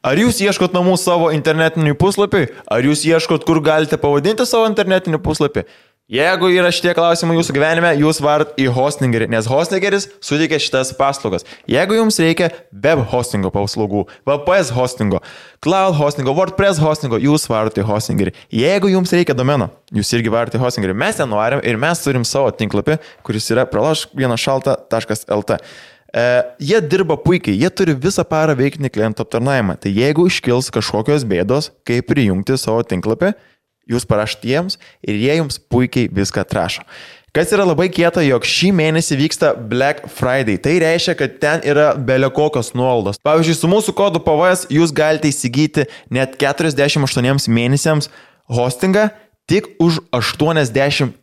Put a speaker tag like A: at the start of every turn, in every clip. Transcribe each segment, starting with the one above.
A: Ar jūs ieškot namų savo internetinį puslapį? Ar jūs ieškot, kur galite pavadinti savo internetinį puslapį? Jeigu yra šitie klausimai jūsų gyvenime, jūs varat į hostingerį, nes hostingeris suteikia šitas paslaugas. Jeigu jums reikia web hostingo paslaugų, VPS hostingo, cloud hostingo, WordPress hostingo, jūs varat į hostingerį. Jeigu jums reikia domeno, jūs irgi varat į hostingerį. Mes ten norim ir mes turim savo tinklapį, kuris yra pralošk1šalta.lt. Jie dirba puikiai, jie turi visą parą veikinį klientų aptarnavimą. Tai jeigu iškils kažkokios bėdos, kaip prijungti savo tinklapį, jūs parašyti jiems ir jie jums puikiai viską atrašo. Kas yra labai kieta, jog šį mėnesį vyksta Black Friday. Tai reiškia, kad ten yra belekokios nuolaidos. Pavyzdžiui, su mūsų kodu PVS jūs galite įsigyti net 48 mėnesiams hostingą tik už 83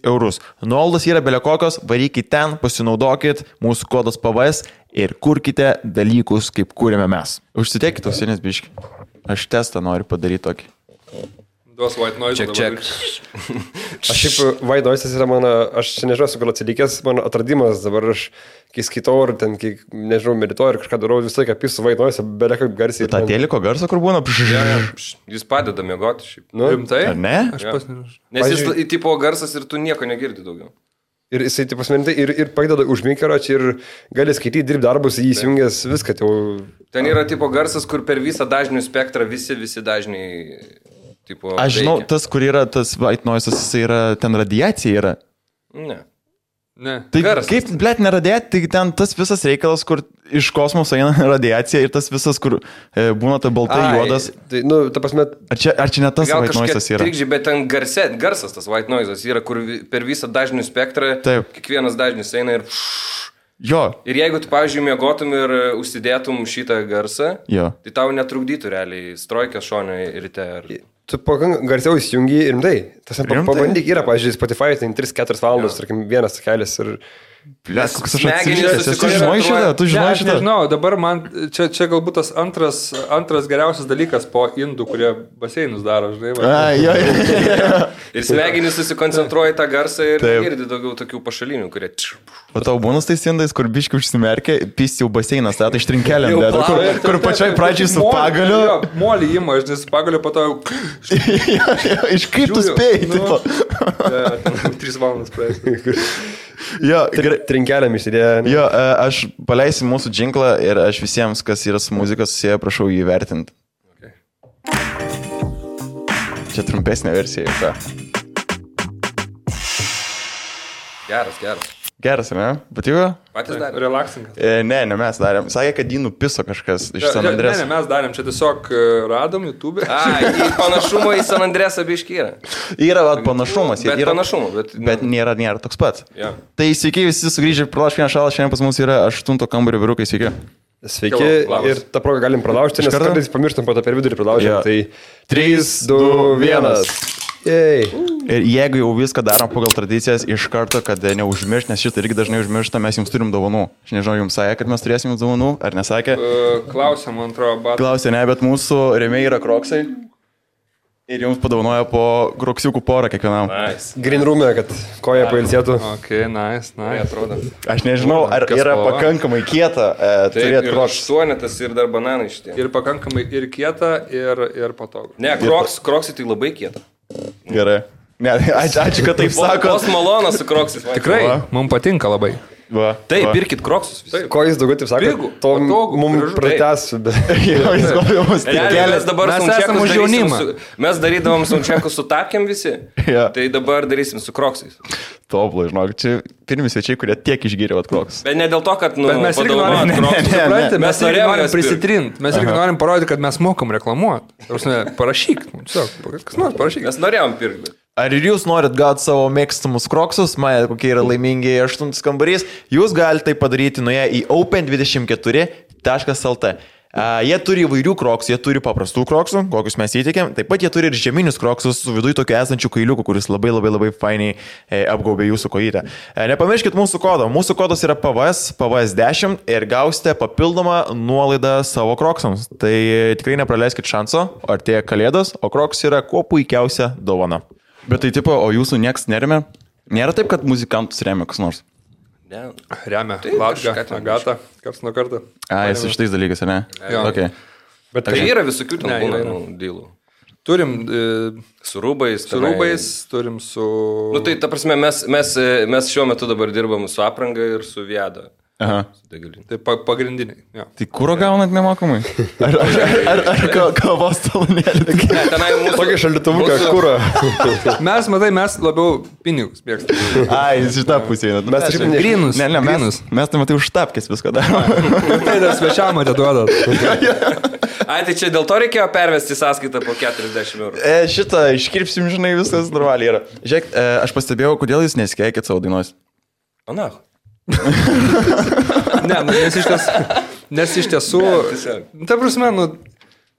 A: eurus. Nuolaidos yra belekokios, varykite ten, pasinaudokit mūsų kodas PVS ir kurkite dalykus, kaip kūrėme mes. Užsitekite ausinės biškį. Aš testą noriu padaryti tokį.
B: Duos white noise.
C: Check.
D: Aš šiaip white noise yra mano, aš nežinau, su gal atsilikęs, mano atradimas dabar aš, kai skaitau ar ten, kai, nežinau, medituoju ir kažką darau, visą laiką apisu white noise, beveik kaip garsiai.
A: Ta teliko garso, kur būna?
C: Jis padeda miegoti šiaip.
D: Nu,
B: Rimtai?
A: Ar ne?
B: Aš pas nežinau.
C: Nes jis tipo garsas ir tu nieko negirdi daugiau.
D: ir jisai, taip pasmenintai, ir padeda užmykaro čia ir gali skaityti, dirbti darbus, jį įsijungęs viską.
C: Ten yra tipo garsas, kur per visą dažnių spektrą visi dažniai... Tipo,
A: aš žinau, tas, kur yra tas white noise, jis yra, ten radiacija yra.
C: Ne.
A: Tai
C: Garsas.
A: kaip, blėt, neradiacija, tai ten tas visas reikalas, kur iš kosmoso eina radiacija ir tas visas, kur būna ta baltai juodas.
D: Tai, nu, ta prasme...
A: Ar čia ne tas
C: Gal
A: white noise yra?
C: Trikdžiai, bet ten garsas tas white noise yra, kur per visą dažnių spektrą kiekvienas dažnis eina ir...
A: Jo.
C: Ir jeigu tu, pavyzdžiui, miegotum ir užsidėtum šitą garsą,
A: Jo.
C: tai tau netrukdytų realiai strojkės šonio ryte.
D: Tu garsiau įsijungi ir rimtai. Tas pabandyk yra, pavyzdžiui, Spotify, tai 3-4 valandos, tarkim, vienas takelis ir...
A: Blėt, koks aš
C: Smegenys
A: atsižiūrėjęs. Tu žinai šitą? Tu
B: Ne,
A: žinai
B: aš
A: šitą?
B: nežinau, dabar man čia galbūt tas antras geriausias dalykas po indų, kurie baseinus daro, žinai.
A: Jo.
C: Ir smegenys susikoncentruoja į tą garsą ir girdi daugiau tokių pašalinių, kurie...
A: O tau būnas tais indais, kur biški užsimerkia, pys jau baseinas, tai ištrinkelėm, kur pačioj pradžiai su pagaliu.
B: Molį ima, aš nes su pagaliu po to jau...
A: Iš kaip tu spėjai, tipo.
B: 3 valandas praeis.
A: Jo,
D: Trinkelėm išsidėjo.
A: Jo, aš paleisiu mūsų džinklą ir aš visiems, kas yra su muzika susiję, prašau jį vertinti.
C: Okay.
A: Čia trumpesnė versija. Ta.
C: Geras.
A: Geras, ne? Patiko?
C: Patys darė.
B: Relaksingas.
A: Ne, mes darėm. Sakė, kad jį nupiso kažkas iš San Andrės.
B: Ne, mes darėm, čia tiesiog radom YouTube.
C: Panašumo į San Andresą biškį yra.
A: Yra panašumas.
C: Bet
A: yra
C: panašumo,
A: bet nėra toks pats.
C: Ja.
A: Tai sveiki visi sugrįžę Pralošk1šalta, šiandien pas mus yra 8 kambario vyrukai, sveiki.
D: Sveiki, ir tą progą galim pralaužti, nes kartais pamirštam po to per vidurį pralaužti. Tai 3, 2, 1.
A: Ir jeigu jau viską darom pagal tradicijas, iš karto, kad neužmiršt, nes šitą irgi dažnai užmiršta, mes jums turim dovanų. Aš nežinau, jums sakė, kad mes turėsim jums dovanų, ar nesakė?
B: Klausė, man atrodo,
A: Klausė, ne, bet mūsų rėmėjai yra kroksai. Ir jums padovanoja po kroksiukų porą kiekvienam.
C: Nice.
D: Green room'e, kad koja pailsėtų.
B: Ok, nice.
C: Atrodo.
A: Aš nežinau, ar yra pakankamai kieta turėti kroksą.
C: Suonetas ir dar bananai šitie.
B: Ir pakankamai ir kieta, ir patogu.
C: Ne, kroksai tai labai kieta.
A: Gerai. Ne, ačiū, kad taip sako.
C: Vos malonas su kroksis.
B: Tikrai, mums patinka labai.
A: Va,
C: Taip,
A: va.
C: pirkit kroksus.
D: Ko jis daugiau taip sako?
B: Pigų,
D: To
B: patogu,
D: mums
B: gražu.
D: pratęsiu.
A: Jo, jis gal mus tik
C: Realiai,
A: kelia.
C: mes dabar
B: Mes
C: soundcheckus
B: esam už
C: darysim
B: jaunimą.
C: Mes darydavom soundcheckus su tapkiam visi.
A: Jo.
C: Tai dabar darysim su kroksais.
A: Tobulai, žinok, čia pirmi svečiai, kurie tiek išgyrė vat kroksus.
C: Bet ne dėl to, kad,
B: Bet mes irgi norim,
C: kroksus.
B: mes irgi norim prisitrint, mes irgi norim parodyti, kad mes mokam reklamuoti. Parašyk, kas nors parašyk.
C: Mes norėjom pirkti.
A: Ar ir jūs norit gauti savo mėgstamus kroksus, matėte, kokie yra laimingi 8 kambarys, jūs galite tai padaryti nuėję į open24.lt. Jie turi įvairių kroksų, jie turi paprastų kroksų, kokius mes įtikėm, taip pat jie turi ir žieminius kroksus su viduje tokiu esančiu kailiuku, kuris labai fainiai apgaubė jūsų kojytę. Nepamirškit mūsų kodo, mūsų kodas yra PVS10 ir gausite papildomą nuolaidą savo kroksams. Tai tikrai nepraleiskit šanso, artėja kalėdos, o kroks yra kuo puikiausia dovana. Bet tai tipo, o jūsų nieks neremia? Nėra taip, kad muzikantus remia kas nors?
C: Ne.
B: Remia,
C: Taip,
B: Latga,
C: kažką ten
B: Agata, karts nuo karto.
A: Jis iš tais dalykais, ne?
B: Jo.
A: Okay.
C: Bet tai yra visokių ten būna dylų.
B: Turim
C: su rūbais.
B: Turim su...
C: Nu tai, ta prasme, mes šiuo metu dabar dirbam su apranga ir su Viada.
A: Aha.
B: Tai pagrindiniai. Ja.
A: Tai kūro gaunat nemokamai? Ar kavos talonėlį?
C: Ne, tenai mūsų...
D: Tokį šaldytuvuką, kūro.
B: Mes labiau pinigus mėgstame.
A: Ai, šitą pusę.
D: Mes taip
B: grynus.
A: Ne, mes tai matai už tapkės viską darome.
B: Tai dar svečiam atiduodat.
C: Ai, tai čia dėl to reikėjo pervesti sąskaitą po 40 eurų.
A: Šitą iškirpsim, žinai, viskas normaliai yra. Žiūrėk, aš pastebėjau, kodėl jūs nesikeikit savo dainos.
C: Ana.
B: Ne, nes iš tiesų, ta prasme,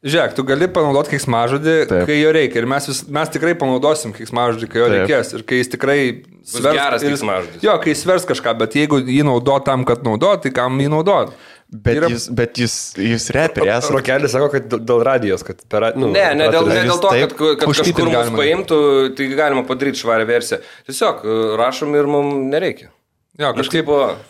B: žiūrėk, tu gali panaudoti keiksmažodį, kai jo reikia. Ir mes tikrai panaudosim keiksmažodį, kai jo reikės. Ir kai jis tikrai
C: svers... geras keiksmažodis.
B: Jo, kai jis svers kažką, bet jeigu jį naudot tam, kad naudot, tai kam jį naudot?
A: Bet jūs reperės.
D: Rokelis sako, kad dėl radijos, kad per...
C: Ne dėl to, kad kažkur mus paimtų, tai galima padaryti švarę versiją. Tiesiog rašom ir mums nereikia.
B: Jo, kažkaip...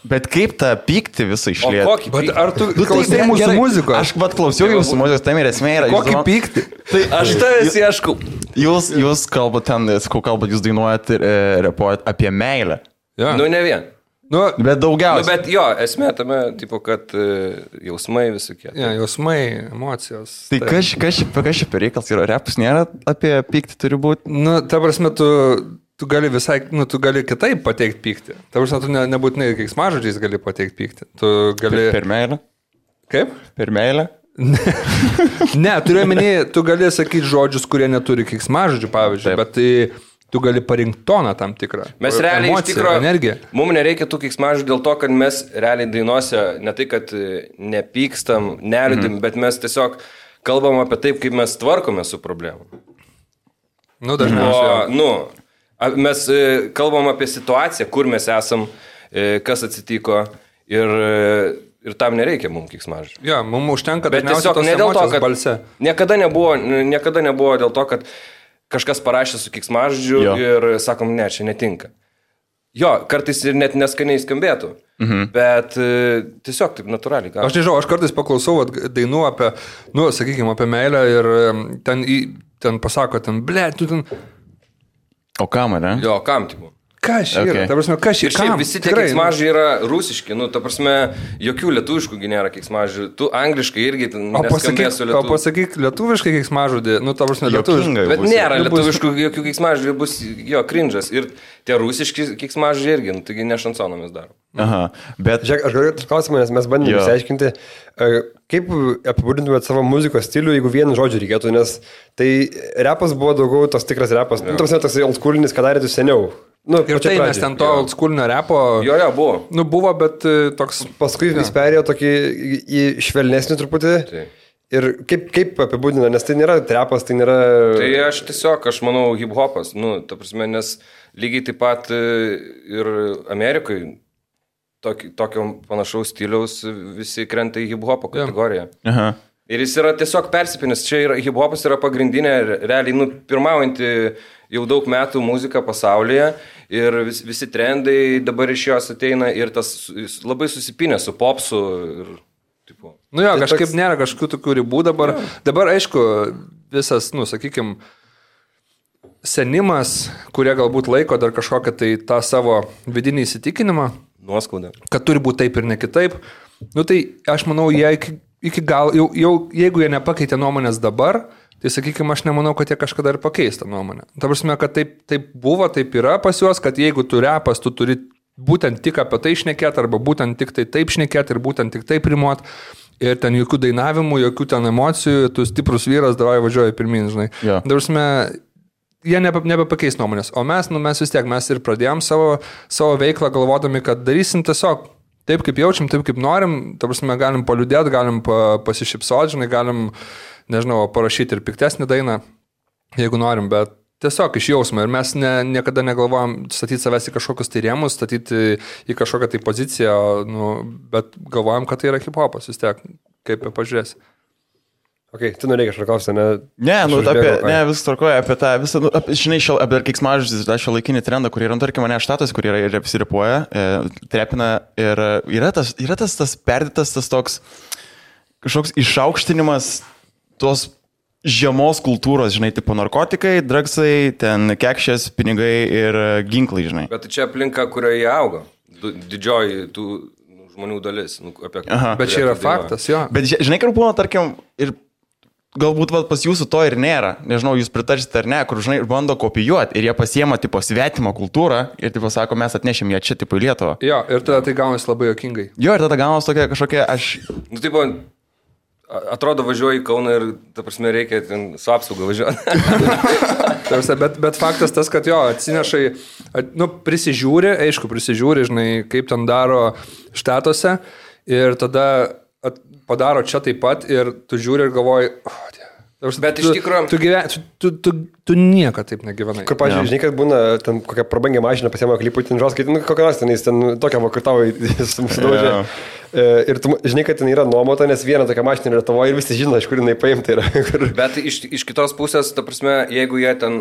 A: Bet kaip tą pyktį visą išlieti?
C: O kokį pyktį?
B: Ar tu klausai mūsų muzikos?
A: Aš klausiau jūsų muzikos, tam ir esmė yra.
B: Kokį pyktį?
C: Tai aš tavęs ieškau.
A: Jūs kalbat ten, jūs dainuojat ir repuojat apie meilę.
C: Ja. Nu, ne vien.
A: Bet daugiausiai.
C: Bet jo, esmė tame, tipo, kad jausmai visokie.
B: Ja, jausmai, emocijos.
A: Tai kas čia per reikalas yra? Repas nėra apie pyktį turi būti?
B: Nu, ta prasme, tu gali visai, tu gali kitaip pateikti pyktį. Ta prasme, tu nebūtinai keiksmažodžiais gali pateikti pyktį. Tu gali...
A: Per meilę?
B: Kaip?
A: Per meilę?
B: Ne, turiu minėti, tu gali sakyti žodžius, kurie neturi keiksmažodžių, pavyzdžiui, bet tai tu gali parinkti toną tam tikrą.
C: Mes realiai
B: emociją,
C: iš tikrųjų,
B: energiją.
C: Mums nereikia tų keiksmažodžių dėl to, kad mes realiai dainuose ne tai, kad nepykstam, neliūdim, bet mes tiesiog kalbam apie taip, kaip mes tvarkome su problemu.
B: Nu, dažniausiai.
C: Mes kalbam apie situaciją, kur mes esam, kas atsitiko ir tam nereikia mums keiksmažodžių.
B: Jo, mums užtenka
C: dažniausiai tos emocijos balse. Niekada nebuvo dėl to, kad kažkas parašė su keiksmažodžiu ir sakom, ne, čia netinka. Jo, kartais ir net neskaniai skambėtų, bet tiesiog taip natūraliai.
B: Aš nežinau, aš kartais paklausau dainų apie, sakykime, apie meilę ir ten pasako, tu ten...
A: O kam, ne?
C: Jo, kam tipo?
B: Kas yra? Ta prasme, kas yra?
C: Ir šiaip visi tie keiksmažodžiai yra rusiški, ta prasme, jokių lietuviškų nėra keiksmažodžių. Tu angliškai irgi neskambės su lietuviškai.
B: O pasakyk lietuviškai keiksmažodį, ta prasme, lietuviškai.
C: Bet nėra lietuviškų jokių keiksmažodžių, bus cringe'as. Ir tie rusiški keiksmažodžiai irgi, taigi ne šansoną mes darom.
A: Aha, bet...
D: Žiūrėk, aš galiu klausimą, nes mes bandėme išsiaiškinti, kaip apibūdintumėt savo muzikos stilių, jeigu vieną žodžių reikėtų, nes tai repas buvo daugiau tos tikras repas. Tas oldschoolinis, ką darėte seniau.
B: Ir tai mes ten to oldschoolinio repo...
C: Jo, buvo.
B: Buvo, bet toks...
D: Paskui vis perėjo tokį į švelnesnį truputį. Tai. Ir kaip apibūdina, nes tai nėra repas, tai nėra...
C: Tai aš manau, hip-hopas. Ta prasme, nes lygiai taip pat ir Amerikai tokio panašaus stiliaus visi krenta į hip-hopo kategoriją.
A: Aha.
C: Ir jis yra tiesiog persipinęs. Čia hip-hopas yra pagrindinė, realiai, pirmaujanti jau daug metų muzika pasaulyje ir visi trendai dabar iš jos ateina ir tas labai susipinę su popsu. Ir, tipo.
B: Kažkaip nėra kažkokių tokių ribų dabar. Dabar, aišku, visas, sakykime, senimas, kurie galbūt laiko dar kažkokią tai tą savo vidinį įsitikinimą.
C: Nuoskaudą.
B: Kad turi būti taip ir ne kitaip. Tai aš manau, jie iki gal, jau jeigu jie nepakeitė nuomonės dabar, tai sakykime, aš nemanau, kad jie kažkada ir pakeis tą nuomonę. Ta prasme, kad taip buvo, taip yra pas juos, kad jeigu tu repas, tu turi būtent tik apie tai šnekėti, arba būtent tik tai taip šnekėti ir būtent tik taip rimuot. Ir ten jokių dainavimų, jokių ten emocijų, tu stiprus vyras, davai važiuoji pirmin, žinai.
A: Ja.
B: Ta prasme, jie nebepakeis nuomonės. O mes vis tiek, mes ir pradėjom savo veiklą galvodami, kad darysim tiesiog taip, kaip jaučiam, taip, kaip norim. Ta prasme, galim paliudėti, galim pasišypsoti, žinai, galim, nežinau, parašyti ir piktesnį dainą, jeigu norim, bet tiesiog iš jausmo. Ir mes niekada negalvojam statyti savęs į kažkokius tai rėmus, statyti į kažkokią tai poziciją, bet galvojam, kad tai yra hip-hopas vis tiek, kaip pažiūrėsi.
D: Ok, tu norėjai kažką klausti, ne?
A: Ne, vis tvarkoja apie tą visą, žinai, apie keiksmažodžius, tą šiuolaikinį trendą, kur yra, tarkim, mane štatas, kur yra ir apsiripuoja, trepina ir yra tas perdėtas, tas toks kažkoks išaukštinimas tos žemos kultūros, žinai, tipo narkotikai, dragsai, ten kekšės, pinigai ir ginklai, žinai.
C: Bet čia aplinka, kurioje auga. Didžioji tų žmonių dalis. Apie
B: Bet čia yra faktas, jo.
A: Bet žinai, kur būna, tarkim, ir galbūt pas jūsų to ir nėra, nežinau, jūs pritarsite ar ne, kur, žinai, bando kopijuoti ir jie pasiema, tipo, svetimą kultūrą ir, tipo, sako, mes atnešim ją čia, tipo, į Lietuvą.
B: Jo, ir tada tai gaunasi labai jokingai.
A: Jo, ir tada gaunasi tokia kažkokia,
C: tipo, atrodo, važiuoji į Kauną ir, ta prasme, reikia ten su apsauga važiuoti.
B: bet faktas tas, kad jo, atsinešai, prisižiūri, žinai, kaip ten daro štatuose ir tada padaro čia taip pat ir tu žiūri ir galvoji,
C: bet iš tikrųjų
B: tu nieko taip negyvenai.
D: Kur, pavyzdžiui, žinai, kad būna ten kokią prabangę mašiną pasiema klipų, ten žos, kad kokią nors ten tokią vakartavą sudaužė. Ir tu žinai, kad ten yra nuomota, nes viena tokia mašina yra tavo ir visi žino, iš kur jinai paimta yra.
C: Bet iš kitos pusės, ta prasme, jeigu jie ten,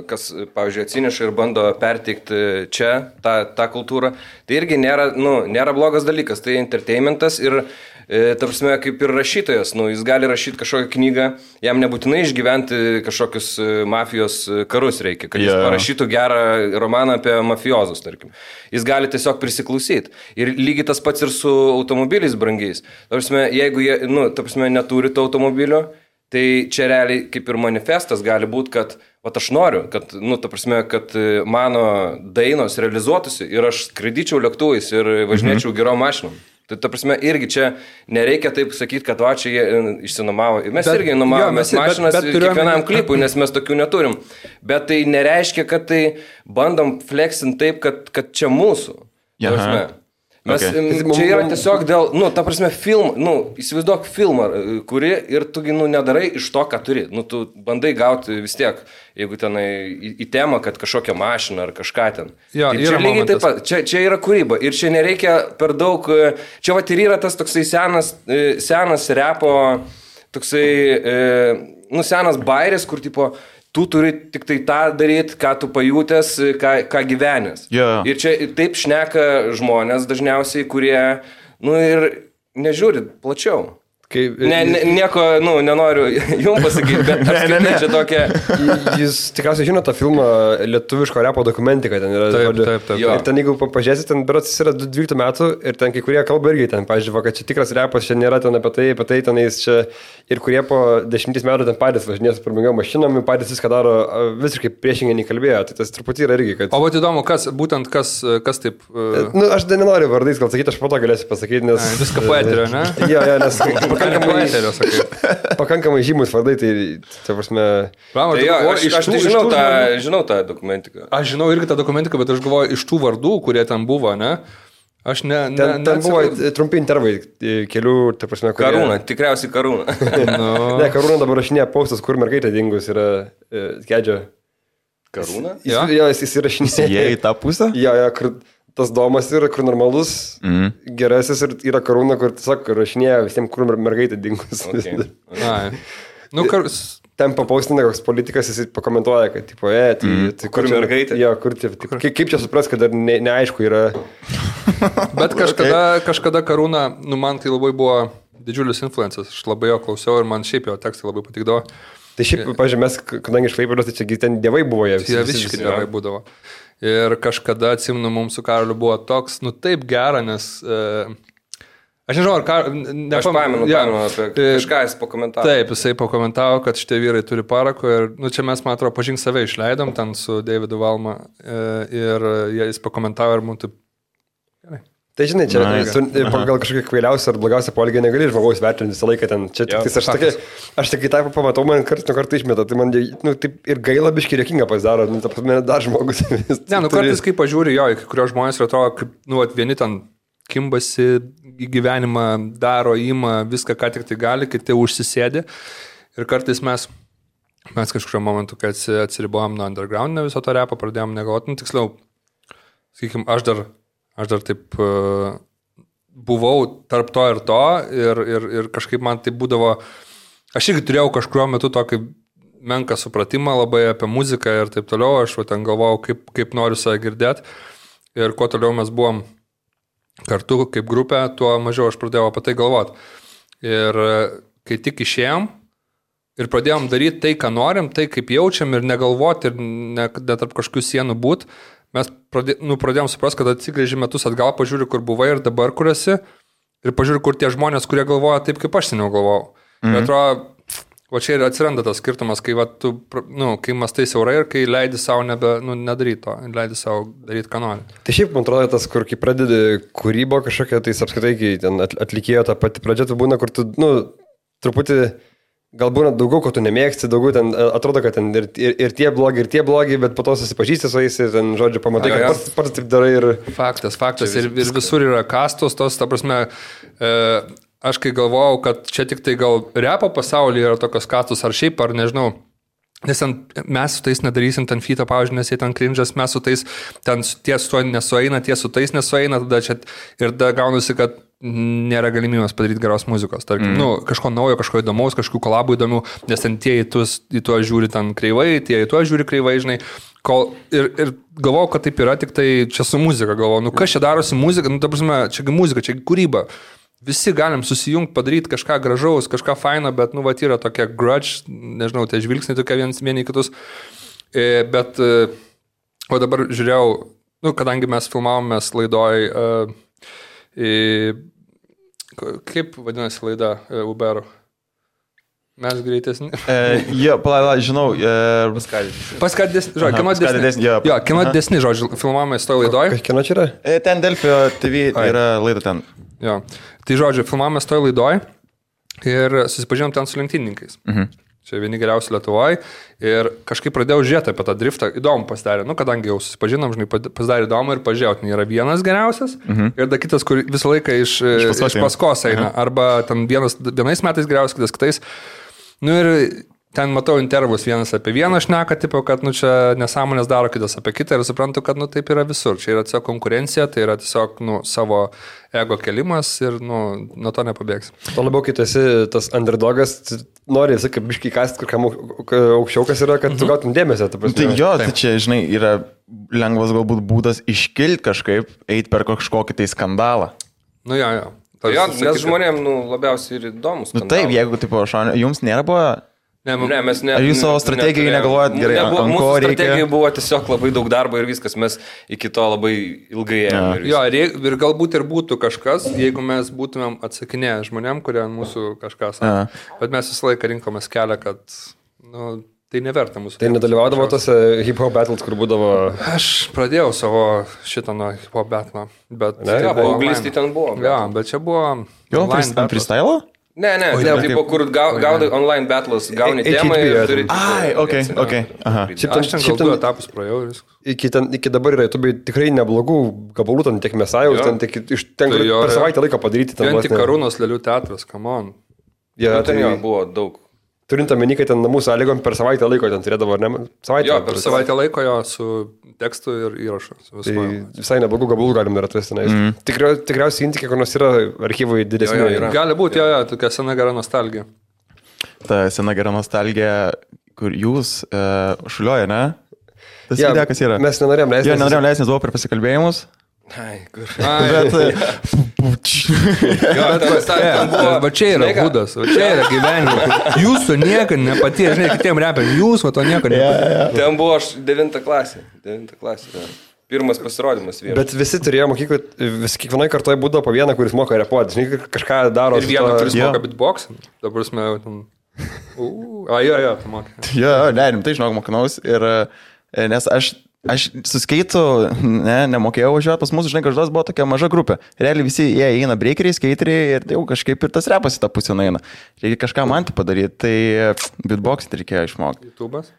C: kas, pavyzdžiui, atsineša ir bando perteikti čia tą kultūrą, tai irgi nėra blogas dalykas, tai entertainmentas ir ta prasme, kaip ir rašytojas, jis gali rašyti kažkokią knygą, jam nebūtinai išgyventi kažkokius mafijos karus reikia, kad jis parašytų gerą romaną apie mafiozus, tarkim. Jis gali tiesiog prisiklausyti. Ir lygiai tas pats ir su automobiliais brangiais. Ta prasme, jeigu jie, neturi to automobilio, tai čia realiai kaip ir manifestas gali būti, kad aš noriu, kad, kad mano dainos realizuotųsi ir aš skraidyčiau lėktuvais ir važinėčiau gerom mašinom. Tai, ta prasme, irgi čia nereikia taip sakyti, kad čia jie išsinomavo. Mes irgi nuomavome mašinas kiekvienam klipui, nes mes tokių neturim. Bet tai nereiškia, kad tai bandom flexinti taip, kad čia mūsų. Mes, čia yra tiesiog dėl, ta prasme, įsivaizduok filmą, kuri ir tu, nedarai iš to, ką turi. Tu bandai gauti vis tiek, jeigu tenai į temą, kad kažkokią mašiną ar kažką ten.
B: Jo,
C: čia lygiai taip pat, čia yra kūryba ir čia nereikia per daug, čia vat ir yra tas toksai senas repo, toksai, senas bairis, kur tipo, tu turi tik tai tą daryti, ką tu pajutęs, ką gyvenęs.
A: Yeah.
C: Ir čia taip šneka žmonės dažniausiai, kurie, ir nežiūri plačiau. Nieko, nenoriu jums pasakyti, bet apskritai čia tokia...
D: Jūs tikriausiai žino tą filmą lietuviško repo dokumentiką, ten yra...
B: Taip.
D: Ir ten, jeigu pažiūrėsit, ten berods yra 12 metų ir ten kai kurie kalba irgi ten, pažiūrėjau, kad čia tikras repas, čia nėra ten apie tai tenais čia ir kurie po 10 metų ten patys važinės prabangom mašinom, patys viską daro visiškai priešingai nei kalbėjo, tai tas truputį yra irgi, kad...
B: O vat įdomu, kas taip...
D: Aš nenoriu vardais gal sakyti, aš po to galėsiu pasakyti, nes...
B: Viską poeterio, ne?
D: Jo, nes... Pakankamai žymus vardai, tai prasme...
C: Aš žinau tą dokumentiką.
B: Aš žinau irgi tą dokumentiką, bet aš galvoju, iš tų vardų, kurie ten buvo, ne? Aš
D: ten buvo trumpi intervai kelių, tai prasme, kurie...
C: Karūna, tikriausiai Karūna.
D: Ne, Karūna dabar rašinėja postas, kur mergaitė dingus yra Kedžio.
C: Karūna?
D: Jo, jis įrašinėja.
A: Jie į tą pusę?
D: Jo, kur... Tas domas yra, kur normalus, gerasis ir yra Karūna, kur tiesiog rašinėja visiems, kur mergaitė dingus.
C: Okay.
D: Ten papaustina koks politikas, jis pakomentuoja, kad, tipo, tai
C: kur mergaitė?
D: Jo, kur, kaip čia supras, kad dar neaišku yra.
B: Bet kažkada Karūna, man tai labai buvo didžiulis influencas, aš labai jo klausiau ir man šiaip jo tekstai labai patikdavo.
D: Tai šiaip, pažiūrėjau, mes, kadangi iš Klaipėdos, tai čia ten dievai buvo jie.
B: Jie visiškai dievai būdavo. Ir kažkada, atsimenu, mums su Karoliu buvo toks, taip gera, nes... Aš nežinau, ar
C: aš pamenu apie kažką jis pakomentavo.
B: Taip, jisai pakomentavo, kad šitie vyrai turi parako ir, čia mes, man atrodo, Pažink save išleidom ten su Davidu Valma ir jis pakomentavo ir mums taip... Gerai.
D: Tai žinai, čia pagal kažkokią kvailiausią ar blogiausią poelgį negali žmogaus vertinti visą laiką ten. Čia tik aš tik į tą pamatau, man kartais išmeta, tai man taip ir gaila biškai rėkinga pasidaro, dar žmogus.
B: Kartais kai pažiūri jo, kai kurios žmonės atrodo, kaip vieni ten kimbasi į gyvenimą, daro, ima viską, ką tik tai gali, kiti užsisėdi. Ir kartais mes kažkurio momentu, kai atsiribojom nuo underground, viso to repo pradėjom negalvoti, tiksliau, sakykim, aš dar taip buvau tarp to ir to ir kažkaip man tai būdavo, aš irgi turėjau kažkurio metu tokį menką supratimą labai apie muziką ir taip toliau, aš ten galvojau, kaip noriu save girdėti ir kuo toliau mes buvom kartu kaip grupė, tuo mažiau aš pradėjau apie tai galvoti. Ir kai tik išėjom, ir pradėjom daryti tai, ką norim, tai, kaip jaučiam ir negalvoti ir ne tarp kažkokių sienų būt, mes pradėjom suprasti, kad atsigrėži metus atgal, pažiūri, kur buvai ir dabar, kur esi, ir pažiūri, kur tie žmonės, kurie galvoja taip, kaip aš seniau galvojau. Ir atrodo, va čia ir atsiranda tas skirtumas, kai, kai mastai siaurai ir kai leidi savo nedaryti to, leidi savo daryti, ką nori.
D: Tai šiaip, man atrodo, tas, kur kai pradedi kūrybą kažkokią, tai apskritai, kai ten atlikėjo tą patį pradžią, tai būna, kur tu, truputį, galbūt daugiau, ko tu nemėgsti, daugiau ten atrodo, kad ten ir tie blogi, bet po to susipažįsti su jais ir ten, žodžiu, pamatai, kad pats taip darai ir...
B: Faktas. Ir visur yra kastos, tos, ta prasme... Aš kai galvojau, kad čia tik tai gal repo pasaulyje yra tokios kastos ar šiaip, ar nežinau, nes mes su tais nedarysim ten fito, pavyzdžiui, nes jie ten cringe'as, mes su tais ten tie su to nesueina, tie su tais nesueina, tada čia ir tada gaunasi, kad nėra galimybės padaryti geros muzikos. Tarkim, kažko naujo, kažko įdomaus, kažkokių kolabų įdomių, nes ten tie į tuo žiūri ten kreivai, tie į tuo žiūri kreivai, žinai. Ir galvojau, kad taip yra, tik tai čia su muzika galvojau, kas čia darosi muzika, ta prasme, čia muzika, čia kūryba. Visi galim susijungti, padaryti kažką gražaus, kažką faino, bet, yra tokia grudge, nežinau, tie žvilgsniai tokie vieni kitus. Bet, o dabar žiūrėjau, kadangi mes filmavomės laidoj, kaip vadinasi laida Uber'o? Mes greitesni.
A: Žinau.
B: Paskatidesni, žodžiu, kino didesni, žodžiu, filmavomės toj laidoj.
D: Kino čia yra?
A: Ten Delfio TV yra laida ten.
B: Jo. Tai žodžiu, filmavomės toj laidoj ir susipažinom ten su lenktynininkais. Čia vieni geriausi Lietuvoje ir kažkaip pradėjau žiūrėti apie tą driftą, įdomu pasidarė, kadangi jau susipažinom, žinai, pasidarė įdomu ir pažiūrėjau, ten yra vienas geriausias ir da kitas, kur visą laiką iš paskos eina, arba ten vienais metais geriausias, kitas kitais. Ir ten matau intervus, vienas apie vieną šneka, tipo, kad čia nesąmonės daro, kitas apie kitą ir suprantu, kad taip yra visur. Čia yra tiesiog konkurencija, tai yra tiesiog savo ego kelimas ir nuo to nepabėgs.
D: To labiau, kai tu esi tas underdogas, nori visą kaip biškai kasti, kur kam aukščiau kas yra, kad tu gautum dėmesio.
A: Tai čia, žinai, yra lengvas galbūt būdas iškilti kažkaip, eiti per kažkokį tai skandalą.
B: Jo.
C: Nes žmonėm labiausiai ir įdomus.
A: Taip, jeigu, tipo, jums nėra buvo...
C: Ne, mes ne.
A: Ar jūs savo strategijai negalvojat gerai?
C: Mūsų strategijai buvo tiesiog labai daug darbo ir viskas, mes iki to labai ilgai ėjome.
B: Jo, ir galbūt ir būtų kažkas, jeigu mes būtumėm atsakinėję žmonėm, kurie mūsų kažką sako. Bet mes visą laiką rinkomės kelią, kad tai neverta mūsų.
D: Tai nedalyvaudavo tose hip-hop battles, kur būdavo...
B: Aš pradėjau savo šitą nuo hip-hop battle, bet...
C: Paauglystė ten buvo.
B: Jo, bet čia buvo...
A: Jo, freestyle?
C: Ne, tipo, kur gaudai online battles, gauni temą ir turi...
A: Ok. Aha.
B: Aš ten gal 2 etapus praėjau ir viskas.
D: Iki dabar yra YouTube tikrai neblogų gabalų, ten tiek Mesajus, ten per savaitę laiką padaryti.
B: Ten tik Karūnos Lėlių teatras, come on.
C: Ten buvo daug.
D: Turint omeny, kad ten namų sąlygom per savaitę laiko ten turėdavo, ar ne?
B: Per savaitę laiko jo su tekstu ir įrašu.
D: Tai visai neblogų gabalų galim ir atrasti. Tikriausiai Intikė, kur nors yra archyvai didesnė.
B: Gali būti, tokia sena gera nostalgija.
A: Ta sena gera nostalgija, kur jūs šulioja, ne? Tas idėja, kas yra?
D: Mes nenorėjom leisti.
A: Nenorėjom leisti, nes buvo per pasikalbėjimus.
B: Va čia yra būdas, va čia yra gyvenimas. Jūsų niekad nepatyrė, žinai, kitiem reperiam, jūs va to niekad nepatyrė.
C: Ten buvo aš 9 klasė. Pirmas pasirodymas vienas.
D: Bet visi turėjo mokyklą, kiekvienoje kartoje būdavo po vieną, kuris moka repuoti, žinai, kažką daro.
B: Ir vieną, kuris moka beatboxą. Dabar mes tam... tu mokai.
A: Tai žinok, mokinaus ir nes aš su skeitu nemokėjau važiuoti, pas mūsų, žinai, kažkas buvo tokia maža grupė. Realiai visi jie eina breakeriai, skeiteriai ir jau kažkaip ir tas repas į tą pusę eina. Reikia kažką man tai padaryti, tai beatboxing reikėjo išmokti.
B: YouTube'as?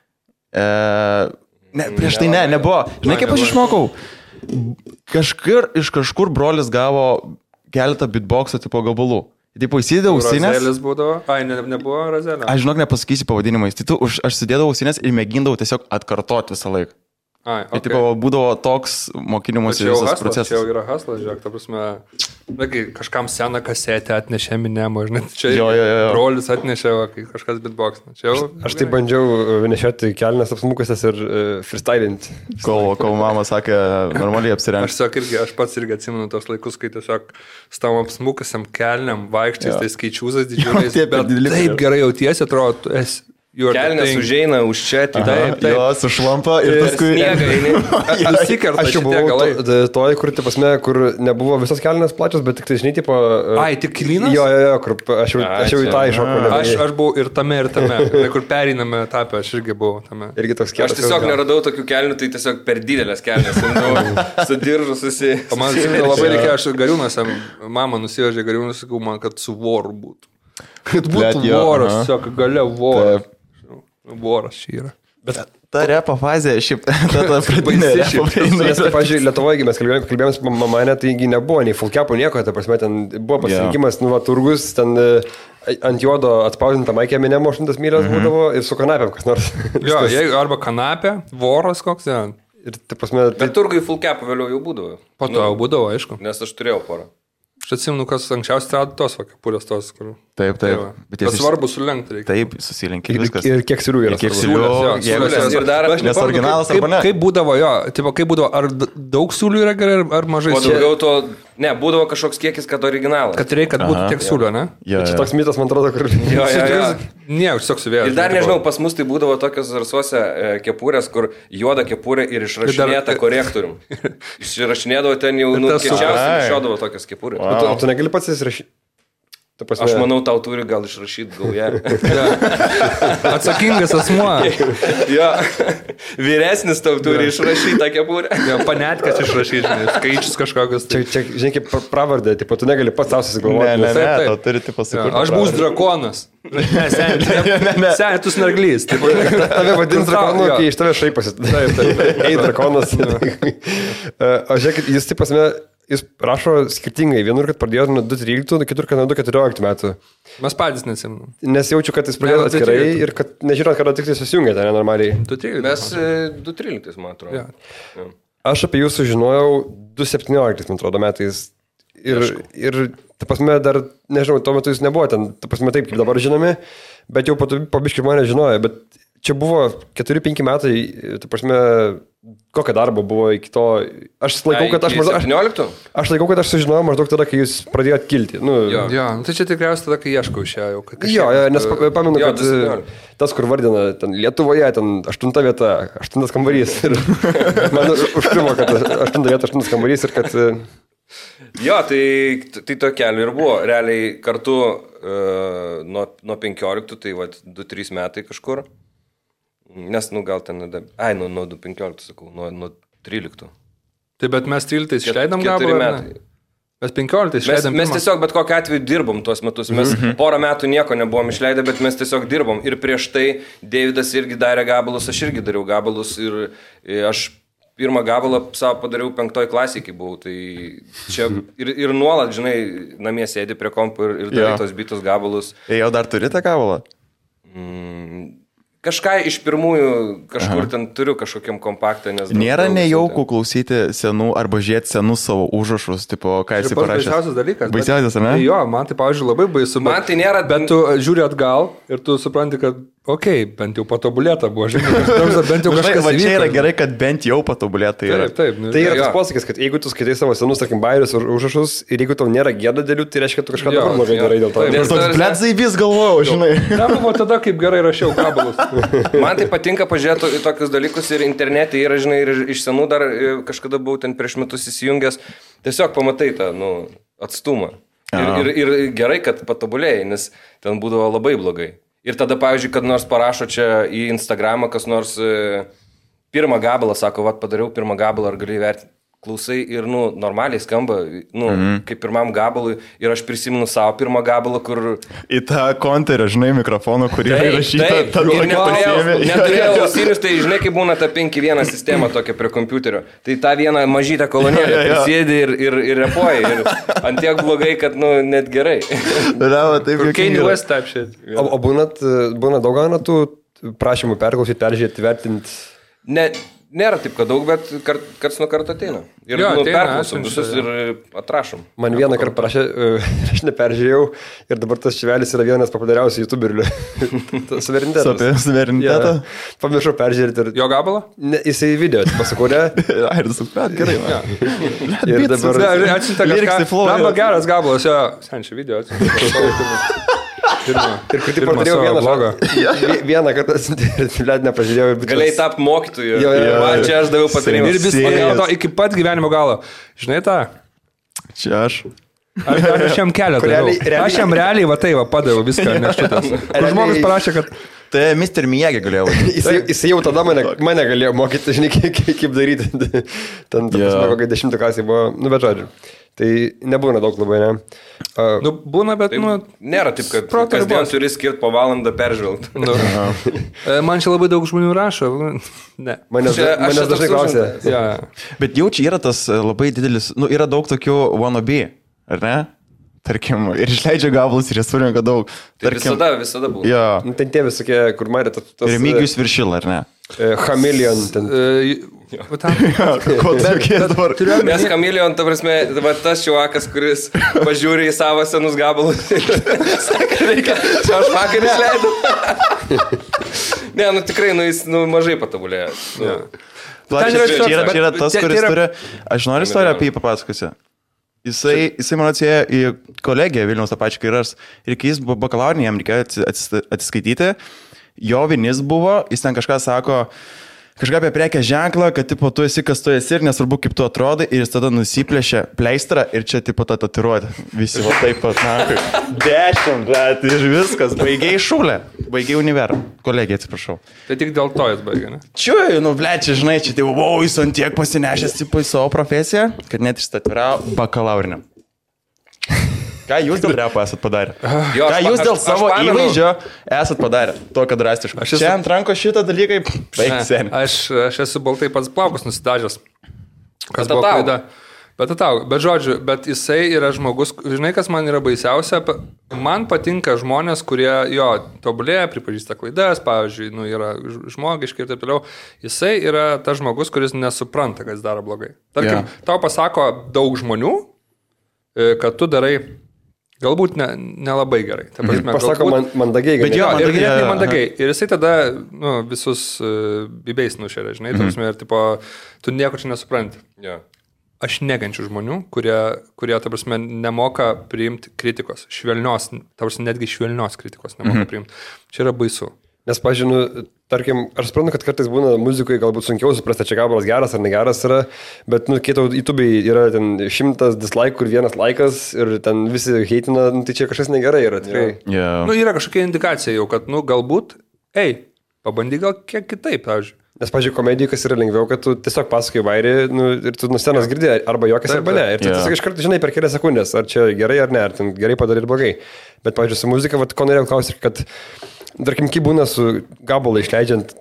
A: Prieš tai nebuvo. Žinai, kaip aš išmokau? Iš kažkur brolis gavo keletą beatboxo tipo gabalų. Taip, įsidėjau ausinės.
B: Razelis būdavo? Nebuvo razelio.
A: Aš žinok, nepasakysiu pavadinimais. Tai aš sudėdavau ausinės ir mėgindavau tiesiog atkartoti visą laiką.
B: Okay.
A: Tai būdavo toks mokinimuose visas procesas.
B: Čia jau yra haslas, žiūrėk, ta prasme, kažkam seną kasetę atnešė Minemo, žinai, čia brolis atnešė, kai kažkas beatboxina.
D: Aš tai bandžiau nešioti kelnes apsmukusias ir freestylinti.
A: Kol mama sakė, normaliai apsirengti.
B: Aš pats irgi atsimenu tos laikus, kai tiesiog stavom apsmukusiam kelniam, vaikščiais, tai skaičiūzas didžiuliais, bet taip gerai jautiesi, atrodo,
C: Kelnes užeina už čia,
B: Taip.
A: Jo, sušlampa ir paskui...
B: Nusikerta
D: Aš jau
B: šitie galai.
D: buvau toj, kur nebuvo visos kelnes plačios, bet tik tai, žinai, tipo...
B: Ai, tik klynas?
D: Jo, kur aš jau į tą iššokau.
B: Aš buvau ir tame, kur pereiname etapę, aš irgi buvau tame.
D: Irgi toks kietas.
C: Aš tiesiog neradau tokių kelnių, tai tiesiog per didelės kelnes. Su diržu susi...
B: Man labai reikėjo, aš Gariūnuose, mama nusivežė Gariūnus, sakau man, kad su voru būtų. Kad būtų voras, tiesiog gale voras. Voras šį yra.
A: Bet ta repo fazė, šiaip, ta pradinė repo fazė.
D: Nes, pavyzdžiui, Lietuvoje mes kalbėjome su mamane, taigi nebuvo nei fullcapų nieko, ta prasme, ten buvo pasirinkimas, turgus, ten ant juodo atspausdinta Maikė Minemo 100 mylias būdavo ir su kanapėm kas nors.
B: Jo, arba kanapė, voras koks, ja.
D: Ir, ta prasme,
C: Bet turgai fullcapų vėliau jau būdavo.
B: Po to jau būdavo, aišku.
C: Nes aš turėjau porą.
B: Aš atsimenu, kas anksčiausiai rado tos kepurės tos, kur...
A: Taip.
B: Bet svarbu sulenkti reikia.
A: Taip, susilenkia viskas.
D: ir kiek silių yra.
A: Kiek
D: svarbu.
A: siūlių,
C: Ir dar
A: nes originalas arba ne.
B: Kaip būdavo, kaip būdavo, ar daug siūlių yra gerai, ar mažai
C: O
B: siūlių?
C: daugiau to, ne, būdavo kažkoks kiekis, kad originalas.
B: Kad reikia, kad būtų tiek siūlių, ne?
D: Čia toks mitas, man atrodo, kur...
C: Jo.
B: Ne, aš tiesiog suvėjau.
C: Ir dar nežinau, pas mus tai būdavo tokios zarsuose kepurės, kur juoda kepurė ir išrašinėta korektorium. Išrašinėdavo ten jau, kiečiausiai išiodavo tokios kepurės.
D: O tu negali pats įsirašyti?
C: Aš manau, tau turi gal išrašyti gaują.
B: Atsakingas asmuo.
C: Jo, vyresnis tau turi išrašyti tą kepurę.
B: Jo, panetkas išrašyti, skaičius kažkokius.
D: Čia, žinai, kaip pravardė, tipo, tu negali pats tau susigalvoti.
A: Ne,
B: Taip.
A: tau turi tipo sukurti.
B: Aš būsiu drakonas. Ne, tu snarglys.
D: Tave vadins drakonu, kai iš tave šaipasi.
B: Taip.
D: Ei, drakonas. O žiūrėkit, jis taip pasme, jis rašo skirtingai. Vienur, kad pradėjo nuo 2013, kitur, kad nuo 2014 metų.
B: Mes patys nesimnam.
D: Nes jaučiu, kad jis pradėjo atskirai ir kad nežinot, kada tik tai susijungia ten nenormaliai.
C: Mes 2013, man atrodo.
B: Ja.
D: Aš apie jūs sužinojau 2017, man atrodo, metais. Ir ta prasme, dar, nežinau, tuo metu jūs nebuvo ten, ta prasme, taip, kaip dabar žinomi, bet jau po biškį mane žinojo, bet čia buvo 4-5 metai, ta prasme, kokia darbo buvo iki to, aš laikau, kad aš maždaug... 17? Aš laikau, kad aš sužinojau maždaug tada, kai jūs pradėjot kilti.
B: Jo, tai čia tikriausiai tada, kai ieškau iš jo.
D: Jo, nes pamenu, kad tas, kur vardina, ten Lietuvoje, ten 8 vieta, 8 kambarys. Ir man užkrimo, kad 8 vieta, 8 kambarys ir kad...
C: Jo, tai to keliu ir buvo. Realiai kartu nuo 15, tai 2-3 metai kažkur. Nes, gal ten, nuo 15, sakau, nuo 13.
B: Tai bet mes 13 išleidom gabalą? 4 metai. Mes 15 išleidom.
C: Mes tiesiog bet kokiu atveju dirbom tuos metus. Mes porą metų nieko nebuvom išleidę, bet mes tiesiog dirbom. Ir prieš tai Davidas irgi darė gabalus, aš irgi dariau gabalus. Ir aš pirmą gabalą savo padariau 5 klasėje, kai buvau. Tai čia ir nuolat, žinai, namie sėdi prie kompo ir darai tos bitus gabalus.
A: Jau dar turi tą gabalą?
C: Kažką iš pirmųjų kažkur ten turiu kažkokiam kompaktą.
A: Nėra nejaukų klausyti senų arba žiūrėti senus savo užrašus, tipo, ką esi parašęs.
B: Tai baisiausias dalykas.
A: Baisiausias, ar ne?
B: Jo, man tai, pavyzdžiui, labai baisu.
C: Man tai nėra...
B: Bet tu žiūri atgal ir tu supranti, kad bent jau patobulėta buvo, žinai, bent jau kažkas.
A: Va čia yra gerai, kad bent jau patobulėta yra.
B: Taip.
D: Tai yra tas posakis, kad jeigu tu skaitai savo senus, tarkim, bairius ar užrašus ir jeigu tau nėra gėda dėlių, tai reiškia, kad tu kažką dabar blogai darai dėl to.
A: Nes toks blėdzai vis galvojau, žinai.
B: Ne, buvo tada, kaip gerai rašiau gabalus.
C: Man tai patinka pažiūrėti į tokius dalykus ir internete yra, žinai, ir iš senų dar kažkada buvau ten prieš metus įsijungęs. Tiesiog pamatai tą, atstumą. Ir gerai, kad patobulėjai, nes ten būdavo labai blogai. Ir tada, pavyzdžiui, kad nors parašo čia į Instagramą, kas nors pirmą gabalą, sako, padariau pirmą gabalą, ar gali įvertinti. Klausai ir, normaliai skamba, kaip pirmam gabalui. Ir aš prisimenu savo pirmą gabalą, kur...
A: Į tą konterį, žinai, mikrofoną, kurį įrašyta.
C: Taip, ir neturėjau ausinius, tai žinai, kaip būna ta 5.1 sistema tokia prie kompiuterio. Tai tą vieną mažytę kolonėlę prisėdi ir repuoji. Ir ant tiek blogai, kad, net gerai.
B: Kanye West type shit.
D: O būna daug gana tų prašymų perklausyti, peržiūrėti, vertinti?
C: Nėra taip, kad daug, bet karts nuo karto ateina. Ir perklausom visus ir atrašom.
D: Man vieną kartą parašė, aš neperžiūrėjau ir dabar tas Čivelis yra vienas populiariausių youtuberių. Suverenitetas.
A: Suverenitetą?
D: Pamiršau peržiūrėti.
B: Jo gabalą?
D: Ne, jisai video pasakūrė.
A: Ai, suprat, gerai.
D: Ir dabar...
B: Atsiuntė kažką. Lamba geras gabalas, jo. Senčia video atsiuntė.
D: Ir kur tik padariau vieną kartą, net nepažiūrėjau.
C: Galėjai tapti mokytoju.
D: Jo.
C: Man čia aš daviau patarimą.
B: Ir vis iki pat gyvenimo galo. Žinai tą?
A: Čia aš.
B: Aš jam kelią daviau. Aš jam realiai va tai va padaviau viską, nes šitas. Žmogus parašė, kad...
A: Tai Mr. Miyagi galėjo.
D: Jis jau tada mane galėjo mokyti, žinai, kaip daryti. Ten, kokia 10 klasė buvo, bet žodžiu. Tai nebūna daug labai, ne?
B: Būna, bet,
C: nėra taip, kad kasdien turi skirti po valandą peržvelgti.
B: Man čia labai daug žmonių rašo. Ne.
D: Manęs dažnai klausė.
B: Ja.
A: Bet jau čia yra tas labai didelis, yra daug tokių wannabe, ar ne? Tarkim, ir išleidžia gabalus, ir jie surinka daug.
C: Tarkim, visada buvo.
A: Jo.
D: Ten tie visokie, kur matė tas...
A: Remigijus Viršila, ar ne?
D: Chameleon.
A: Ko tokie dabar?
C: Nes Chameleon, ta prasme, tas čiuakas, kuris pažiūri į savo senus gabalus. Saka, reikia, čia aš vakar išleidau. Ne, tikrai, jis mažai patobulėjo.
A: Čia yra tas, kuris turi... Aš noriu istoriją apie jį papasakosiu. Jisai man atsėjo į kolegiją Vilniaus tą pačią kairas ir kai jis buvo bakalaurinį, jam reikėjo atsiskaityti, jo vinis buvo, jis ten kažką sako, kažką apie prekės ženklą, kad tipo tu esi, kas tu esi ir nesvarbu kaip tu atrodai ir jis tada nusiplėšė pleistrą ir čia tipo tą tatuiruotę. Visi va taip pat, 10, bet ir viskas, baigiai šūlę, baigiai univerą, kolegiją atsiprašau.
B: Tai tik dėl to jis baigė, ne?
A: Čia, čia, žinai, čia tai, jis ant tiek pasinešęs tipo į savo profesiją, kad net išstatviravo bakalaurinę. Ką jūs dėl repo esat padarę? Ką jūs dėl savo įvaizdžio esat padarę? Tokio drastiško. Čia ant ranko šitą dalykai, baigsiu.
B: Aš esu baltai pats plaukus nusidažęs. Kas buvo klaida. Bet žodžiu, bet jisai yra žmogus, žinai, kas man yra baisiausia, man patinka žmonės, kurie jo tobulėja, pripažįsta klaidas, pavyzdžiui, yra žmogiški ir taip toliau. Jisai yra tas žmogus, kuris nesupranta, kas daro blogai. Tarkim, tau pasako daug žmonių, kad tu darai galbūt nelabai gerai. Ta prasme,
D: pasako mandagiai.
B: Bet jo, ir ganėtinai mandagiai. Ir jisai tada visus bibėjais nušeria, žinai, ta prasme, ir tipo, tu nieko čia nesupranti.
C: Yeah.
B: Aš negančiu žmonių, kurie, ta prasme, nemoka priimti kritikos. Švelnios, ta prasme, netgi švelnios kritikos nemoka priimti. Čia yra baisu.
D: Nes, pažinu, tarkim, aš suprantu, kad kartais būna muzikoje galbūt sunkiau suprasti, čia gabalas geras ar negeras yra, bet, kai tau YouTube'ai yra ten 100 dislike ir 1 laikas ir ten visi heitina, tai čia kažkas negerai yra, tikrai.
A: Yeah.
B: Yra kažkokia indikacija jau, kad, galbūt, pabandyk gal kiek kitaip, pavyzdžiui.
D: Nes, pavyzdžiui, komedijai, kas yra lengviau, kad tu tiesiog pasakai vairį ir tu nuo scenos girdi arba juokas arba ne. Ir tu tiesiog iš karto žinai per kelias sekundės, ar čia gerai ar ne, ar ten gerai padarė ir blogai. Bet, pavyzdžiui, su muzika, ko norėjau klausyti, kad, tarkim, kaip būna su gabalą išleidžiant,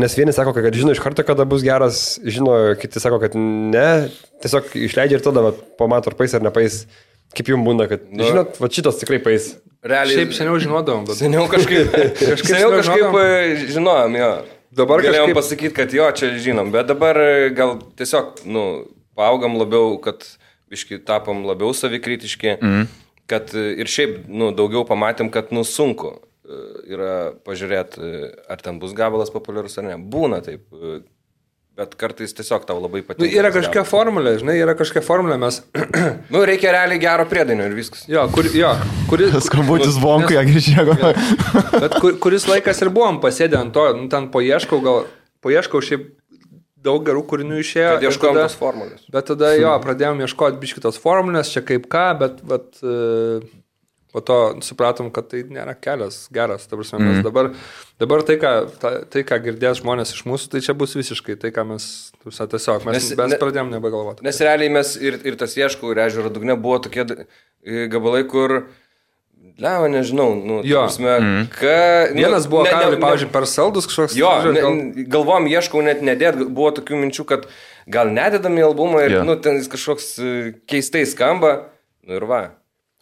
D: nes vieni sako, kad žino iš karto, kada bus geras, žino, kiti sako, kad ne, tiesiog išleidžia ir tada pamato, ar pais ar nepais. Kaip jums būna, kad, žinot, šitas tikrai pais.
C: Realiai.
B: Šiaip seniau žinodavom, bet...
C: Seniau kažkaip žinojom, jo. Dabar galėjom pasakyti, kad jo, čia žinom, bet dabar gal tiesiog, paaugam labiau, kad biškai tapom labiau savikritiški, kad ir šiaip, daugiau pamatėm, kad, sunku yra pažiūrėti, ar ten bus gabalas populiarus ar ne. Būna taip, bet kartais tiesiog tau labai patinka.
B: Yra kažkokia formulė, žinai, mes...
C: reikia realiai gero priedainio ir viskas.
B: Jo,
A: skambutis vonku, ją grįžėjo.
B: Bet kuris laikas ir buvom pasėdę ant to, ten paieškau šiaip daug gerų kūrinių išėjo.
C: Kad ieškojom tos formulės.
B: Bet tada pradėjom ieškoti biškitos formulės, čia kaip ką, bet po to supratom, kad tai nėra kelias geras. Ta prasme, mes dabar tai, ką girdės žmonės iš mūsų, tai čia bus visiškai tai, ką mes tiesiog, mes pradėjom nebegalvoti.
C: Nes realiai mes ir tas ieškau, ir ežero dugne buvo tokie gabalai, kur Leva, nežinau,
B: Vienas buvo, pavyzdžiui, per saldus kažkoks.
C: Jo, galvom, ieškau net nedėt, buvo tokių minčių, kad gal nededam į albumą ir, ten jis kažkoks keistai skamba, ir va.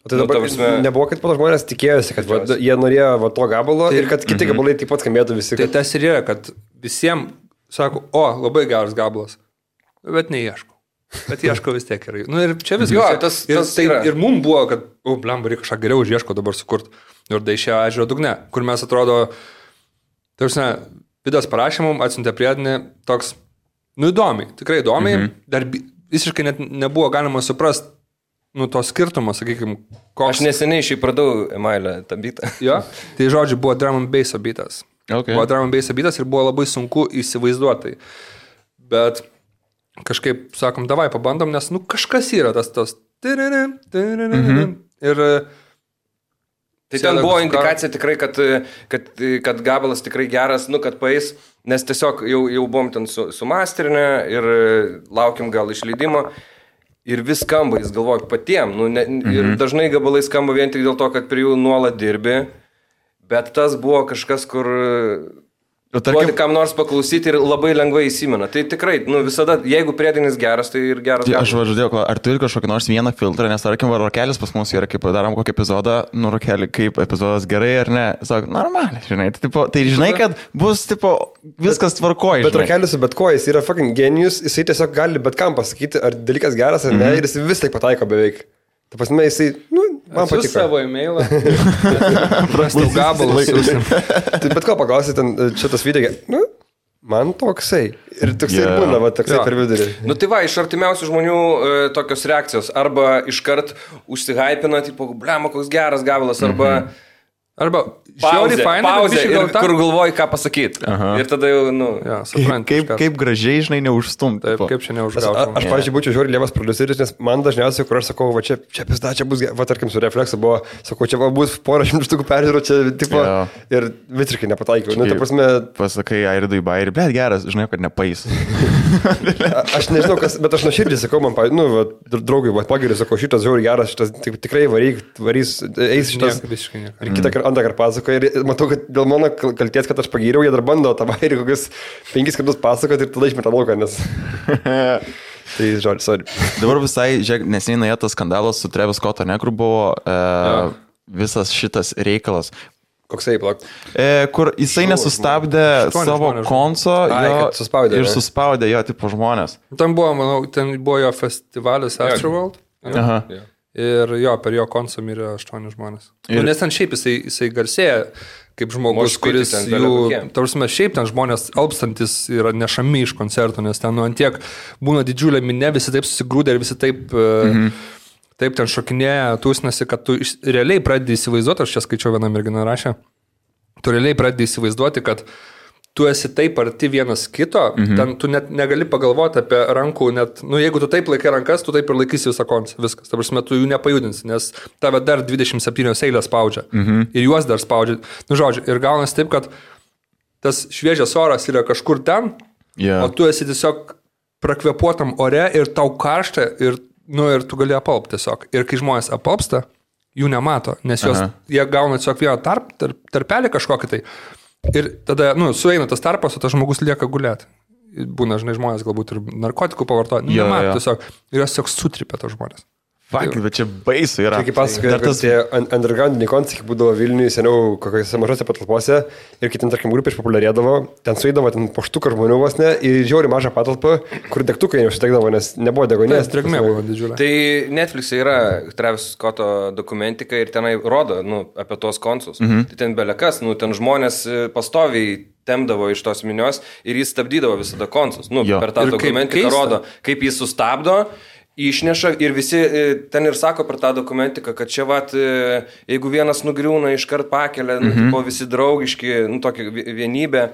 D: Tai dabar nebuvo, kad po to žmonės tikėjosi, kad jie norėjo to gabalo ir kad kiti gabalai taip pat skambėtų visi.
B: Tai tas ir yra, kad visiems sako, labai geras gabalas, bet neieškau. Bet ieško vis tiek gerai. Ir čia viskas. Ir mums buvo, kad, blemba, reikia kažką geriau už ieško dabar sukurt. Ir tai išėjo ežero dugne, kur mes atrodo, Vidas parašė mums, atsiuntė priedinį toks, įdomiai, tikrai įdomiai, dar visiškai net nebuvo galima suprasti, nu, to skirtumo, sakykime, koks.
C: Aš neseniai šiaip pradau Emailę tą bitą.
B: Jo, tai žodžiu, buvo drum and bass bitas.
A: Okay.
B: Buvo drum and bass bitas ir buvo labai sunku įsivaizduoti. Bet kažkaip, sakom, davai pabandom, nes, nu, kažkas yra tas. Ir...
C: Tai ten buvo indikacija tikrai, kad gabalas tikrai geras, nu, kad paeis, nes tiesiog jau buvom ten sumasterinę ir laukiam gal išleidimo ir vis skamba, jis galvoja patiem, nu, ir dažnai gabalai skamba vien tik dėl to, kad prie jų nuolat dirbi, bet tas buvo kažkas, kur... Duoti kam nors paklausyti ir labai lengvai įsimena. Tai tikrai, nu, visada, jeigu priedainis geras, tai ir geras.
A: Tai aš važiuodėjau, ar turi kažkokį nors vieną filtrą, nes tarkim, rokelis pas mus yra, kaip darom kokį epizodą, nu, rokelį, kaip epizodas gerai ar ne, sako, normaliai, žinai, tai žinai, kad bus, viskas tvarkoja.
D: Bet rokelis su bet ko, jis yra fucking genijus, jisai tiesiog gali bet kam pasakyti, ar dalykas geras ar ne, ir jis vis tai pataiko beveik. Ta prasme, jisai, nu, man patiko.
B: Savo e-mailą. Prastau gabalus.
D: Tai bet ko paklausi, ten šitas video, nu, man toksai. Ir toksai ir būna, va, toksai per vidurį.
C: Nu tai va, iš artimiausių žmonių tokios reakcijos. Arba iškart užsihypina, tipo, blema, koks geras gabalas, arba
B: pauzė,
C: ir kur galvoji, ką pasakyti. Ir tada jau, nu...
B: Ja, suprantu.
A: Kaip gražiai, žinai, neužstumti.
B: Taip, kaip čia neužgautum.
D: Aš pavyzdžiui, būčiau žiūri lievas produceris, nes man dažniausiai, kur aš sakau, va čia pizda, čia bus, va tarkim, su Reflexu buvo, sakau, čia va bus porą šimtų štukų peržiūrų, čia, tipo, ir visiškai nepataikiau. Nu, ta prasme...
A: Pasakai, Airidui Bairį, bet geras, žinai, kad nepais.
D: Aš nežinau, kas, bet aš nuoširdžiai sakau, man, nu, va, draugai, va, pagiriu, sakau, šitas žiūri geras, šitas tikrai varys, eis šitas. Ir kitą kartą pasakoja ir matau, kad dėl mano kalties, kad aš pagyriau, jie dar bando tą bairį kokius 5 kartus pasakoti ir tada išmeta lauką, nes... Tai žodžiu, sorry.
A: Dabar visai, žiūrėk, neseniai nuėjo tas skandalas su Travis Scott, ne, kur buvo visas šitas reikalas.
D: Koksai, plak?
A: Kur jisai nesustabdė savo konso ir suspaudė jo tipo žmonės.
B: Ten buvo, manau, ten buvo jo festivalis Astroworld.
A: Aha.
B: Ir jo, per jo konsą mirė 8 žmonės. Nes ten šiaip jisai garsėja kaip žmogus, kuris jų, tarsime, šiaip ten žmonės alpstantis yra nešami iš koncertų, nes ten nu antiek būna didžiulė minė, visi taip susigrūdė ir visi taip, taip ten šokinėja, tūsnasi, kad tu realiai pradedi įsivaizduoti, aš čia skaičiau vieną merginą rašę, tu realiai pradedi įsivaizduoti, kad tu esi taip arti vienas kito, ten tu net negali pagalvoti apie rankų, net, nu jeigu tu taip laikai rankas, tu taip ir laikysi visą koncą, viskas. Ta prasme, tu jų nepajudinsi, nes tave dar 27 eilės spaudžia ir juos dar spaudžia. Nu žodžiu, ir gaunas taip, kad tas šviežias oras yra kažkur ten, o tu esi tiesiog prakvepuotam ore ir tau karšta ir, nu, ir tu gali apalpti tiesiog. Ir kai žmonės apalpsta, jų nemato, nes jie gauna tiesiog vieną tarpelį kažkokį tai. Ir tada, nu, sueina tas tarpas, o tas žmogus lieka gulėti. Būna, žinai, žmonės galbūt ir narkotikų pavartoja. Nemato tiesiog. Ir jos tiesiog sutripia tos žmonės.
A: Fak, bet čia baisu yra.
D: Čia kaip pasakoja, kad tie undergroundiniai koncertai būdavo Vilniuje seniau kokiose mažose patalpose ir kai ten, tarkim, grupė išpopuliarėdavo, ten suėdavo ten po štuką žmonių vos ne ir žiauri mažą patalpą, kur degtukai neužsitekdavo, nes nebuvo degonės.
B: Drėgmė buvo didžiulė.
C: Tai Netflix'e yra Travis Scott'o dokumentika ir tenai rodo, nu, apie tuos koncus. Tai ten belekas, nu, ten žmonės pastoviai temdavo iš tos minios ir jis stabdydavo visada koncus. Nu, per tą dokumentiką rodo, kaip jis sustabdo, išneša ir visi ten ir sako per tą dokumentiką, kad čia vat, jeigu vienas nugriūna, iškart pakelia, nu, tipo, visi draugiški, nu, tokia vienybė.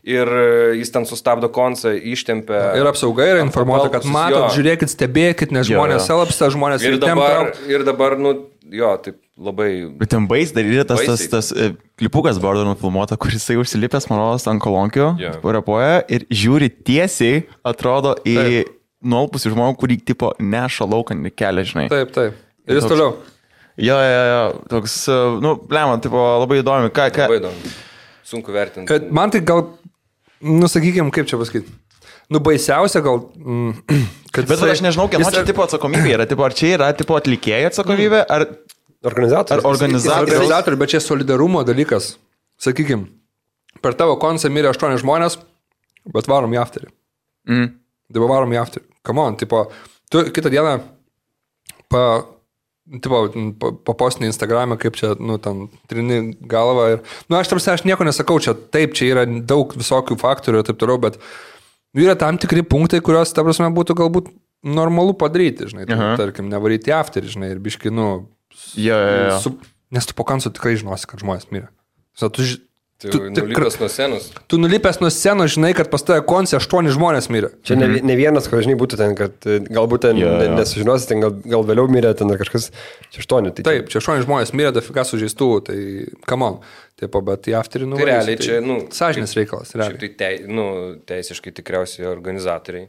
C: Ir jis ten sustabdo koncą, ištempia.
B: Ir apsauga yra informuota, kad matot, žiūrėkit, stebėkit, nes žmonės selapsta, žmonės
C: ir dabar, nu, jo, taip labai...
A: Bet ten bais dar yra tas klipukas buvo nufilmuota, kur jisai užsilipęs, manau, ant kolonkių, repuoja ir žiūri tiesiai, atrodo, į nuolpusių žmonių, kurį tipo neša lauką kelią, žinai.
B: Taip. Ir jis toliau.
A: Jo, toks, nu, blema, tipo, labai įdomi.
C: Labai įdomi. Sunku vertinti.
B: Man tai gal, nu, sakykime, kaip čia pasakyti. Nu, baisiausia gal, kad...
A: Bet aš nežinau, kieno čia tipo atsakomybė yra. Tipo, ar čia yra tipo atlikėjų atsakomybė, ar...
B: Organizatorių, bet čia solidarumo dalykas. Sakykime, per tavo koncą mirė 8 žmonės, bet varom į afterį. Dabar varom į afterį. Come on, tipo, tu kitą dieną papostinį Instagram'e, kaip čia, nu, ten trini galvą ir, nu, aš nieko nesakau, čia taip, čia yra daug visokių faktorių ir taip toliau, bet yra tam tikri punktai, kurios, ta prasme, būtų galbūt normalu padaryti, žinai, tarkim, nevaryti afterį, žinai, ir biškai, nes tu po koncerto tikrai žinosi, kad žmonės mirė.
C: Tu nulipęs nuo scenos.
B: Tu nulipęs nuo scenos, žinai, kad pas tave konce 8 žmonės mirė.
D: Čia ne vienas, ko žinai, būtų ten, kad galbūt ten nesužinosi, ten gal vėliau mirė, ten ar kažkas, čia 8. Tai
B: taip, čia 8 žmonės mirė, dafika sužeistų, tai come on. Taip, bet į afterį
C: Tai realiai čia,
B: sąžinės reikalas, realiai.
C: Tai teisiškai tikriausiai organizatoriai.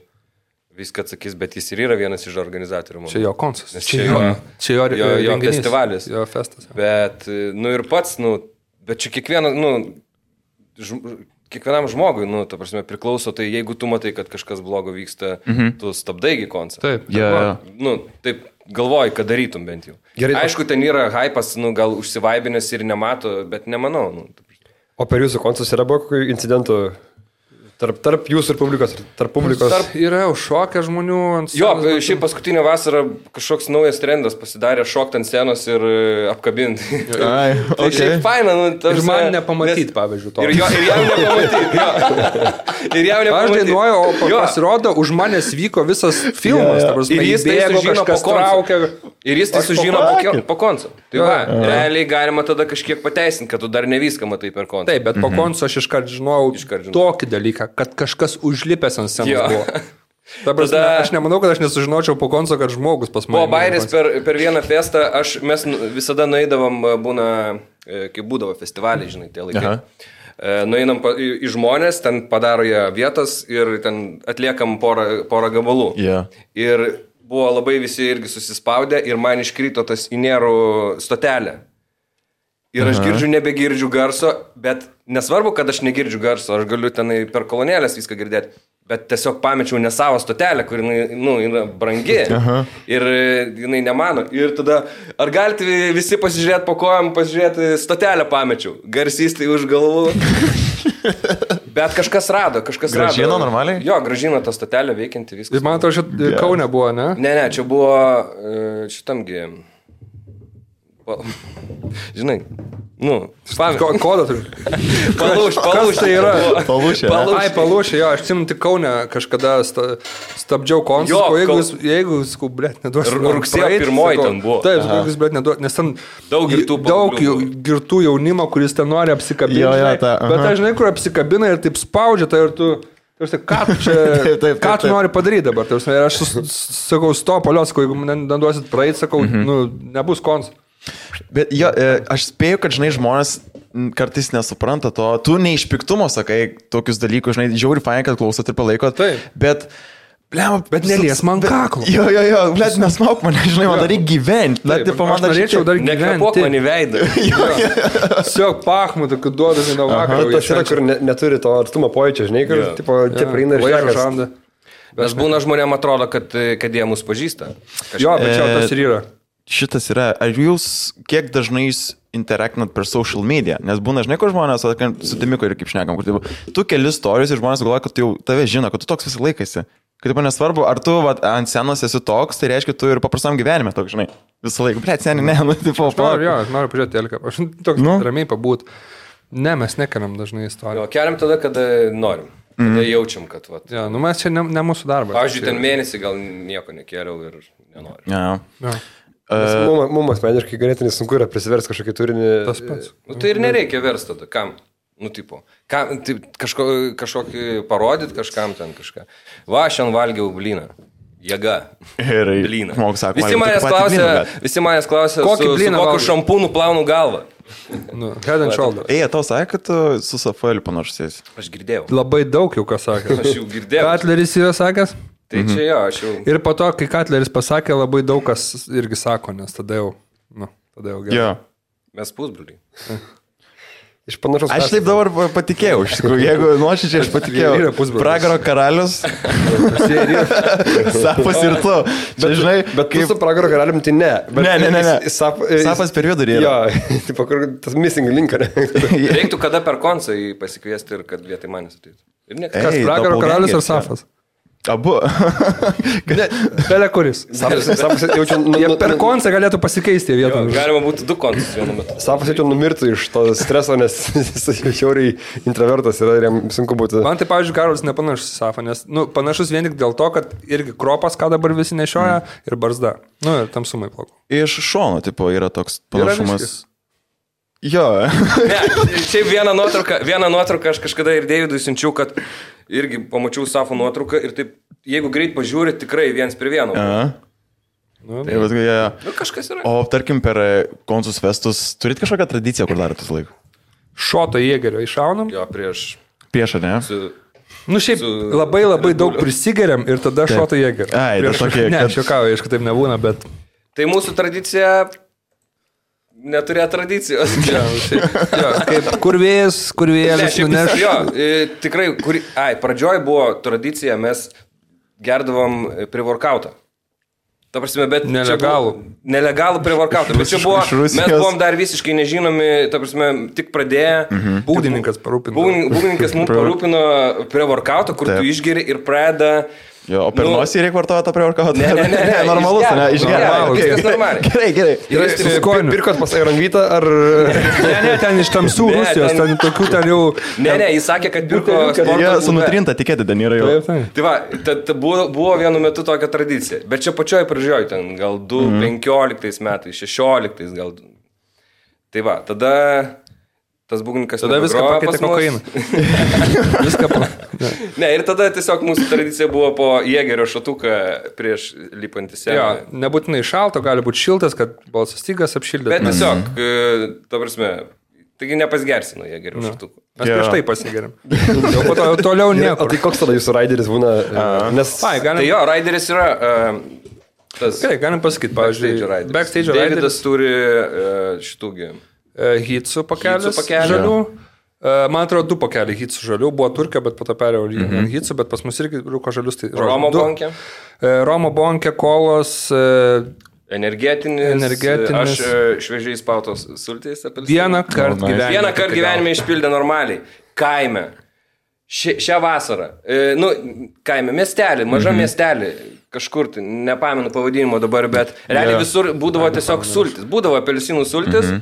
C: Viską atsakys, bet jis ir yra vienas iš organizatorių.
B: Čia jo koncas.
C: Čia jo festivalis.
B: Jo festas.
C: Bet, ir pats, bet čia kiekvienam žmogui, ta prasme, priklauso, tai jeigu tu matai, kad kažkas blogo vyksta, tu stabdaigi koncą.
B: Taip.
C: Taip galvoji, kad darytum bent jau. Gerai, aišku, ten yra hypas, gal užsivaibinęs ir nemato, bet nemanau.
D: O per jūsų koncus yra buvo kokių incidentų? Tarp jūsų ir publikos, tarp publikos.
B: Yra užšokę žmonių ant
C: scenos. Jo, šiaip paskutinę vasarą kažkoks naujas trendas pasidarė šokti ant scenos ir apkabinti.
A: Ai,
C: tai šiaip faina.
B: Ir man nepamatyti, pavyzdžiui, to.
C: Ir jam nepamatyti. Ir jam nepamatyti.
B: Aš dainuoju, o pasirodo, už manęs vyko visas filmas.
C: Ir jis tai sužino po konco. Ir jis tai sužino po konco. Tai va, realiai galima tada kažkiek pateisinti, kad tu dar ne viską matai per koncą.
B: Taip, bet po konco aš iškart žinojau tokį dalyką, kad kažkas užlipęs ant scenos buvo. Aš nemanau, kad aš nesužinočiau po konco, kad žmogus pas mane.
C: Po Bairis per vieną festą, mes visada nueidavom, kai būdavo festivaliai, žinai, tie laikai. Nueinam į žmonės, ten padaro jie vietas ir ten atliekam porą gabalų. Ir buvo labai visi irgi susispaudę ir man iškrito tas Inerų stotelė. Ir aš nebegirdžiu garso, bet nesvarbu, kad aš negirdžiu garso, aš galiu tenai per kolonėlės viską girdėti, bet tiesiog pamečiau ne savo stotelę, kur yra brangi ir jinai nemano. Ir tada, ar galite visi pasižiūrėti po kojom, pasižiūrėti stotelę pamečiau, garsys tai už galvų. Bet kažkas rado.
A: Gražino normaliai?
C: Jo, gražino tą stotelę veikianti viskas.
B: Man atrodo, šit Kaune buvo, ne?
C: Ne, čia buvo šitamgi... Žinai,
B: kodą turiu.
C: Palūš tai yra.
B: Palūšė, jo, aš atsimenu tik Kaune kažkada stabdžiau koncertą, jeigu, blėt, neduosiu.
C: Rugsėjo 1 ten buvo.
B: Taip, jeigu, blėt, neduosiu, nes ten daug girtų jaunimo, kuris ten nori apsikabinti. Bet aš žinai, kur apsikabina ir taip spaudžia, tai ir tu... Ką tu nori padaryti dabar? Ir aš sakau, stop, sakau, jeigu neduosit praeit, sakau, nebus koncertas.
A: Bet jo, aš spėju, kad, žinai, žmonės kartais nesupranta to. Tu ne iš piktumo sakai tokius dalykus, žinai, žiauri fain, kad klausot ir palaikot. Bet
B: nelies man kaklo.
A: Jo, blėt, nesmauk mane, žinai, man dar reikia gyventi.
B: Aš norėčiau dar gyventi.
C: Nekvėpuok man į veidą.
B: Tiesiog pachmu, tokiu duodami nuo vakaro.
D: Tas yra, kur neturi to artumo pojūčio, žinai, kur čia praeina ir
B: šnekas.
C: Nes būna žmonėm atrodo, kad jie mus pažįsta.
B: Jo, bet čia tas ir yra.
A: Šitas yra, ar jūs kiek dažnai interaktinat per social media? Nes būna, žinai, kur žmonės, su Timiku ir kaip šnekam, kur tu keli stories ir žmonės galvoja, kad jau tave žino, kad tu toks visą laikasi. Kad taip nesvarbu, ar tu ant scenos esi toks, tai reiškia, tu ir paprastam gyvenime toks, žinai, visą laiką. Blėt, seniai, ne, tipo.
B: Aš noriu pažiūrėti Elką, aš toks ramiai pabūt. Ne, mes nekeliam dažnai istoriją.
C: Keliam tada, kada norim. Tada jaučiam, kad vat.
B: Ja, mes čia ne mūsų darbas.
C: Pavyzdžiui, ten mėnesį gal nieko nekėliau ir nenoriu.
D: Mums asmeniškai ganėtinai sunku yra prisiversti kažkokį turinį.
B: Tas pats.
C: Tai ir nereikia versti tada. Kam? Kažkokį parodyti kažkam ten kažką. Va, šiandien valgiau blyną. Jėga. Blyną. Visi manęs klausia, su kokiu šampūnu plaunu galvą.
B: Head and shoulder.
A: Tau sakė, kad tu su Safaeliu panašus.
C: Aš girdėjau.
B: Labai daug jau ką sakė.
C: Aš jau girdėjau.
B: Katleris yra sakęs?
C: Tai čia jo, aš jau...
B: Ir po to, kai Katleris pasakė, labai daug kas irgi sako, nes tada jau gerai.
A: Jo.
C: Mes pusbroliai.
D: Iš panašus.
A: Aš taip dabar patikėjau, iš tikrųjų, jeigu nuoširdžiai aš patikėjau. Pragaro karalius. Safas ir tu.
D: Bet kaip su Pragaro karalium, tai ne.
A: Ne. Safas per vidurį yra.
D: Jo, tas missing link.
C: Reiktų kada per koncą pasikviesti ir kad vietai manęs ateitų.
B: Kas, Pragaro karalius ar Safas?
A: Abu.
B: Belė kuris.
D: Sapas jaučiu,
B: Jie per koncą galėtų pasikeisti vietą.
C: Galima būtų 2 kontus vienu metu.
D: Sapas jaučiu numirtų iš to streso, nes jis šiauriai introvertas yra ir jam sunku būtų.
B: Man tai, pavyzdžiui, Karolis nepanašus į Safą, nes, panašus vien tik dėl to, kad irgi kropas, ką dabar visi nešioja, ir barzda. Ir tamsumai plaukų.
A: Iš šono, tipo, yra toks panašumas. Jo.
C: Ne, šiaip vieną nuotrauką aš kažkada ir Deividui siunčiau, kad irgi pamačiau Safo nuotrauką ir taip, jeigu greit pažiūri, tikrai 1:1.
A: Tai vat, ja.
C: Kažkas yra.
A: O tarkim, per Konsus festus turit kažkokią tradiciją, kur darot tas laiką?
B: Šoto jėgerio iššaunam.
C: Jo, prieš...
A: Prieš, ne?
B: Šiaip labai daug prisigeriam ir tada šoto jėgerio.
A: Ai, tai tokie...
B: Ne, aš juokauju, aišku, taip nebūna, bet...
C: Tai mūsų tradicija... Neturėjo tradicijos.
B: Kaip kurvėlis nuneš.
C: Jo, tikrai, pradžioj buvo tradicija, mes gerdavom pre-workoutą. Ta prasme, bet... Nelegalų pre-workoutą. Bet čia buvo, mes buvom dar visiškai nežinomi, ta prasme, tik pradėję.
B: Būgdininkas parūpino.
C: Būgdininkas mums parūpino pre-workoutą, kur tu išgeri ir pradeda...
A: Jo, o per nosį reikia vartoti tą pre-workoutą?
C: Ne,
A: normalus, ne, išgerti.
C: Viskas normaliai.
A: Gerai.
D: Pirkot pas Airanvytą ar...
B: Ne, ten iš tamsų Rusijos, ten tokių ten jau...
C: Ne, jis sakė, kad pirko sporto
A: Jie sunutrinta tikėti, ten yra jau.
C: Tai va, buvo vienu metu tokia tradicija, bet čia pačioj pradžioj, ten gal 15 metais, 16 gal. Tai va, tada... Tas būgnininkas
B: viską pakeitė kokainą. Viską
C: Ne, ir tada tiesiog mūsų tradicija buvo po jėgerio šatuką prieš lipantį sceną.
B: Jo, nebūtinai šalto, gali būti šiltas, kad balsas stygas apšildė.
C: Bet tiesiog, ta prasme, taigi nepasgersino jėgerio šatuką.
B: Mes prieš tai pasigeriam. Jau po to toliau nieko.
D: O tai koks tada jūsų raideris būna?
C: Tai jo, raideris yra...
B: Gerai, galim pasakyti, pavyzdžiui, backstage raideris.
C: Davidas turi šitųgi...
B: Hitsų pakelis žalių. Man atrodo, 2 pakeliai hitsų žalių. Buvo Turkija, bet po to perėjau hitsų, bet pas mus irgi rūko žalius. Tai,
C: Romo bonkė.
B: Romo bonkė, kolos.
C: Energetinis. Aš šviežiai spautos sultais apelsinų.
B: Vieną kartą
C: gyvenime išpildė normaliai. Kaime. Šią vasarą. Kaime. Miestelį, maža miestelį. Kažkur, nepamenu pavadinimo dabar, bet realiai visur būdavo tiesiog sultis. Būdavo apelsinų sultis.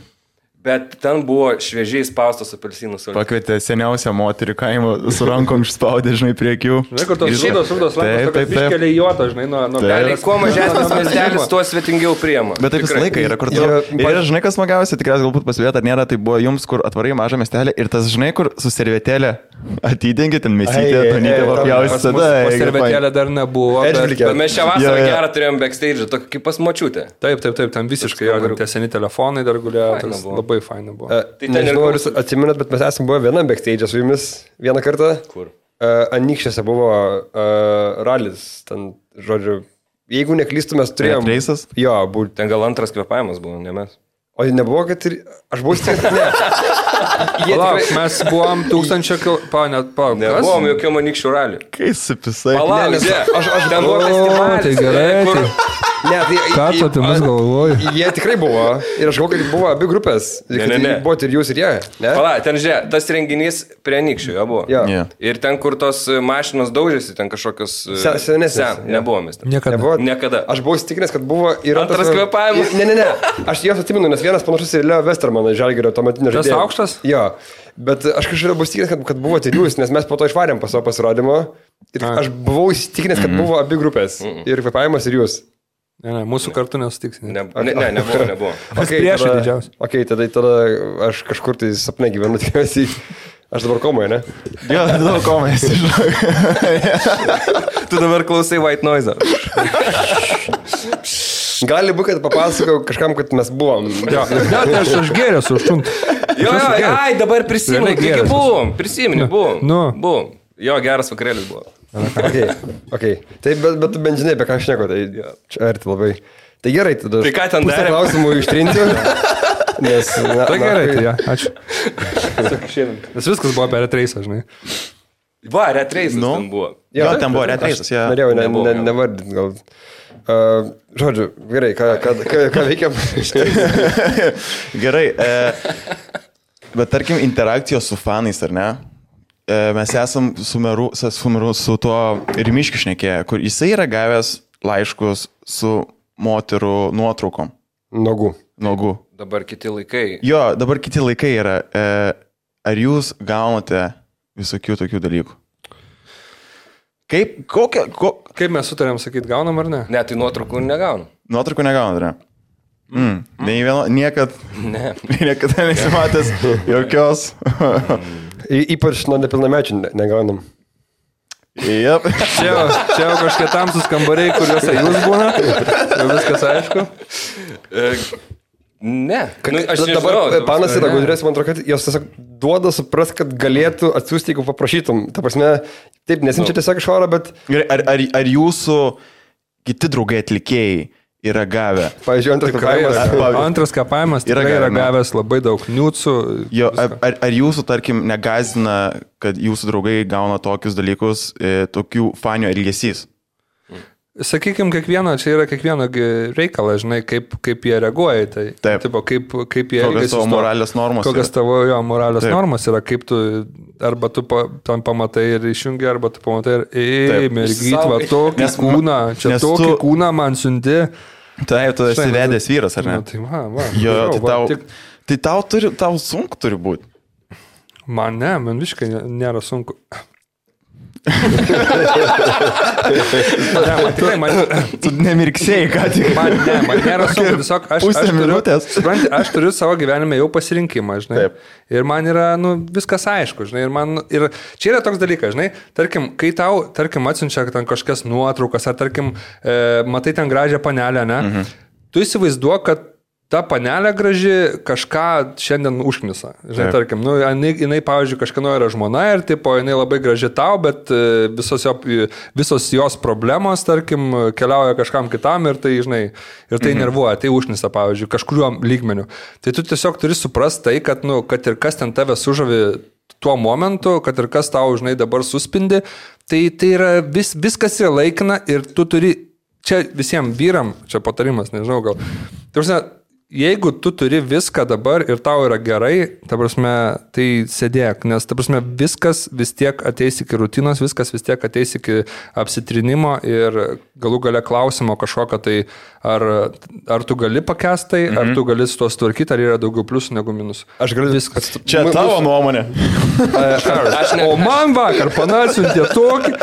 C: Bet ten buvo šviežiai spaustos apelsinų sultis.
A: Pakvietė seniausią moterį kaimo su rankom išspaudė, žinai, prie akių.
B: Žinai, kur tos šūdos rankos, kad iškelia juotą, žinai, nuo
C: galiai. Kuo mažesnis miestelis, tuo svetingiau priema.
A: Bet taip visą laiką yra, kur tu... Ir žinai, kas smagiausia, tikriausiai galbūt pasivėt, ar nėra, tai buvo jums, kur atvarai mažą miestelį ir tas, žinai, kur su servetėlė atidengi, ten mesytė, tonytė papjausi tada.
B: O servetėlė dar nebuvo.
C: Bet mes šią vasarą gerą turėjom backstage, tokį kaip pas močiutę.
B: Taip, ten visiškai tie seni telefonai dar gulėjo. Labai faina buvo.
D: Nežinau, ar jūs atsiminat, bet mes esame buvę vienam backstage su jumis vieną kartą.
C: Kur?
D: Anykščiuose buvo ralis, ten, žodžiu, jeigu neklystu, mes turėjom...
A: Reisas?
D: Jo,
C: ten gal antras kvėpavimas buvo, ne mes.
D: O nebuvo, kad ir... Aš buvau stipriai... Ne.
B: Palauk, mes buvom 1000 km...
C: Nebuvom jokio Anykščių ralį.
A: Kai supisai.
C: Palauk, aš ten buvo festivalis.
B: Tai gerai.
D: Ne, tai...
B: Ką tu apie mus galvoji?
D: Jie tikrai buvo. Ir aš galvoju, kad buvo abi grupės.
C: Ne.
D: Buvo ir jūs, ir jie.
C: Palauk, ten žiūrė, tas renginys prie Anykščių jo buvo.
D: Ja.
C: Ir ten, kur tos mašinos daužėsi, ten kažkokios...
D: Senesnės.
C: Nebuvo mes.
B: Niekada.
D: Aš buvau įsitikinęs, kad buvo ir...
C: Antras kvėpavimas.
D: Ne. Aš jos atsimenu, nes vienas panašus į Leo Westermaną, Žalgirio tuometinio žaidėjo.
B: Tas aukštas?
D: Jo. Bet aš kažkaip buvau įsitikinęs, kad buvo ir jūs, nes mes po to išvarėm po savo pasirodymo. Ir aš buvau įsitikinęs, kad buvo abi grupės. Ir kvėpavimas, ir jūs.
B: Ne, mūsų kartu nesutiks.
C: Nebuvo.
B: Priešai didžiausiai.
D: Ok, tada aš kažkur tai sapne gyvenu, tikriausiai. Aš dabar komoje, ne?
A: Jo, dabar komoje,
C: Tu dabar klausai White Noise.
D: Gali būti, kad papasakau kažkam, kad mes buvom.
B: Jo, aš gėręs užtumt.
C: Jo, dabar prisimenu, taigi buvom. Prisimenu, buvom. Jo, geras vakarėlis buvo.
D: Ok. Tai bet bent žinai, apie ką aš neku, tai čia arti labai. Tai gerai, tada
C: tai ką ten darė?
D: Klausimų ištrinsiu. Nes,
B: tai gerai, tai ja, ačiū. Nes viskas buvo apie retreisą, žinai.
C: Va, retreisas ten buvo.
A: Jo, ten buvo retreisas, jo.
D: Norėjau nevardinti, gal. Žodžiu, gerai, ką veikiam?
A: Gerai, bet tarkim interakcijos su fanais, ar ne? mes esam su tuo Rimiškiu šnekėję, kur jisai yra gavęs laiškus su moterų nuotraukom. Nogų.
C: Dabar kiti laikai.
A: Jo, dabar kiti laikai yra. Ar jūs gaunate visokių tokių dalykų?
B: Kaip mes sutarėm sakyti, gaunam ar ne?
C: Ne, tai nuotraukų negaunu.
A: Nuotraukų negaunat, ne? Niekada nesimatęs jokios.
D: Ypač nuo nepilnamečių negaunam.
A: Yep.
B: Čia jau kažkiek tamsus kambariai, kuriuose jūs būna. Jau viskas aišku.
C: Ne.
D: Aš dabar panas yra gudrės, man atrodo, kad jos tiesiog duoda supras, kad galėtų atsiųsti, jeigu paprašytum. Ta prasme, taip, nesinčia tiesiog iš oro, bet...
A: Ar jūsų kiti draugai atlikėjai yra gavę?
D: Pavyzdžiui,
B: antras kapavimas tikrai yra gavęs labai daug niucų.
A: Jo, ar jūsų, tarkim, negazina, kad jūsų draugai gauna tokius dalykus, tokių fanių elgesys?
B: Sakykime, čia yra kiekvieno reikala, žinai, kaip jie reaguoja į tai.
A: Taip.
B: Tipo, kaip jie
A: elgiasi. Kokios tavo moralės normos yra.
B: Kokios tavo moralės normos yra, kaip tu, arba tu tam pamatai ir išjungi, arba tu pamatai ir mergyt, va, tokį kūną, čia tokį kūną man siunti.
A: Taip, tu esi vedęs vyras, ar ne?
B: Tai va.
A: Jo, tai tau sunku turi būti.
B: Man visiškai nėra sunku.
A: Tu nemirksėjai, ką tik.
B: Man nėra sunku, tiesiog aš turiu savo gyvenime jau pasirinkimą, žinai. Taip. Ir man yra, viskas aišku, žinai. Ir čia yra toks dalykas, žinai. Tarkim, kai tau, atsiunčia ten kažkas nuotraukas, ar tarkim, matai ten gražią panelę, ne? Tu įsivaizduok, kad ta panelė graži kažką šiandien užknisa. Žinai, tarkim, jinai, pavyzdžiui, kažkieno yra žmona ir tipo, jinai labai graži tau, bet visos jos problemos, tarkim, keliauja kažkam kitam ir tai, žinai, ir tai nervuoja, tai užknisa, pavyzdžiui, kažkuriuo lygmeniu. Tai tu tiesiog turi suprasti tai, kad ir kas ten tave sužavi tuo momentu, kad ir kas tau, žinai, dabar suspindi, tai yra viskas yra laikina ir tu turi, čia visiems vyram, čia patarimas, nežinau gal, jeigu tu turi viską dabar ir tau yra gerai, ta prasme, tai sėdėk, nes, ta prasme, viskas vis tiek ateis iki rutinos, viskas vis tiek ateis iki apsitrinimo ir galų gale klausimo kažkokio, tai ar tu gali pakęstai, ar tu gali su to sutvarkyti, ar yra daugiau pliusų negu minusų.
D: Aš galiu
B: viskas.
A: Čia tavo nuomonė.
B: O man vakar panasiuntė tokį.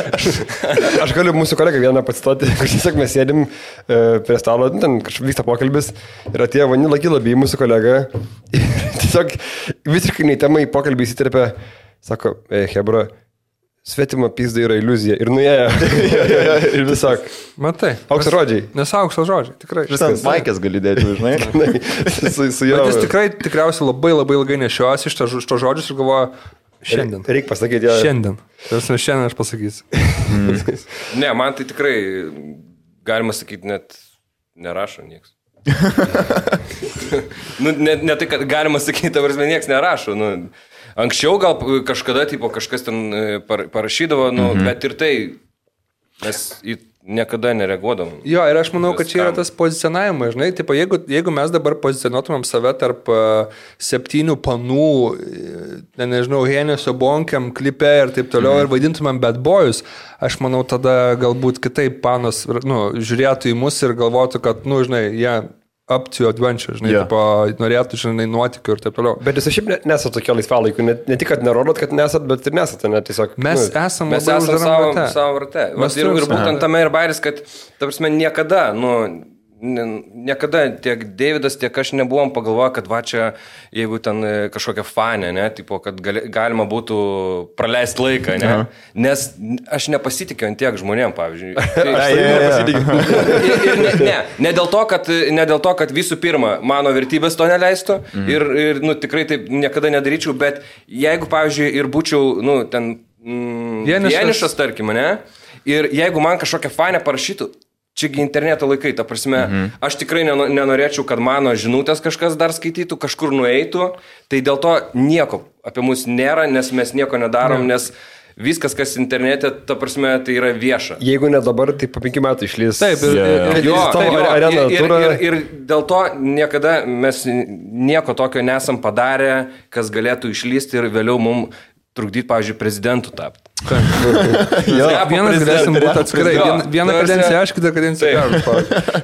D: Aš galiu mūsų kolegą vieną pacituoti, kur tiesiog mes sėdim prie stalo, ten kažkaip vyksta pokalbis ir atėjo Vanila Gilaby, mūsų kolega, ir tiesiog visiškai neįtemai pokalbį įsiterpė, sako, Hebra, svetima pizda yra iliuzija. Ir nuėjo. Ir tiesiog.
B: Matai.
D: Aukso žodžiai.
B: Nes aukso žodžiai, tikrai.
A: Viskas. Maikės gali dėti, žinai.
D: su jo.
B: Bet jis tikriausiai labai ilgai nešiuosi iš to žodžius ir galvoja, šiandien.
D: Reikia pasakyti, jo.
B: Šiandien. Šiandien aš pasakysiu.
C: Ne, man tai tikrai, galima sakyti, net nerašo nieks. Ne tai, kad galima sakyti, ta prasme, nieks nerašo. Anksčiau gal kažkada kažkas ten parašydavo, bet ir tai mes niekada nereaguodavom. Jo,
B: ir aš manau, kad čia yra tas pozicionavimas, žinai, tipo, jeigu mes dabar pozicionuotumėm save tarp 7 panų, nežinau, Hennesio bonkiam, klipe ir taip toliau ir vaidintumėm bad boys, aš manau, tada galbūt kitaip panas, žiūrėtų į mus ir galvotų, kad, žinai, jie up to adventure, žinai, norėtų, žinai, nuotykių ir taip toliau.
D: Bet jūs šiaip nesate tokio laisvalaikiu, ne tik, kad nerodot, kad nesat, bet ir nesate, ne tiesiog.
B: Mes esame
C: savo rate. Ir būtent tame ir bairis, kad, ta prasme, niekada tiek Davidas, tiek aš nebuvom pagalvoję, kad va čia, jeigu ten kažkokia fanė, ne, tipo, kad galima būtų praleisti laiką, ne, nes aš nepasitikiu ant tiek žmonėm, pavyzdžiui. Ne dėl to, kad visų pirma, mano vertybės to neleistų ir tikrai taip niekada nedaryčiau, bet jeigu, pavyzdžiui, ir būčiau, ten vienišas, tarkim, ne, ir jeigu man kažkokia fanė parašytų, čiagi interneto laikai, ta prasme, aš tikrai nenorėčiau, kad mano žinutės kažkas dar skaitytų, kažkur nueitų, tai dėl to nieko apie mus nėra, nes mes nieko nedarom, nes viskas, kas internete, ta prasme, tai yra vieša.
D: Jeigu ne dabar, tai po 5 metų išlys.
B: Taip,
C: ir dėl to niekada mes nieko tokio nesam padarę, kas galėtų išlysti ir vėliau mums trukdyti, pavyzdžiui, prezidentų tapti.
B: Vienas galėsim būti atskirai. Vieną kadenciją aš, kitą kadenciją aš.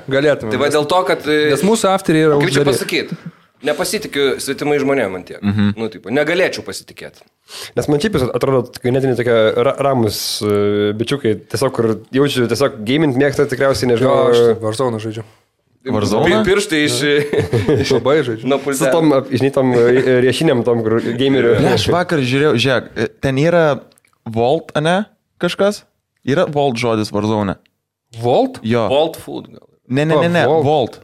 B: Galėtume.
C: Tai va dėl to, kad...
B: Nes mūsų afteriai yra
C: Kaip čia
B: uždari.
C: pasakyti? Nepasitikiu svetimai žmonėm man tiek. Nu, taip, negalėčiau pasitikėti.
D: Nes man šiaip atrodo, ganėtinai tokie ramus bičiukai, tiesiog, kur jaučiu, tiesiog gaming mėgsta tikriausiai, nežinau.
B: Aš Warzone žaidžiu.
A: Warzone?
C: Pirštai iš...
B: Labai žaidžiu.
C: Nuo
D: Su
C: pultelio.
D: tom, žinai, tom riešinėm, tom, kur gamerių.
A: Ne, aš vakar žiūrėjau, žiūrėk, ten yra Vault, ane, kažkas? Yra Vault žodis Warzone.
B: Volt?
A: Jo.
C: Vault food gal.
A: Ne, Vault.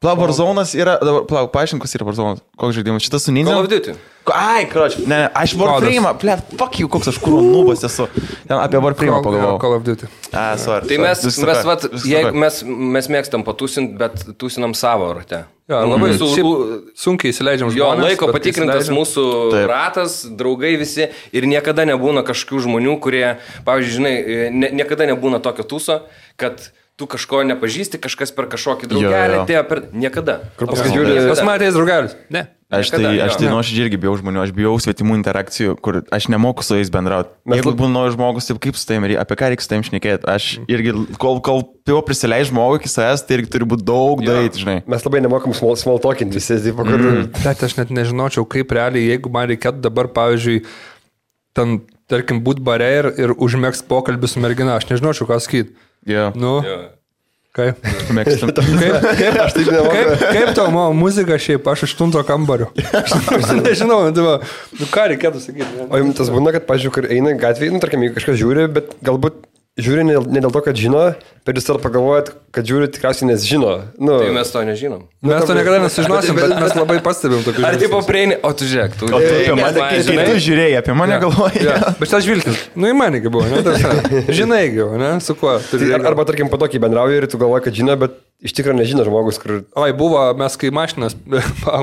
A: Warzone'as yra, dabar, paaiškink, kas yra Warzone. Koks žaidimas? Šitas su Ninja?
C: Call of Duty.
A: Ai, kroč, ne, aš Warframe'ą, fuck you, koks aš kūro nubas esu. Ten apie Warframe'ą pagalvojau.
B: Call of Duty.
A: Sorry.
C: Tai mes mėgstam patūsinti, bet tūsinam savo rate.
B: Ja, labai sunkiai įsileidžiam
C: Jo,
B: žmonės.
C: laiko
B: bet
C: patikrintas
B: įsileidžiam.
C: mūsų ratas, draugai visi ir niekada nebūna kažkokių žmonių, kurie, pavyzdžiui, žinai, niekada nebūna tokio tūso, kad tu kažko nepažįsti, kažkas per kažkokį draugelį atėjo per... Niekada.
D: Kur paskui žiūri...
B: Pas matėjęs draugelis? Ne.
A: Aš tai nuoširdžiai irgi bijau žmonių, aš bijau svetimų interakcijų, kur aš nemoku su jais bendrauti. Jeigu būna naujas žmogus, tai kaip su tavim, apie ką reikia su tavim šnekėti. Aš irgi, kol jau prisileidžiu žmogų iki savęs, tai irgi turi būti daug daryti, žinai.
D: Mes labai nemokam small talking visi, taip, kur...
B: Bet aš net nežinočiau, kaip realiai, jeigu man reikėtų dabar, pavyzdžiui, ten, tarkim, būt bare ir užmėgst pokalbį su mergina, aš nežinočiau, ką sakyti.
A: Jo.
B: Nu, kaip?
A: Mėgstam.
D: Aš taip nemoku.
B: Kaip tau mano muzika šiaip, aš 8 kambario. Aš nežinau, nu ką reikėtų sakyti.
D: O jums tas būna, kad, pažiūrėjau, kur eina gatvėje, nu, tarkim, jeigu kažkas žiūri, bet galbūt žiūri ne dėl to, kad žino, bet jūs tada pagalvojat, kad žiūri tikriausiai nes žino. Nu,
C: Tai mes to nežinom.
B: Mes to niekada nesužinosim, bet mes labai pastebim tokių
C: Ar tipo prieini, o tu žiūrėk, tu...
A: O tu apie mane, kai tu žiūrėjai, apie mane galvojai.
B: Ja, bet tas žvilgsnis, nu į manį buvo, ne? Žinai, ne? Su kuo?
D: arba, tarkim, po tokį bendrauji ir tu galvoji, kad žino, bet iš tikrųjų nežino žmogus, kur...
B: Oi, buvo, mes kai mašinas,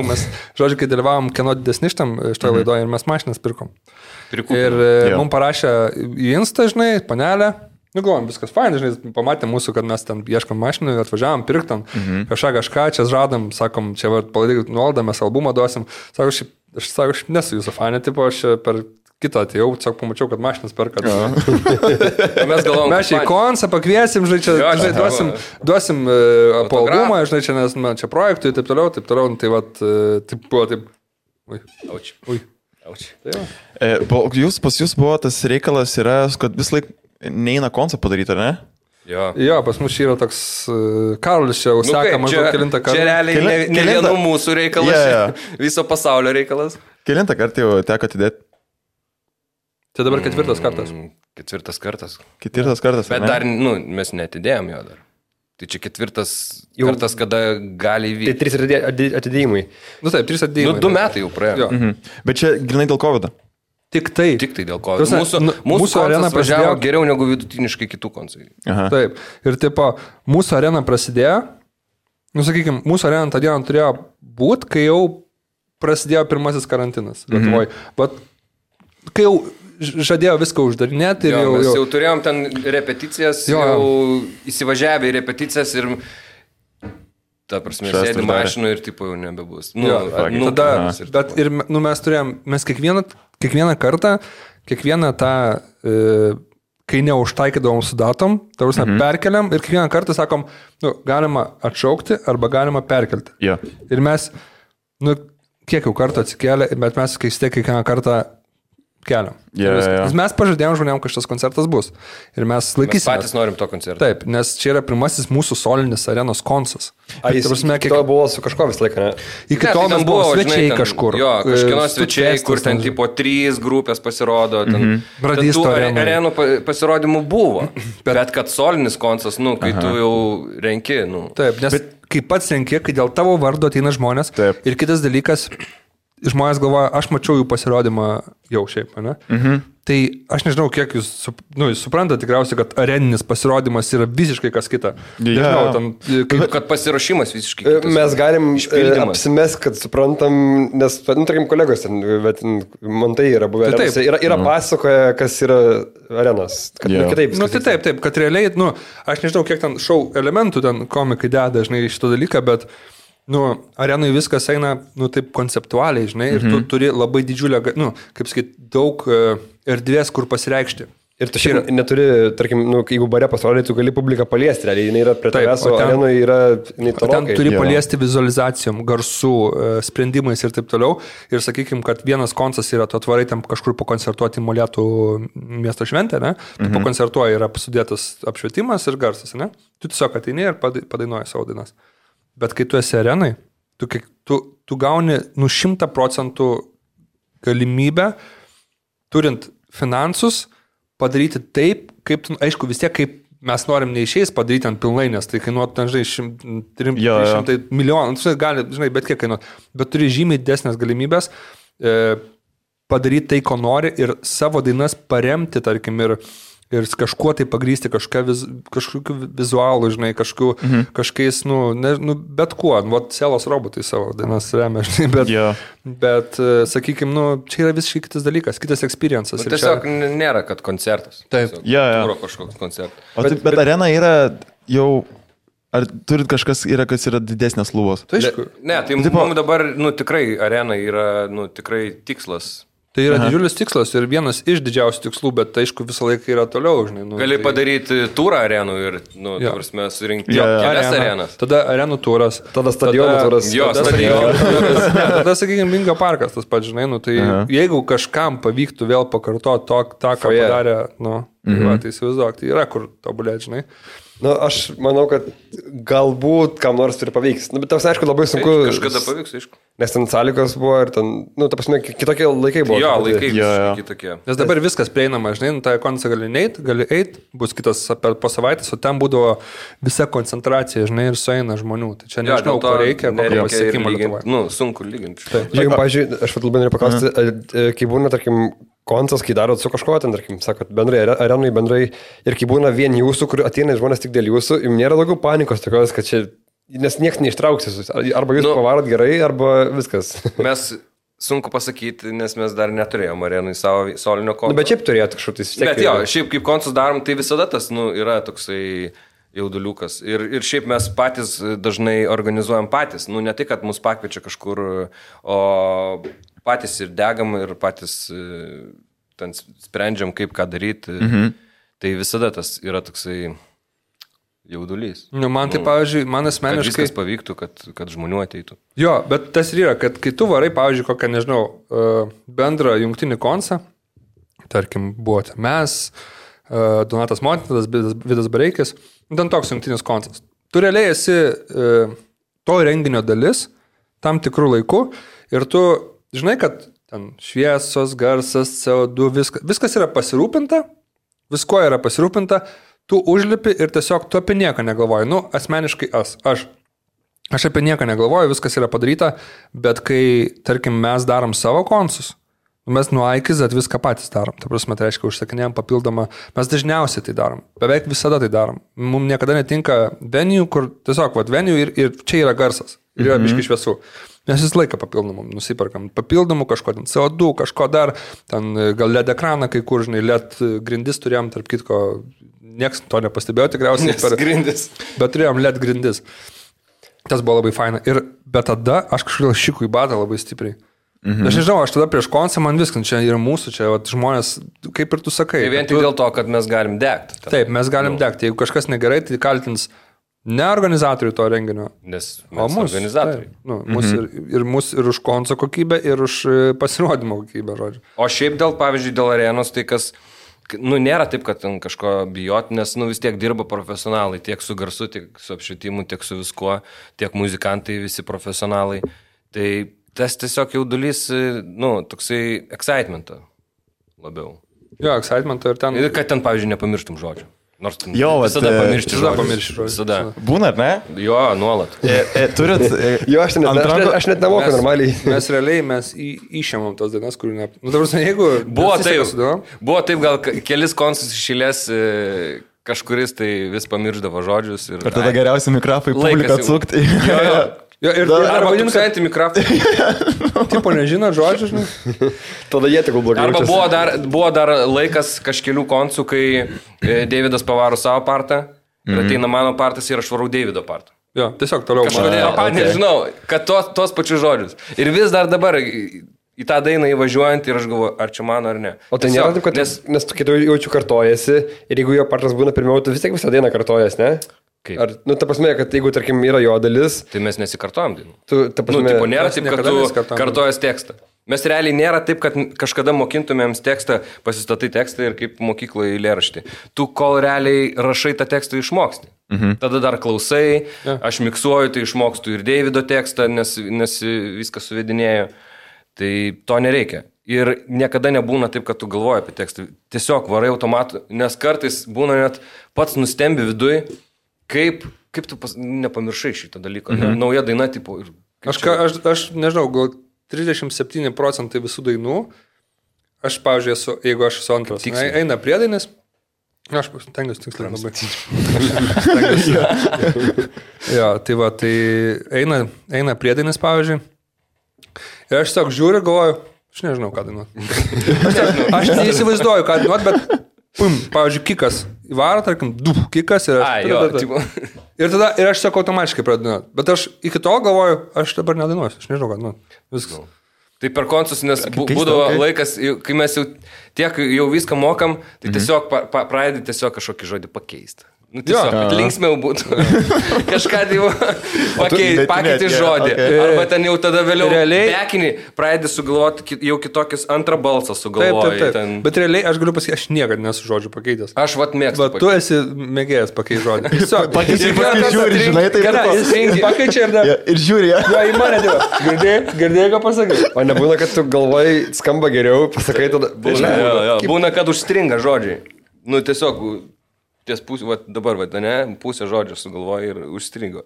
B: mes, žodžiu, kai dalyvavom kieno didesni šitoje laidoje ir mes mašinas pirkom. Ir mums parašė į Insta, žinai, panelę. Nu, galvom, viskas fainai, žinai, pamatė mūsų, kad mes ten ieškam mašinų, atvažiavam, pirktam, kažką, čia žadam, sakom, čia palaikyk nuolaidą, mes albumą duosim. Sako, aš nesu jūsų fanė, tipo, aš per kitą atėjau, tiesiog pamačiau, kad mašinas perka.
C: Mes galvom,
B: Mes čia į konsą pakviesim, žinai, duosim po albumą, žinai, čia, nes čia projektui ir taip toliau, tai vat, taip buvo, taip. Ui.
A: Pas jūs buvo tas reikalas yra, kad vis laik neina konsą padaryti, ar ne?
B: Jo, pas mus yra toks Karolis čia užseka maždaug kelintą kartą.
C: Čia realiai ne vienų mūsų reikalas, viso pasaulio reikalas.
A: Kelintą kartą jau teko atidėti?
B: Tai dabar 4 kartas.
C: 4 kartas.
A: 4 kartas.
C: Bet dar, nu, mes netidėjom jo dar. Tai čia 4 kartas, kada gali įvykti.
D: Tai 3 atidėjimai.
B: Nu taip, 3 atidėjimai.
C: 2 metai jau praėjo.
A: Bet čia grinai dėl COVID.
C: Tik tai dėl ko. Mūsų arena prasidėjo geriau negu vidutiniškai kitų koncai.
B: Taip. Ir tipo, mūsų arena prasidėjo, nu sakykime, mūsų arena tą dieną turėjo būti, kai jau prasidėjo pirmasis karantinas Lietuvoje. Bet kai jau žadėjo viską uždarinėti ir
C: mes jau turėjom ten repeticijas, jau įsivažiavę į repeticijas ir ta prasme, sėdi mašinu ir tipo jau nebebus.
B: Bet ir mes turėjom, mes kiekvieną kartą, kiekvieną tą, kai neužtaikydavom su datom, ta prasme, perkeliam ir kiekvieną kartą sakom, nu, galima atšaukti arba galima perkelti. Ir mes, nu, kiek jau kartų atsikėlė, bet mes kiekvieną kartą keliam. Mes pažadėjom žmonėm, kad šitas koncertas bus. Ir mes laikysim.
C: Mes patys norim to koncerto.
B: Taip, nes čia yra pirmasis mūsų solinis arenos koncas.
D: Ar jis to buvo su kažko visą laiką, ne?
B: Iki to mes buvo svečiai kažkur.
C: Jo, kažkieno svečiai, kur ten tipo 3 grupės pasirodo.
B: Bradisto
C: arenų pasirodymų buvo. Bet kad solinis koncas, nu, kai tu jau renki, nu.
B: Taip, nes kai pats renki, kai dėl tavo vardo ateina žmonės. Ir kitas dalykas, žmonės galvoja, aš mačiau jų pasirodymą jau šiaip, ne? Tai aš nežinau, kiek jūs suprantate tikriausiai, kad areninis pasirodymas yra visiškai kas kita. Nežinau,
C: kad pasiruošimas visiškai kitas.
D: Mes galim apsimest, kad suprantam, nes, nu, tarkim, kolegos ten, bet man tai yra buvę. Yra pasakoja, kas yra arenos. Kitaip.
B: Nu, tai taip, kad realiai, nu, aš nežinau, kiek ten šou elementų ten komikai deda, žinai, šitą dalyką, bet arenui viskas eina, taip konceptualiai, žinai, ir tu turi labai didžiulę, kaip sakyti, daug erdvės, kur pasireikšti.
D: Ir tu šiandien neturi, tarkim, jeigu bare pasirodai, tu gali publiką paliesti, realiai, jinai yra prie tavęs, o arenoje yra
B: tolokai. Ten turi paliesti vizualizacijom, garsų, sprendimais ir taip toliau. Ir sakykim, kad vienas koncas yra, tu atvarai tam kažkur pakoncertuoti Molėtų miesto šventę, ne? Tu pakoncertuoji, yra sudėtas apšvietimas ir garsas, ne? Tu tiesiog ateini ir padainuoji savo dainas. Bet kai tu esi arenai, tu gauni 100% galimybę, turint finansus, padaryti taip, kaip, aišku, vis tiek, kaip mes norim neišeis padaryti ant pilnai, nes tai kainuotų, ten, žinai, 300 milijonų, gali, žinai, bet kiek kainuotų, bet turi žymiai didesnės galimybės padaryti tai, ko nori ir savo dainas paremti, tarkim, ir kažkuo tai pagrysti, kažkokiu vizualu, žinai, kažkokiais, bet kuo, Selos robotai savo dainas remia, žinai, bet sakykim, čia yra visiškai kitas dalykas, kitas experiences.
C: Tiesiog nėra, kad koncertas.
B: Taip.
C: Kažkoks koncertas.
A: Bet arena yra jau, ar turit kažkas yra, kas yra didesnės lubos?
C: Tai aišku. Ne, tai mums dabar, tikrai arena yra, tikrai tikslas.
B: Tai yra didžiulis tikslas ir vienas iš didžiausių tikslų, bet aišku visą laiką yra toliau, žinai.
C: Gali padaryti turą arenų ir, tavrasme, surinkti kelias arenas.
B: Tada arenų turas.
D: Tada stadionų turas.
B: Tada, sakykime, Vingio parkas tas pats, žinai, tai jeigu kažkam pavyktų vėl pakartoti tą, ką padarė, tai įsivaizduok, tai yra kur tobulėti, žinai.
D: Aš manau, kad galbūt kam nors turi pavyks. Bet tas, aišku, labai sunku.
C: Kažkada pavyks, aišku.
D: Nes ten sąlygos buvo ir ten, ta prasme, kitokie laikai buvo.
C: Jo, laikai kitokie.
B: Nes dabar viskas prieinama, žinai, tą koncą gali eit, bus kitas po savaitės, o ten būdavo visa koncentracija, žinai, ir sueina žmonių. Tai čia nežinau, ko reikia, kokio pasiekimo Lietuvoje.
C: Sunku lyginti.
D: Jeigu, pavyzdžiui, aš labai noriu paklausti, kai būna, tarkim, koncas, kai darot su kažko, ten, tarkim, sakot, bendrai, arenai bendrai, ir kai būna vien jūsų, kur ateina žmonės tik dėl jūsų, jums nėra daugiau panikos tokios, kad čia, nes niekas neištrauksis, arba jūs pavarot gerai, arba viskas.
C: Mes sunku pasakyti, nes mes dar neturėjom arenai savo solinio konco.
D: Bet šiaip turėtų kažkotis.
C: Bet jo, šiaip kaip koncus darom, tai visada tas, yra toksai jauduliukas. Ir šiaip mes patys dažnai organizuojam patys. Ne tai, kad mus pakviečia kažkur, o patys ir degam ir patys ten sprendžiam, kaip ką daryti. Tai visada tas yra toksai jaudulys.
B: Man tai, pavyzdžiui, man asmeniškai...
C: Kad viskas pavyktų, kad žmonių ateitų.
B: Jo, bet tas yra, kad kai tu varai, pavyzdžiui, kokią, nežinau, bendrą jungtinį koncą, tarkim, buvote mes, Donatas Montinas, Vidas Bareikis, ten toks jungtinis koncas. Tu realiai esi to renginio dalis tam tikrų laikų ir tu žinai, kad ten šviesos, garsas, CO2, viskas yra pasirūpinta, visko yra pasirūpinta, tu užlipi ir tiesiog tu apie nieką negalvoji. Asmeniškai aš apie nieką negalvoju, viskas yra padaryta, bet kai, tarkim, mes darom savo koncus, mes nuo A iki Z viską patys darom. Ta prasme, tai reiškia, užsakinėjom papildomą, mes dažniausiai tai darom, beveik visada tai darom. Mums niekada netinka venue, kur tiesiog, venue ir čia yra garsas, ir yra biški šviesų. Mes visą laiką papildomų nusiperkam. Papildomų kažko, ten CO2, kažko dar, ten gal LED ekraną, kai kur, žinai, LED grindis turėjom, tarp kitko, nieks to nepastebėjo tikriausiai.
C: Grindis.
B: Bet turėjom LED grindis. Tas buvo labai faina. Bet tada aš kažkodėl šikų į batą labai stipriai. Aš nežinau, aš tada prieš koncą man viskas, čia yra mūsų, čia žmonės, kaip ir tu sakai.
C: Tai vien tik dėl to, kad mes galim degti.
B: Taip, mes galim degti. Jeigu kažkas negerai, tai kaltins ne organizatorių to renginio,
C: nes mes organizatoriai.
B: Mūsų ir už konco kokybę, ir už pasirodymo kokybę, žodžiu.
C: O šiaip pavyzdžiui, dėl arenos, tai kas, nėra taip, kad ten kažko bijoti, nes vis tiek dirba profesionalai, tiek su garsu, tiek su apšvietimu, tiek su viskuo, tiek muzikantai visi profesionalai. Tai tas tiesiog jaudulys, toksai excitementą labiau.
B: Jo, excitementą ir ten.
C: Ir kad ten, pavyzdžiui, nepamirštum žodžių. Nors
B: visada
C: pamiršti žodžius.
B: Visada.
A: Būna, ne?
C: Jo, nuolat.
A: Turit...
D: Jo, aš net nemoku normaliai.
B: Mes išėmėm tos dainas, kurių ne... Jeigu...
C: Buvo taip, gal kelis koncus išėlės kažkuris tai vis pamirždavo žodžius. Ir
A: tada geriausi mikrofai publiką atsukti.
B: Jo, arba tūkstantį mikrofą. Tipo nežino žodžių, žinai.
D: Tada jie tik blogai.
C: Arba buvo dar laikas kažkelių koncų, kai Deividas pavaro savo partą ir ateina mano partas ir aš varau Deivido partą.
B: Jo, tiesiog toliau.
C: Kažkodėl, nežinau, kad tos pačius žodžius. Ir vis dar dabar į tą dainą įvažiuojant ir aš galvoju, ar čia mano ar ne.
D: O tai nėra taip, kad nes tu kitų jaučiu kartojasi ir jeigu jo partras būna pirmiau, tu vis tiek visą dainą kartojas, ne?
C: Kaip?
D: Ar, ta prasme, kad jeigu, tarkim, yra jo dalis...
C: Tai mes nesikartojam dainų.
D: Ta prasme...
C: Tipo, nėra taip, kad tu kartojas tekstą. Mes realiai nėra taip, kad kažkada mokintumėms tekstą, pasistatai tekstą ir kaip mokykloje eilėraštį. Tu kol realiai rašai tą tekstą išmoksti. Tada dar klausai, aš miksuoju, tai išmokstu ir Deivido tekstą, nes viską suvedinėjau. Tai to nereikia. Ir niekada nebūna taip, kad tu galvoji apie tekstą. Tiesiog varai automatu, nes kartais būna net pats nustembi viduj, kaip tu nepamiršai šitą dalyką. Nauja daina, tipo...
B: Aš nežinau, gal 37% visų dainų, aš, pavyzdžiui, jeigu aš esu antras, eina priedainis, aš tengiuosi tiksliai labai. Jo, tai va, tai eina priedainis, pavyzdžiui. Ir aš tiesiog žiūriu, galvoju, aš nežinau, ką dainuot. Aš neįsivaizduoju, ką dainuot, bet, pavyzdžiui, kikas įvaro, tarkim, kikas ir ir aš tiesiog automatiškai pradainuot. Bet aš iki tol galvoju, aš dabar nedainuosiu, aš nežinau, ką dainuot. Viskas.
C: Tai per koncus, nes būdavo laikas, kai mes jau viską mokam, tai tiesiog pradedi tiesiog kažkokį žodį pakeisti. Nu, tiesiog, kad linksmiau būtų. Kažką pakeiti žodį. Arba ten jau tada vėliau bekinį pradedi sugalvoti jau kitokius antrą balsą sugalvoji.
B: Taip. Bet realiai aš galiu pasakyti, aš niekada nesu žodžių pakeitęs.
C: Aš mėgstu.
B: Bet tu esi mėgėjęs pakeisti žodį. Tiesiog.
A: Žiūri, žinai, taip.
B: Pakeičia
A: ir žiūri.
B: Jo, į mane dėva. Girdėjai, ką pasakai.
D: O nebūna, kad tu galvoj skamba geriau, pasakai tada.
C: Būna, kad užstringa žodžiai. Nu, tiesiog... Ties pusė, dabar, pusę žodžio sugalvoja ir užstrigo.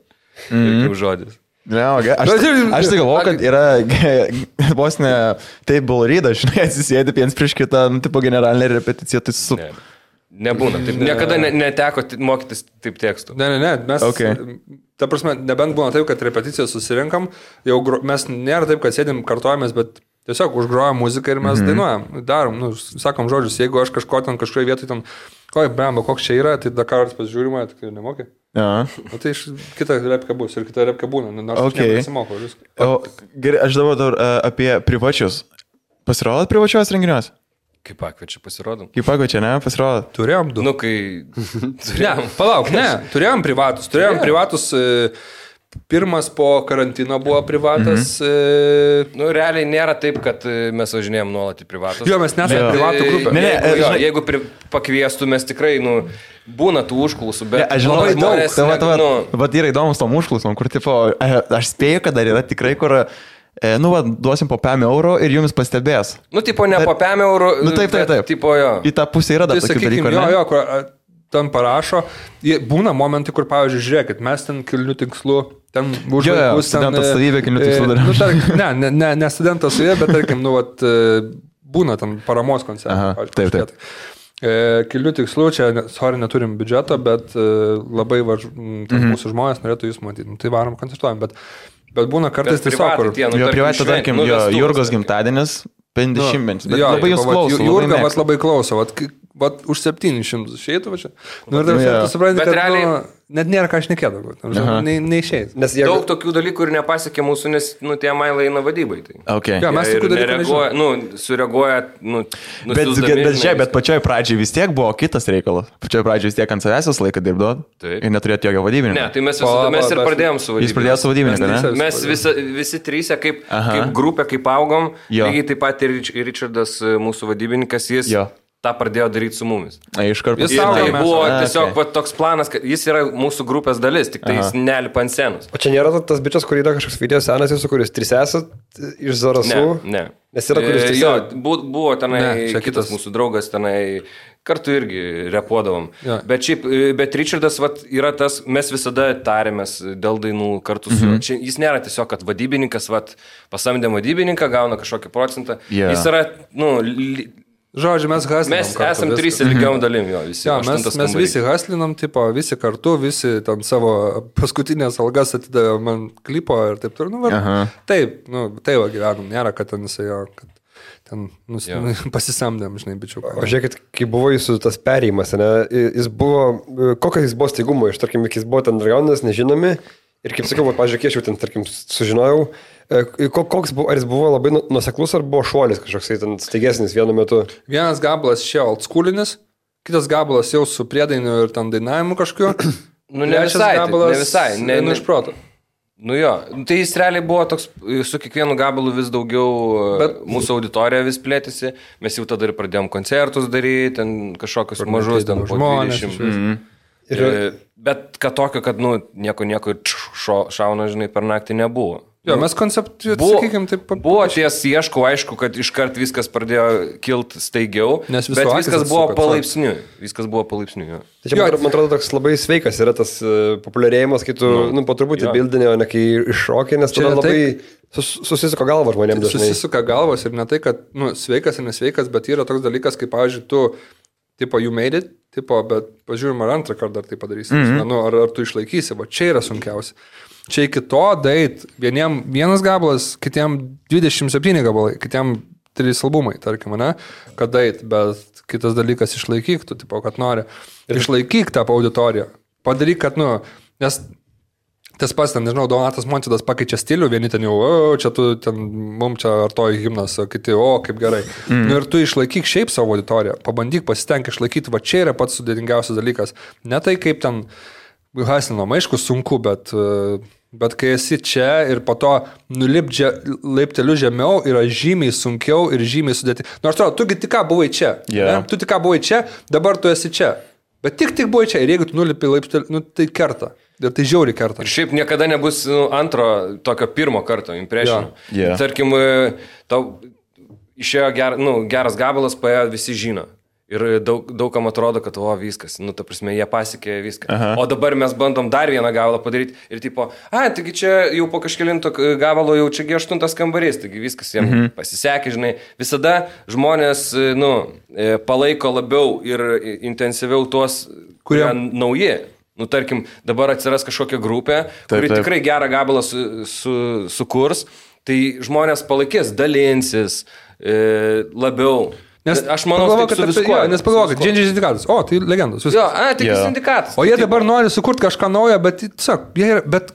C: Kaip žodis.
A: Aš tai galvoju, kad yra vos ne table read, žinai, atsisėdi viens prieš kitą, tipo generalinė repeticija, tai su...
C: Nebūna, taip, niekada neteko mokytis taip tekstų.
B: Ne, mes, ta prasme, nebent būna taip, kad repeticiją susirinkam, jau mes nėra taip, kad sėdim, kartojamės, bet tiesiog užgrojam muziką ir mes dainuojam, darom, sakom žodžius, jeigu aš kažkoje vietoje ten... Oi, blemba, koks čia yra, tai Dakaras pasižiūrima, tai nemokė. O tai kita repka bus ir kita repka būna, nors aš nesimokau viską.
A: Gerai, aš dabar apie privačius. Pasirodot privačios renginiuos?
C: Kaip pakviečia pasirodom?
A: Kaip pakviečia, ne, pasirodot?
B: Turėjom du.
C: Nu, kai...
B: Ne, palauk, ne, turėjom privatus. Pirmas po karantino buvo privatas.
C: Nu, realiai nėra taip, kad mes važinėjom nuolat į privatus.
B: Jo, mes nesame privatų grupė.
C: Jeigu pakviestų, mes tikrai, būna tų užklausų, bet...
A: Aš žinau, bet yra įdomus tom užklausom, kur, tipo, aš spėju, kad dar yra tikrai, kur... duosim po 5 eurų ir jums pastebės.
C: Tipo, ne po 5 eurų.
A: Taip.
C: Tipo, jo.
A: Į tą pusę yra dar tokių dalykų, ne?
B: Jo, kur ten parašo, būna momentai, kur, pavyzdžiui, žiūrėkit, mes ten kilnių tikslų, ten už vaikus, ten...
A: Studentas savybė kilnių tikslų darėm.
B: Ne studentas savybė, bet, tarkim, būna ten paramos koncertai.
A: Taip.
B: Kilnių tikslų, čia, neturim biudžeto, bet labai mūsų žmonės norėtų jūs matyti. Tai varom koncertuojam, bet būna kartais tiesiog, kur...
A: Jo privatą, tarkim, Jurgos gimtadienis, 50, bet labai jūs klauso.
B: Jurga labai klauso, už 700 išeitų, va čia. Tu supranti, kad realiai... Net nėra ką šnekėti, neišėjai.
C: Daug tokių dalykų ir nepasiekė mūsų, nes tie mailai eina vadybai.
B: Ja, mes tokių dalykų nežinome.
C: Sureaguoja,
A: Bet pačioj pradžiai vis tiek buvo kitas reikalas. Pačioj pradžiai vis tiek ant savęs laiką dirbdavo ir neturėjote jokio vadybininko.
C: Ne, tai mes ir pradėjom su vadybininku.
A: Jūs pradėjote su vadybininku, ne?
C: Mes visi trysia kaip grupė, kaip augom, lygiai taip pat ir Richardas, mūsų vadybininkas, jis tą pradėjo daryti su mumis.
A: Iškart
C: pasakė. Tai buvo tiesiog toks planas, kad jis yra mūsų grupės dalis, tik tai jis nelipa ant scenos.
D: O čia nėra tas bičias, kur yra kažkoks video senas jūsų, kuris 3 esat iš Zarasų?
C: Ne.
D: Nes yra kuris 3.
C: Jo, buvo tenai kitas mūsų draugas, tenai kartu irgi repuodavom. Ja. Bet Richardas yra tas, mes visada tarėmės dėl dainų kartu su juo. Jis nėra tiesiog, kad vadybininkas pasamdė vadybininką, gauna kažkokį procentą. Jis yra,
B: žodžiu, mes haslinam.
C: Mes esam 3 lygiom dalim jo visi.
B: Ja, mes visi haslinam, visi kartu, visi tam savo paskutinės algas atidavė man klipo ir taip turiu. Taip, tai gyvenam, nėra, kad ten jisai kad ten pasisamdėm, žinai, bičiuką.
D: O žiūrėkit, kai buvo jūsų tas perėjimas, jis buvo, kokias jis buvo staigumo, iš tarkim, jis buvo ten dragonas, nežinomi, Ir kaip sakiau, pažiūrėk, aš jau ten, tarkim, sužinojau, koks buvo, ar jis buvo labai nuseklus, ar buvo šuolis kažkoks ten staigesnis vienu metu.
B: Vienas gabalas čia oldschoolinis, kitas gabalas jau su priedainiu ir ten dainavimu kažkokiu.
C: Nu, ne visai,
B: gabalas,
C: ne visai. Ne
B: iš proto.
C: Nu jo, tai jis realiai buvo toks, su kiekvienu gabalu vis daugiau, bet mūsų auditorija vis plėtėsi, mes jau tada ir pradėjom koncertus daryti, ten kažkokius mažus, ten po 20. Bet kad tokio, kad, nu, nieko šauna, žinai, per naktį nebuvo.
B: Jo, mes konceptuojame, sakykime, taip.
C: Buvo ties ieškau, aišku, kad iškart viskas pradėjo kilti staigiau, bet viskas buvo palaipsniui. Viskas buvo palaipsniui, jo.
D: Tai čia, man atrodo, toks labai sveikas yra tas populiarėjimas, kai tu, po truputį bildinė, o ne kai iššokė, nes tada labai susisuka galva žmonėms dažnai.
B: Susisuka galvos ir ne tai, kad, sveikas ir nesveikas, bet yra toks dalykas, kaip, pavyzdžiui, tu, tipo, you made it, tipo, bet pažiūrim, ar antrą kartą dar tai padarysi, ar tu išlaikysi, va, čia yra sunkiausia. Čia iki to dait, vienas gabalas, kitiem 27 gabalai, kitiem 3 albumai, tarkim, ne, kad dait, bet kitas dalykas išlaikyk, tu, tipo, kad nori. Išlaikyk tą auditoriją. Padaryk, kad, nes tas pats, ten, nežinau, Donatas Montvydas pakeičia stilių, vieni ten jau, čia tu, ten, mums čia artoji himnas, o kiti, kaip gerai. Ir tu išlaikyk šiaip savo auditoriją, pabandyk, pasitenk išlaikyti, va čia yra pats sudėtingiausias dalykas. Ne tai, kaip ten hasinama, aišku, sunku, bet kai esi čia ir po to nulipdžia laipteliu žemiau, yra žymiai sunkiau ir žymiai sudėti. Nors atrodo, tu tik ką buvai čia.
A: Yeah.
B: Tu tik ką buvai čia, dabar tu esi čia. Bet tik buvai čia ir jeigu tu nulipi laipteliu, tai kerta. Ir tai žiauri kerta.
C: Ir šiaip niekada nebus antro tokio pirmo karto impression.
A: Yeah.
C: Tarkim, tau išėjo geras gabalas, paėjo visi žino. Ir daugam atrodo, kad viskas, ta prasme, jie pasiekė viską. Aha. O dabar mes bandom dar vieną gabalą padaryti ir tipo, taigi čia jau po kažkelinto gabalo jau čiagi 8 kambarys, taigi viskas jiems pasisekė, žinai. Visada žmonės, palaiko labiau ir intensyviau tuos, kurie nauji. Tarkim, dabar atsiras kažkokia grupė, kuri tikrai gerą gabalą sukurs, tai žmonės palaikės, dalinsis labiau. Nes aš manau, kad su viskuo.
B: Nes pagalvoju, kad Džindžiai sindikatas. O, tai legendos.
C: Jo, tik sindikatas.
B: O jie dabar nori sukurti kažką naujo, bet, tiesiog, bet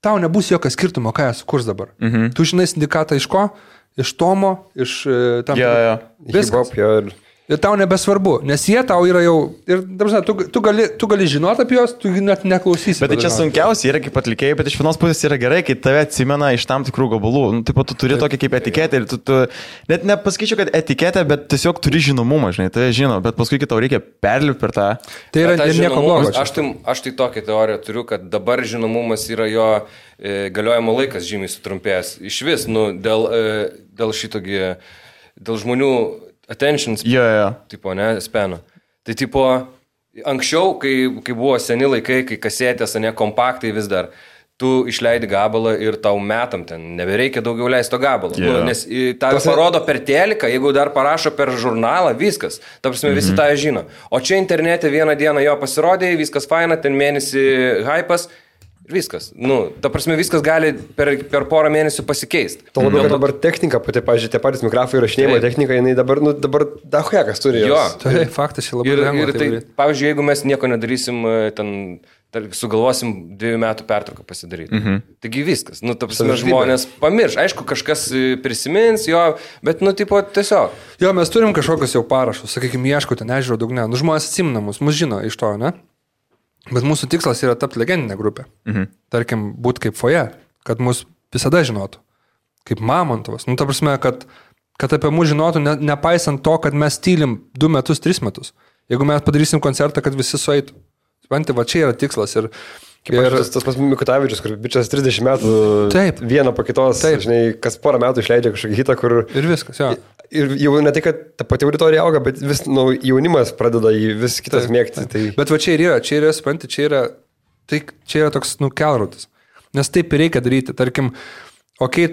B: tau nebus jokio skirtumo, ką jie sukurs dabar. Tu žinai sindikatą iš ko? Iš Tomo, iš tam.
D: Viskas.
B: Ir tau nebesvarbu, nes jie tau yra jau, ir tu gali žinoti apie juos, tu net neklausysi.
A: Bet tai čia sunkiausia yra kaip atlikėjai, bet iš vienos pusės yra gerai, kai tave atsimena iš tam tikrų gabalų. Taip pat tu turi tokį kaip etiketę ir tu net nepasakyčiau, kad etiketę, bet tiesiog turi žinomumą, žinai, tai žino, bet paskui tau reikia perlipti per tą.
B: Tai yra nieko blogo.
C: Aš tai tokią teoriją turiu, kad dabar žinomumas yra jo galiojimo laikas žymiai sutrumpėjęs. Iš vis, dėl šitogi, dėl žmonių attention tipo, ne, speno. Tai tipo, anksčiau, kai buvo seni laikai, kai kasetės, ne, kompaktai vis dar, tu išleidi gabalą ir tau metam ten, nebereikia daugiau leisto gabalo. Nes tą parodo per teliką, jeigu dar parašo per žurnalą, viskas. Ta prasme, visi tą žino. O čia internete vieną dieną jo pasirodė, viskas faina, ten mėnesį hypas. Viskas. Ta prasme, viskas gali per porą mėnesių pasikeisti.
D: Tuo labiau, kad dabar technika, pati, pažiūrėjau, tie patys mikrofai įrašinėjimo technika, jinai dabar dahuekas turi.
B: Jo, tai faktas čia labai lengva.
C: Ir tai, pavyzdžiui, jeigu mes nieko nedarysim, sugalvosim 2 metų pertrauką pasidaryti. Taigi viskas. Ta prasme, žmonės pamirš. Aišku, kažkas prisimins jo, bet, tiesiog.
B: Jo, mes turim kažkokius jau parašus, sakykime, ieškoti, nežiūrėjau dugne. Žmonės atsimena mus žino iš to, ne? Bet mūsų tikslas yra tapti legendinę grupę. Tarkim, būti kaip foje, kad mus visada žinotų. Kaip Mamontovas. Ta prasme, kad apie mus žinotų, nepaisant to, kad mes tylim 2 metus, 3 metus. Jeigu mes padarysim koncertą, kad visi sueitų. Supranti, va čia yra tikslas. Ir
D: tas pas Mikutavičius, kur bičias 30 metų vieną po kitos, žinai, kas porą metų išleidžia kažkokį hitą, kur...
B: Ir viskas, jo.
D: Ir jau ne tai, kad ta pati auditorija auga, bet vis jaunimas pradeda jį vis kitas mėgti. Tai...
B: Bet va čia yra, supranti, čia yra toks, kelrodis. Nes taip ir reikia daryti. Tarkim,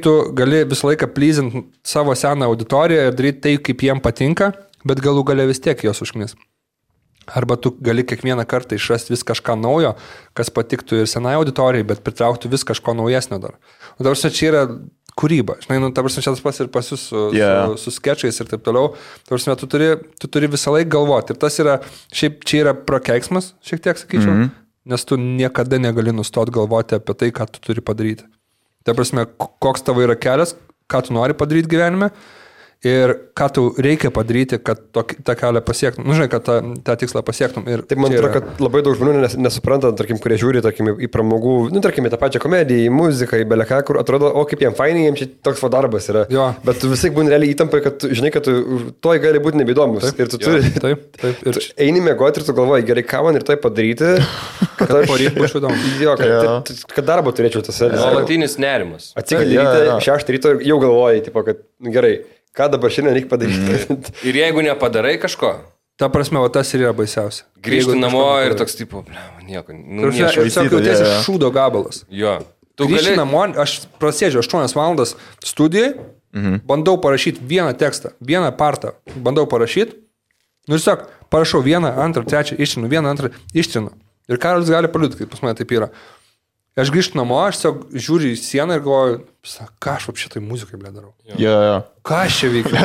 B: tu gali visą laiką pleasinti savo seną auditoriją ir daryti tai, kaip jiem patinka, bet galų gale vis tiek jos užknis. Arba tu gali kiekvieną kartą išrasti vis kažką naujo, kas patiktų ir senai auditorijai, bet pritrauktų vis kažko naujesnio dar. Dabar čia yra kūryba. Žinai, čia tas pas ir pas jūs su skečais ir taip toliau. Tu turi visą laiką galvoti. Ir tas yra, šiaip čia yra prakeiksmas, šiek tiek sakyčiau. nes tu niekada negali nustoti galvoti apie tai, ką tu turi padaryti. Tai prasme, koks tavo yra kelias, ką tu nori padaryti gyvenime ir ką tu reikia padaryti, kad tą kelią pasiektum. Nu, žinai, kad tą tikslą pasiektum. Ir
D: tai man atrodo, kad labai daug žmonių nesupranta, tarkim, kurie žiūri, tarkim, į pramogų, nu, tarkim, į tą pačią komediją, į muziką, į beleką, kur atrodo, o kaip jiem fainai, jiems čia toks darbas yra.
B: Jo.
D: Bet tu visai būni realiai įtampai, kad tu žinai, kad tu toj gali būti nebeįdomus. Ir tu turi...
B: Taip. Ir
D: eini mėgoti ir tu galvoji, gerai, ką man ir tai padaryti, kad aš
B: poryt būčiau įdomus.
D: Jo, kad darbą turėčiau tas.
C: Nuolatinis nerimas.
D: Atsikeli ryte, 6 ryto ir jau galvoji, tipo, kad gerai. Ką dabar šiandien reikia padaryti?
C: Ir jeigu nepadarai kažko,
B: ta prasme, o tas ir yra baisiausia.
C: Grįžti namo ir toks tipo, nieko.
B: Tiesiog jautiesi šūdo gabalas.
C: Jo.
B: Grįžti namo, aš prasėdžiu 8 valandas studijai, bandau parašyti vieną tekstą, vieną partą, bandau parašyti, nu ir tiesiog parašau 1, 2, 3, ištrinu, 1, 2, ištrinu. Ir Karolis gali paliūdyti, kaip pas mane taip yra. Aš grįžtu namo, aš tiesiog žiūriu į sieną ir galvoju, ką aš šitai muzikai darau.
A: Jo.
B: Ką aš čia veikiu?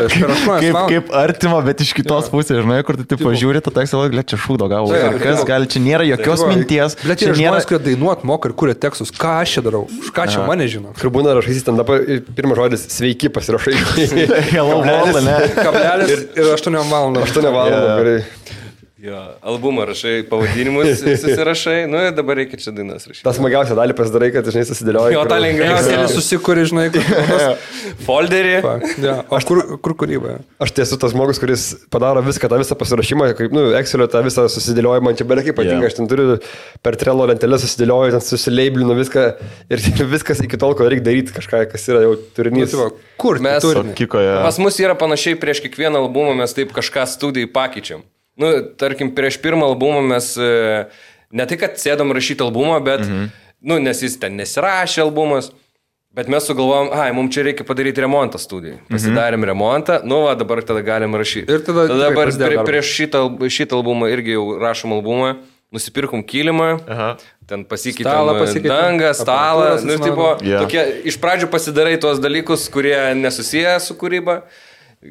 A: Kaip artima, bet iš kitos pusės, žinai, kur tu taip pažiūri, tu teks savo, čia šūdo gavo. Kas gali, čia nėra jokios minties.
B: Bet čia žmonės, kurie dainuot moka ir kuria tekstus, ką aš čia darau, už ką čia mane žino.
D: Kur būna rašysi ten dabar pirmas žodis sveiki pasirašai.
A: Hello world, ne?
B: Kablelis ir 8 valandų.
D: 8 valandų, gerai.
C: Jo, albumą rašai, pavadinimus susirašai, nu ir dabar reikia čia dainas rašyti.
D: Tas smagiausia dalį pasidarai, kad, žinai, susidėlioji.
C: Jo, tą lengviausia.
B: Susikuri, žinai,
C: folderį.
B: O kur kūryba?
D: Aš tiesiu tas žmogus, kuris padaro viską, tą visą pasirašymą, kaip, nu, Excelio tą visą susidėliojimą, man čia belekai patinka, aš ten turiu per Trello lentelę susidėlioju, ten susileiblinu viską ir viskas iki tol, kol reikia daryti kažką, kas yra jau turinys.
B: Kur
C: mes
B: turime?
C: Pas mus yra panašiai prieš kiekvieną albumą, mes taip kažką studijai pakeičiam. Nu, tarkim, prieš pirmą albumą mes ne tai, kad sėdom rašyti albumą, bet, nu, nes jis ten nesirašė albumas, bet mes sugalvojom, mums čia reikia padaryti remontą studijai. Pasidarėm remontą, nu, va, dabar tada galim rašyti. Ir tada dabar prieš šitą albumą irgi jau rašom albumą, nusipirkom kilimą, ten pasikeitėm dangą, stalą, nu, tipo, tokie, iš pradžių pasidarai tuos dalykus, kurie nesusiję su kūryba,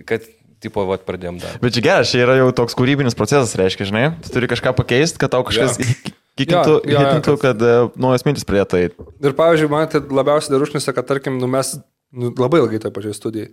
C: kad tipo, vat, pradėjom dar.
A: Bet čia geras, čia yra jau toks kūrybinis procesas, reiškia, žinai, tu turi kažką pakeisti, kad tau kažkas hitintų, kad naujas mintis pradėtų eiti.
B: Ir pavyzdžiui, man tai labiausiai dar užnisa, kad, tarkim, mes labai ilgai toj pačioj studijai.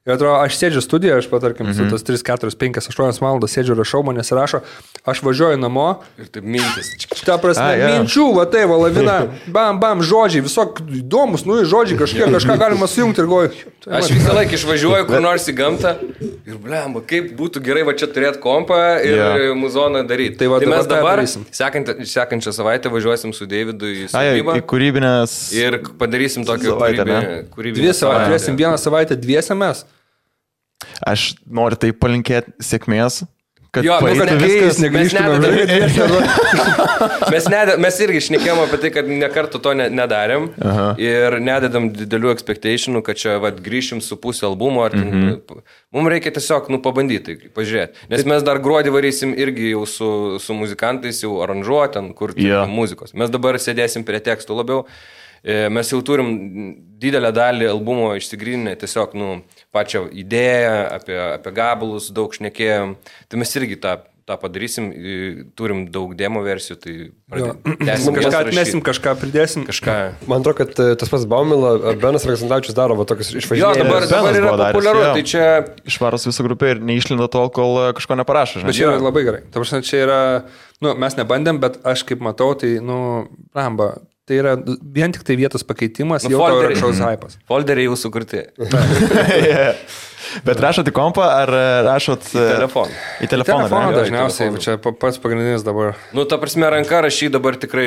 B: Ir atrodo, aš sėdžiu studijoje, aš patarkim, su tos 3, 4, 5, 8 valandas sėdžiu, rašau, manęs rašo, aš važiuoju namo.
C: Ir taip mintis.
B: Ta prasme, minčių, va tai, va lavina, bam, žodžiai, visok įdomus, nu, žodžiai, kažką galima sujungti ir goju.
C: Aš visą laiką išvažiuoju kur nors į gamtą ir, blemba, kaip būtų gerai va čia turėti kompą ir muzoną daryti.
B: Tai
C: mes dabar sekančią savaitę važiuosim su Deividu į sodybą.
A: Į kūrybinės.
C: Ir padarysim tokią kūrybinę.
B: 2 savaitę, turėsim 1 savaitę, 2 mes.
A: Aš noriu tai palinkėti sėkmės, kad
C: mes irgi šnekėjom apie tai, kad nekartų to nedarėm ir nededam didelių expectationų, kad čia grįšim su pusė albumo. Mums reikia tiesiog pabandyti, pažiūrėti. Nes mes dar gruodį varysim irgi jau su muzikantais, jau aranžuoten, kur muzikos. Mes dabar sėdėsim prie tekstų labiau. Mes jau turim didelę dalį albumo išsigryninę, tiesiog pačią idėją, apie gabalus daug šnekėjom. Tai mes irgi tą padarysim, turim daug demo versijų, tai
B: kažką atmesim, kažką pridėsim.
D: Man atrodo, kad tas pats Baumila ar Benas Aleksandravičius daro tokius išvažinėjimus.
C: Jo, dabar yra populiaru, tai čia...
A: Išvaros visą grupę ir neišlinda tol, kol kažko neparašo.
B: Bet čia yra labai gerai. Ta prasme, čia yra, mes nebandėm, bet aš kaip matau, tai, ramba. Tai yra vien tik tai vietos pakeitimas, jau tau yra kažkoks hypas.
C: Folderiai jau sukurti.
A: Bet rašot į kompą ar rašot
C: į telefoną?
A: Į telefoną
B: dažniausiai, čia pats pagrindinis dabar.
C: Ta prasme, ranka rašyti dabar tikrai,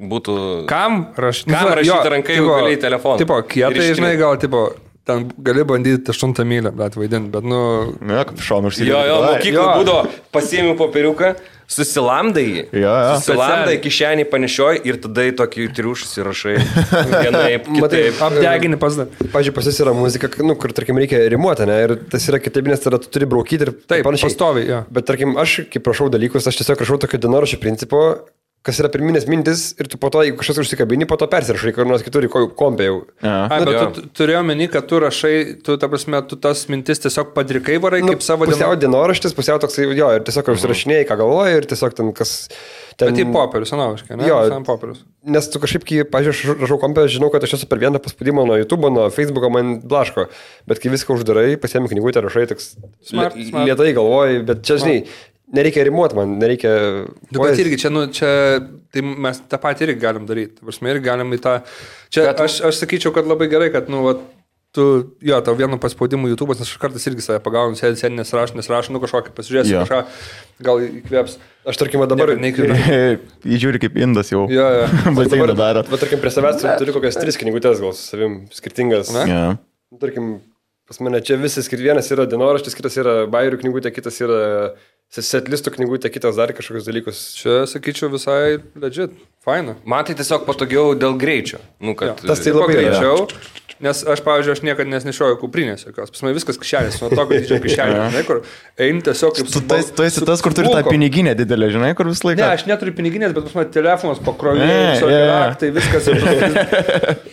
C: būtų...
B: Kam
C: rašyti ranka jau gali į telefoną?
B: Tipo, kietai, žinai, gal, tipo... Ten gali bandyti 8 mylę, bet vaidinti, bet
A: kaip šonu užsidėti.
C: Jo, mokyklų būdavo, pasiėmiau popieriuką, susilamdai jį. Susilamdai, kišenį panešioji ir tada į tokį triušus įrašai. Vienaip, kitaip.
B: Apdeginį pasdar.
D: Pavyzdžiui, pas jis yra muzika, kur, tarkim, reikia rimuoti, ne? Ir tas yra kitaip, nes tada tu turi braukyti ir
B: taip, pastoviai, jo.
D: Bet, tarkim, aš, kaip rašau dalykus, aš tiesiog rašau tokio dienoraščio principo, kas yra pirminės mintis ir tu po to, jeigu kažkas užsikabini, po to persirašai, kur nors kitur į kompę jau.
B: Bet tu turėjau meni, kad tu rašai, tu, ta prasme, tu tas mintis tiesiog padrikai varai kaip savo
D: pusiau dienoraštis, pusiau toksai, jo, ir tiesiog užsirašinėjai, ką galvoji, ir tiesiog ten kas...
B: Bet į popierius, analogiškai, ne?
D: Jo,
B: popierius.
D: Nes tu kažkaip, kai, pažiūrėjau, rašau kompę, žinau, kad aš esu per vieną paspaudimą nuo YouTube, nuo Facebook'o man blaško, bet kai viską uždarai, pasiemi knygutę, rašai, toks lietai galvoji, bet čia, žinai, nereikia rimuoti man, nereikia...
B: Bet irgi čia, tai mes tą patį irgi galim daryti. Prasme, irgi galim į tą... Čia aš sakyčiau, kad labai gerai, kad, tu, tau vienu paspaudimu YouTube'as, nes aš kartais irgi save pagaunu, sėdį nesirašau, kažkokį pasižiūrėsiu, kažką, gal įkvėps.
D: Aš tarkim, dabar...
A: Įžiūri kaip indas jau.
D: Bet dabar daro. Bet tarkim, prie savęs turiu kokias 3 knygutės, gal su savim skirtingas. Tarkim, pas mane čia visi vienas yra dienoraštis, kitas yra bajerių knygutė, kitas yra setlistų knygutė, kitas dar kažkokius dalykus.
B: Čia, sakyčiau, visai legit, faina.
C: Man tai tiesiog patogiau dėl greičio.
D: Tas tai labai
B: greičiau. Nes aš, pavyzdžiui, aš niekada nesnešioju kuprinės jokios. Pas mane viskas kišenės, nuo to, kad didžio kišenė, žinai, kur eini tiesiog kaip...
A: Tu esi tas, kur turi tą piniginę didelę, žinai, kur visą laiką...
B: Ne, aš neturiu piniginės, bet pas mane telefonas pakrovėjai, tai viskas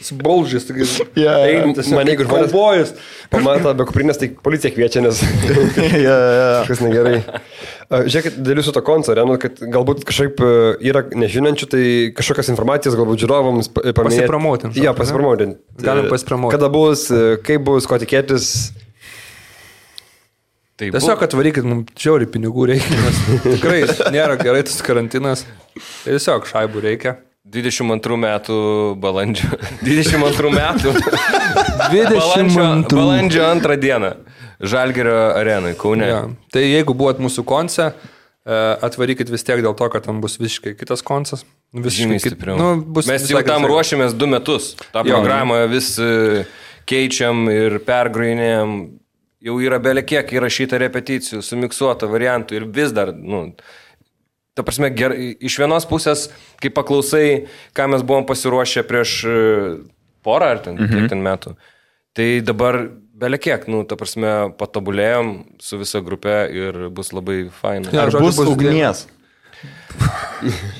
B: sbolžys, eini tiesiog
D: mane, jeigu
B: žmonės...
D: Pamatą be kuprinės, tai policija kviečia, nes kažkas negerai. Žiūrėkit, dėl jūsų to konco, kad galbūt kažkaip yra nežinančių, tai kažkokios informacijos galbūt žiūrovams paminėti.
B: Pasipromotinti.
D: Jo, pasipromotinti.
B: Galim pasipromotinti.
D: Kada bus, kaip bus, ko tikėtis.
B: Tiesiog atvarykit, mums žiauriai pinigų reikia, nes tikrai nėra gerai tas karantinas. Tiesiog šaibų reikia.
C: 22 metų balandžio. 22 metų.
B: Balandžio
C: 2 dieną. Žalgirio arenai, Kaune.
B: Ja. Tai jeigu buvot mūsų konce, atvarykit vis tiek dėl to, kad tam bus visiškai kitas koncas.
C: Žymiai stipriau. Mes jau tam ruošiamės 2 metus. Ta programą vis keičiam ir pergrojinėjam. Jau yra belė kiek įrašyta repeticijų, sumiksuota variantų ir vis dar, ta prasme, iš vienos pusės, kai paklausai, ką mes buvom pasiruošę prieš porą ar kiek ten metų, tai dabar belė kiek, ta prasme, patobulėjom su visa grupė ir bus labai faina.
A: Ar bus ugnies?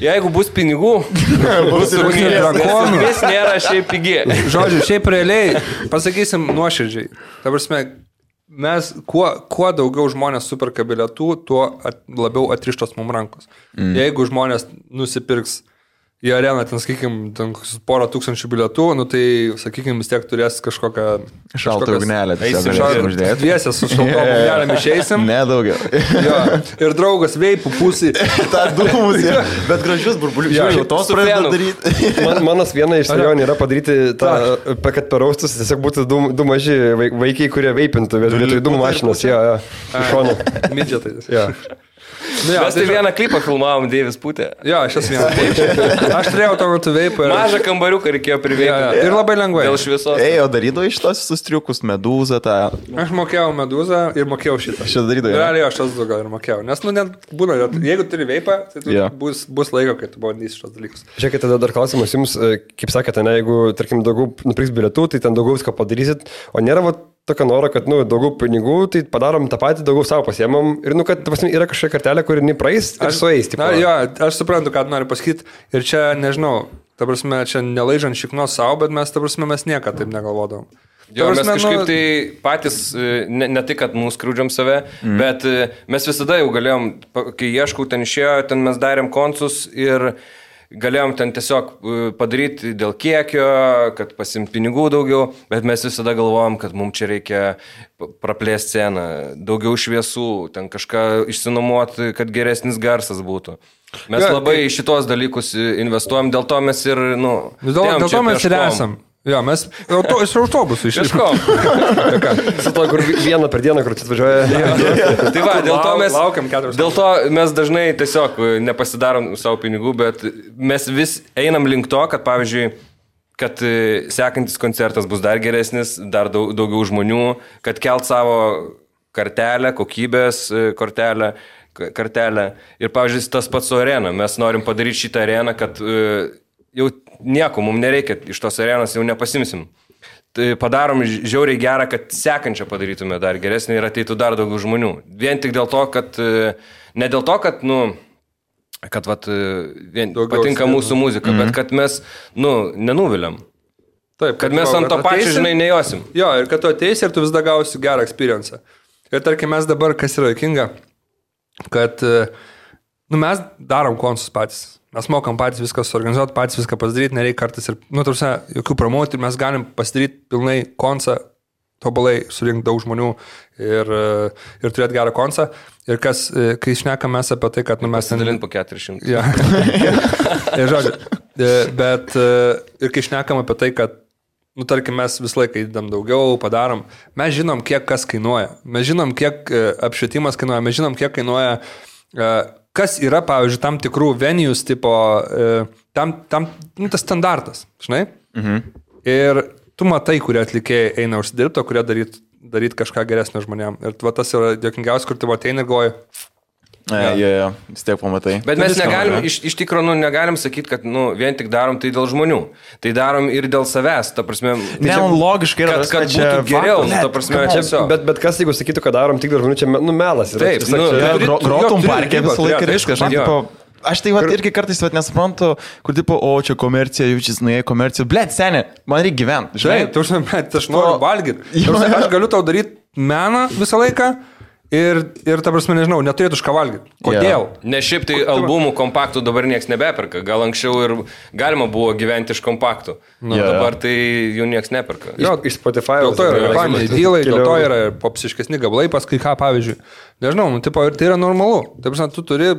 C: Jeigu bus pinigų, bus ugnies. Ugnies nėra šiaip pigi.
B: Žodžiu, šiaip realiai, pasakysim nuoširdžiai. Ta prasme, mes, kuo daugiau žmonės superka bilietų, tuo labiau atrištos mums rankos. Jeigu žmonės nusipirks į areną, ten, sakykim, porą tūkstančių bilietų, tai, sakykim, vis tiek turės kažkokią...
A: Šaltą ugnelę.
B: Dviesę su šaltom ugnelėm išeisim.
A: Ne, daugiau.
B: Ir draugas veipų pusį.
A: Ta dūmus, bet gražius burbulius. Žiūrėjau, tos pradėjau daryti.
D: Manas viena iš svajonių yra padaryti tą, kad per austus tiesiog būtų du maži vaikai, kurie veipintų, vietoj dūmų mašinos. Iš šono.
B: Midžetai.
C: Mes tai vieną klipą filmavom, Deivis Putė.
B: Jo, aš esu vieną. Aš turėjau to metu veipą.
C: Mažą kambariuką reikėjo priveikti.
B: Ir labai lengvai.
C: Dėl šviesos.
A: O darydavo iš tos sustriukus, medūzą tą.
B: Aš mokėjau medūzą ir mokėjau šitą.
A: Šitą darydavo.
B: Realiai aš tas gal ir mokėjau. Nes, net būna, jeigu turi veipą, tai bus laiko, kai tu bandysi šitos dalykus.
D: Žiūrėkit, tada dar klausimas jums, kaip sakėte, jeigu, tarkim, daugiau nupirks bilietų, tai ten daugiau viską padarysit, o nėra tokio noro, kad, daugiau pinigų, tai padarom tą patį, daugiau savo pasiemam ir, kad, yra kažkokia kartelė, kuri nepraeis ir sueis.
B: Aš suprantu, ką noriu pasakyti ir čia, nežinau, ta prasme, čia nelaižant šiknos savo, bet mes, ta prasme, mes niekada taip negalvodom.
C: Jo, mes kažkaip tai patys, ne tai, kad mūsų skriūdžiam save, bet mes visada jau galėjom, kai ieškau, ten išėjo, ten mes darėm koncus ir galėjom ten tiesiog padaryti dėl kiekio, kad pasimti pinigų daugiau, bet mes visada galvojom, kad mums čia reikia praplėsti sceną, daugiau šviesų, ten kažką išsinuomoti, kad geresnis garsas būtų. Mes labai į šitos dalykus investuojam, dėl to mes ir,
B: dėl to mes ir esam. Jo, mes iš autobusų
C: išliškom.
D: Su to, kur vieną per dieną, kur čia atvažiuoja.
C: Tai va, dėl to mes dažnai tiesiog nepasidarom savo pinigų, bet mes vis einam link to, kad pavyzdžiui, kad sekantis koncertas bus dar geresnis, dar daugiau žmonių, kad kelt savo kartelę, kokybės kartelę. Ir pavyzdžiui, tas pats su arena. Mes norim padaryti šitą areną, kad jau nieko, mums nereikia, iš tos arenos jau nepasimsim. Tai padarom žiauriai gerą, kad sekančią padarytume dar geresnį ir ateitų dar daugiau žmonių. Vien tik dėl to, kad, ne dėl to, kad, kad vat, patinka
B: skirtų.
C: mūsų muzika, bet kad mes, nenuviliam.
B: Taip,
C: Kad mes ant to pačio, žinai, nejosim.
B: Jo, ir kad tu ateisi ir tu vis dar gausi gerą experience. Ir tarkim, mes dabar, kas yra juokinga, kad mes darom konsus patys. Mes mokam patys viską suorganizuoti, patys viską pasidaryti, nereikia kartais ir, tarsi, jokių promotų, mes galim pasidaryti pilnai konsą, tobulai surinkti daug žmonių ir turėti gerą konsą. Ir kas, kai šnekam mes apie tai, kad mes...
C: Pasidalint po 400.
B: Ja. Ir žodžiu, bet ir kai šnekam apie tai, kad tarkim, mes visą laiką įdam daugiau, padarom, mes žinom, kiek kas kainuoja, mes žinom, kiek apšvietimas kainuoja, mes žinom, kiek kainuoja, kas yra, pavyzdžiui, tam tikrų venues tipo, tas standartas, žinai? Ir tu matai, kurie atlikėjai eina užsidirbti, kurie daryt kažką geresnio žmonėm. Ir tas yra dėkingiausia, kur tu ateini ir galvoji.
A: Jo, vis tiek pamatai.
C: Bet mes negalim, iš tikrųjų, negalim sakyti, kad vien tik darom tai dėl žmonių. Tai darom ir dėl savęs, ta prasme.
A: Logiškai yra,
C: kad būtų geriau, ta prasme, tiesiog.
D: Bet kas, jeigu sakytų, kad darom tik dėl žmonių, čia melas.
C: Taip,
A: grotum parke visą laiką viskas. Aš tai irgi kartais nesuprantu, kur tipo, čia komercija, jaučiasi, komercija. Blet, seniai, man reikia gyventi.
B: Žinai, aš noriu valgyti. Aš galiu tau daryti meną visą laiką. Ir ta prasme, nežinau, neturėtų už ką valgyti. Kodėl?
C: Ne šiaip tai albumų kompaktų dabar nieks nebeperka. Gal anksčiau ir galima buvo gyventi iš kompaktų. Dabar tai jų nieks neperka.
D: Iš Spotify.
B: Dėl to yra reklaminiai dylai, dėl to yra popsiškesni gabalai, paskui ką, pavyzdžiui. Nežinau, tipo, ir tai yra normalu. Ta prasme, tu turi,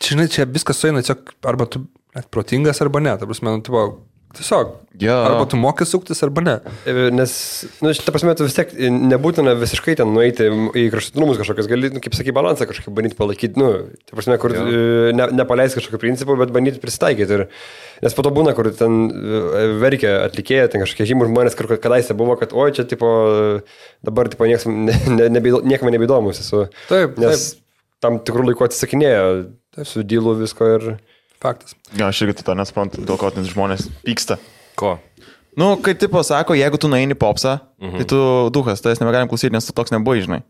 B: žinai, čia viskas sueina, arba tu protingas, arba ne. Ta prasme, tipo, tiesiog. Arba tu moki suktis, arba ne.
D: Nes, ta prasme, tu vis tiek nebūtina visiškai ten nueiti į kraštutinumus kažkokias, gali, kaip sakai, balansą kažkaip bandyti palaikyti, ta prasme, kur nepaleis kažkokio principo, bet bandyti prisitaikyti. Nes po to būna, kur ten verkia atlikėja, ten kažkokie žymų žmonės, kur kadaise buvo, kad oi, čia, tipo, dabar, tipo, niekam nebeįdomus esu.
B: Taip,
D: nes tam tikrų laikų atsisakinėjo su dylu visko ir...
B: Faktas.
A: Aš irgi to nesuprantu, dėl ko žmonės pyksta.
C: Ko?
A: Kai tipo sako, jeigu tu nueini popsą, tai tu duhas, tai negalim klausyti, nes tu toks nebuvai, žinai.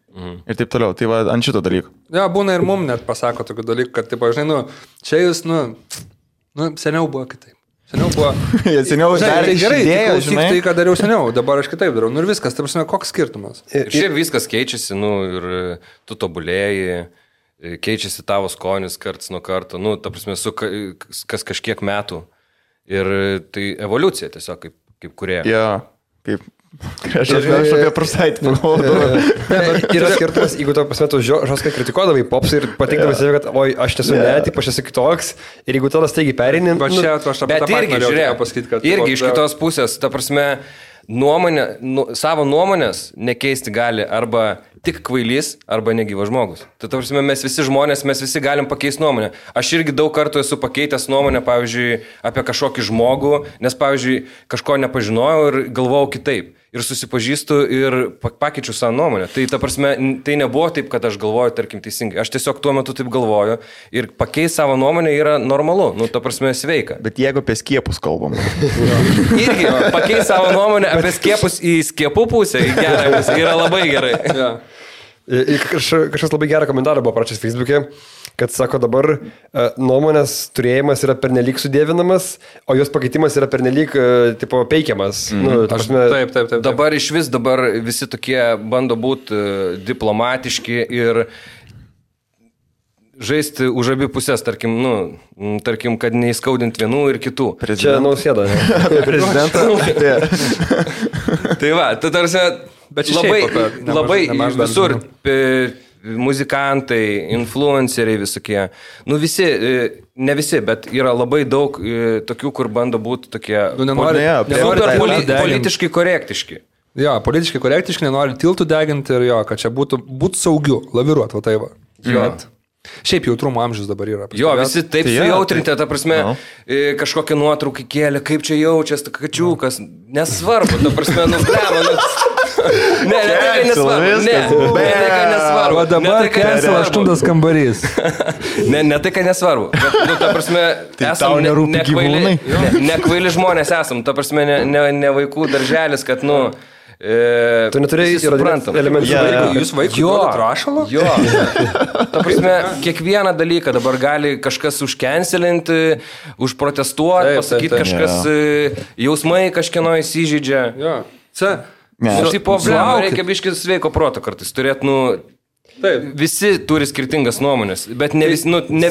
A: Ir taip toliau. Tai va, ant šito dalyko.
B: Ja, būna ir mum net pasako tokių dalykų, kad, tipo, žinai, čia jūs, seniau buvo kitaip. Seniau buvo...
A: Seniau
B: tai gerai, tai ką dariau seniau, dabar aš kitaip darau. Ir viskas, tai prasme, koks skirtumas?
C: Ir šiaip viskas keičiasi, ir tu tobulėjai. Keičiasi tavo skonis karts nuo karto, ta prasme, kas kažkiek metų. Ir tai evoliucija tiesiog, kaip kurie.
A: Kaip... Aš apie prasaitį pagalvoju.
D: Yra skirtumas, jeigu tu pasmetu žoskai kritikuodavai pops ir patikdavai save, kad oi, aš esu taip, aš esu kitoks. Ir jeigu tada staigiai perini...
C: Bet irgi, žiūrėk, irgi iš kitos pusės, ta prasme, savo nuomonės nekeisti gali arba tik kvailys, arba negyvas žmogus. Tai prasme, mes visi žmonės, mes visi galim pakeisti nuomonę. Aš irgi daug kartų esu pakeitęs nuomonę, pavyzdžiui, apie kažkokį žmogų, nes, pavyzdžiui, kažko nepažinojau ir galvojau kitaip. Ir susipažįstu ir pakeičiu savo nuomonę. Tai, ta prasme, tai nebuvo taip, kad aš galvoju, tarkim, teisingai. Aš tiesiog tuo metu taip galvoju ir pakeisti savo nuomonę yra normalu, ta prasme, sveika.
A: Bet jeigu apie skiepus kalbam.
C: Irgi, pakeisti savo nuomonę apie skiepus į skiepų pusę, į gerą, yra labai gerai.
D: Kažkas labai gerą komentarą buvo parašęs Facebook'e, kad sako dabar nuomonės turėjimas yra pernelyg sudėvinamas, o jos pakeitimas yra pernelyg tipo peikiamas.
B: Taip.
C: Dabar iš vis visi tokie bando būti diplomatiški ir žaisti už abi pusės, tarkim, kad neįskaudint vienų ir kitų.
D: Čia Nausėda.
C: Tai va, tai tarsi labai visur muzikantai, influenceriai visokie. Visi, ne visi, bet yra labai daug tokių, kur bando būti tokie politiškai korektiški.
B: Jo, politiškai korektiški, nenori tiltų deginti ir kad čia būtų saugiu, laviruot, va tai va. Šiaip jautrumo amžius dabar yra.
C: Jo, visi taip sujautrinti, ta prasme, kažkokią nuotrauką kėlė, kaip čia jaučias, kačiukas, nesvarbu, ta prasme, Ne, tai nesvarbu.
B: O dabar Kensel 8 kambarys.
C: Ne tai, kad nesvarbu. Bet, ta prasme, esam nekvaili žmonės esam. Ta prasme, ne vaikų darželis, kad,
D: Tu neturėjai
C: suprantam.
D: elementų.
B: Jūs vaikui duodat rašalo?
C: Jo. Ta prasme, kiekvieną dalyką dabar gali kažkas užkenselinti, užprotestuoti, pasakyti kažkas, jausmai kažkieno įsižydžia.
B: Jo.
C: Ir tai problema, reikia biškis sveiko proto kartais turėti,
B: Taip.
C: Visi turi skirtingas nuomonės, bet ne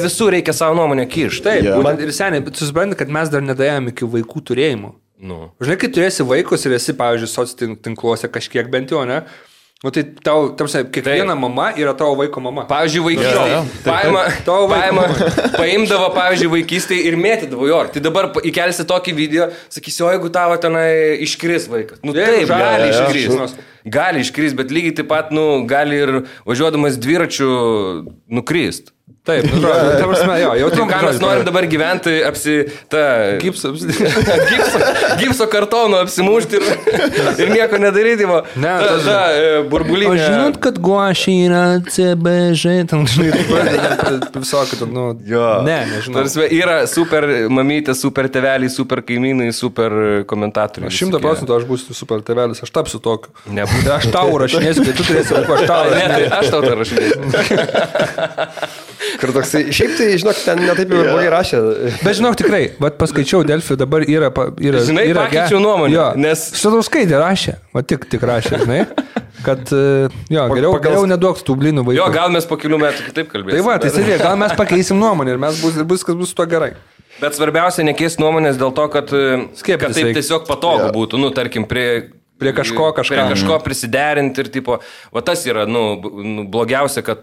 C: visų reikia savo nuomonę kišti.
B: Taip, būtent ir seniai, bet susipranti, kad mes dar nedėjome iki vaikų turėjimo. Žinai, kai turėsi vaikus ir esi, pavyzdžiui, socitinkluose kažkiek bent jau, ne? Tai tau, kiekviena mama yra tavo vaiko mama.
C: Pavyzdžiui, paimdavo, pavyzdžiui, vaikystėje ir mėtydavo jo. Tai dabar įkelsi tokį video, sakysi, o jeigu tavo tenai iškris vaikas. Taip, gali iškris. Gali iškris, bet lygiai taip pat, gali ir važiuodamas dviračiu nukrist.
B: Taip, ta prasme, jau
C: tai ką mes norim dabar gyventi, gipso kartono apsimušti ir nieko nedaryti, burbulinė.
B: O žinot, kad guašiai yra CBŽ, tam žinai, visokį, nežinau.
C: Tarsi yra super mamytė, super tėveliai, super kaimynai, super komentatoriai.
B: 100% aš būsiu super tėvelis, aš tapsiu tokiu. Nebūtų. Aš tau rašinėsiu, kai tu turėsi vaikų,
C: aš tau tą rašinėsiu.
D: Kur toksai, šiaip tai, žinok, ten netaip jau blogai rašė.
B: Bet žinok, tikrai, paskaičiau Delfi, dabar yra
C: žinai, pakeičiau nuomonę, nes...
B: Sadauskaitė rašė, tik rašė, žinai, kad, geriau neduok tų blynų vaikų.
C: Jo, gal mes po kelių metų kitaip kalbėsim.
B: Tai tai sėdė, gal mes pakeisim nuomonę ir viskas bus to gerai.
C: Bet svarbiausia, nekeisti nuomonės dėl to, kad taip tiesiog patogu būtų, tarkim, prie kažko prisiderinti ir tipo, va tas yra, blogiausia, kad,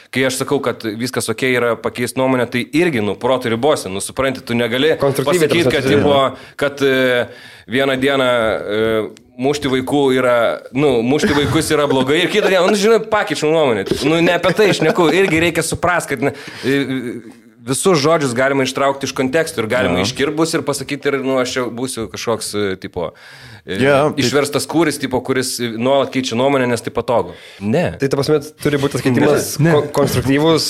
C: kai aš sakau, kad viskas ok yra pakeisti nuomonę, tai irgi, protų ribose, supranti, tu negali pasakyti, kad vieną dieną mušti vaikus yra blogai ir kitą dieną, žinai, pakeičiau nuomonę, ne apie tai šneku, irgi reikia suprasti, kad visus žodžius galima ištraukti iš kontekstų ir galima iškirbus ir pasakyti ir, aš jau būsiu kažkoks, tipo, išverstas kūris, tipo, kuris nuolat keičia nuomonę, nes tai patogu. Ne.
D: Tai ta prasme, turi būti tas keitimas konstruktyvus,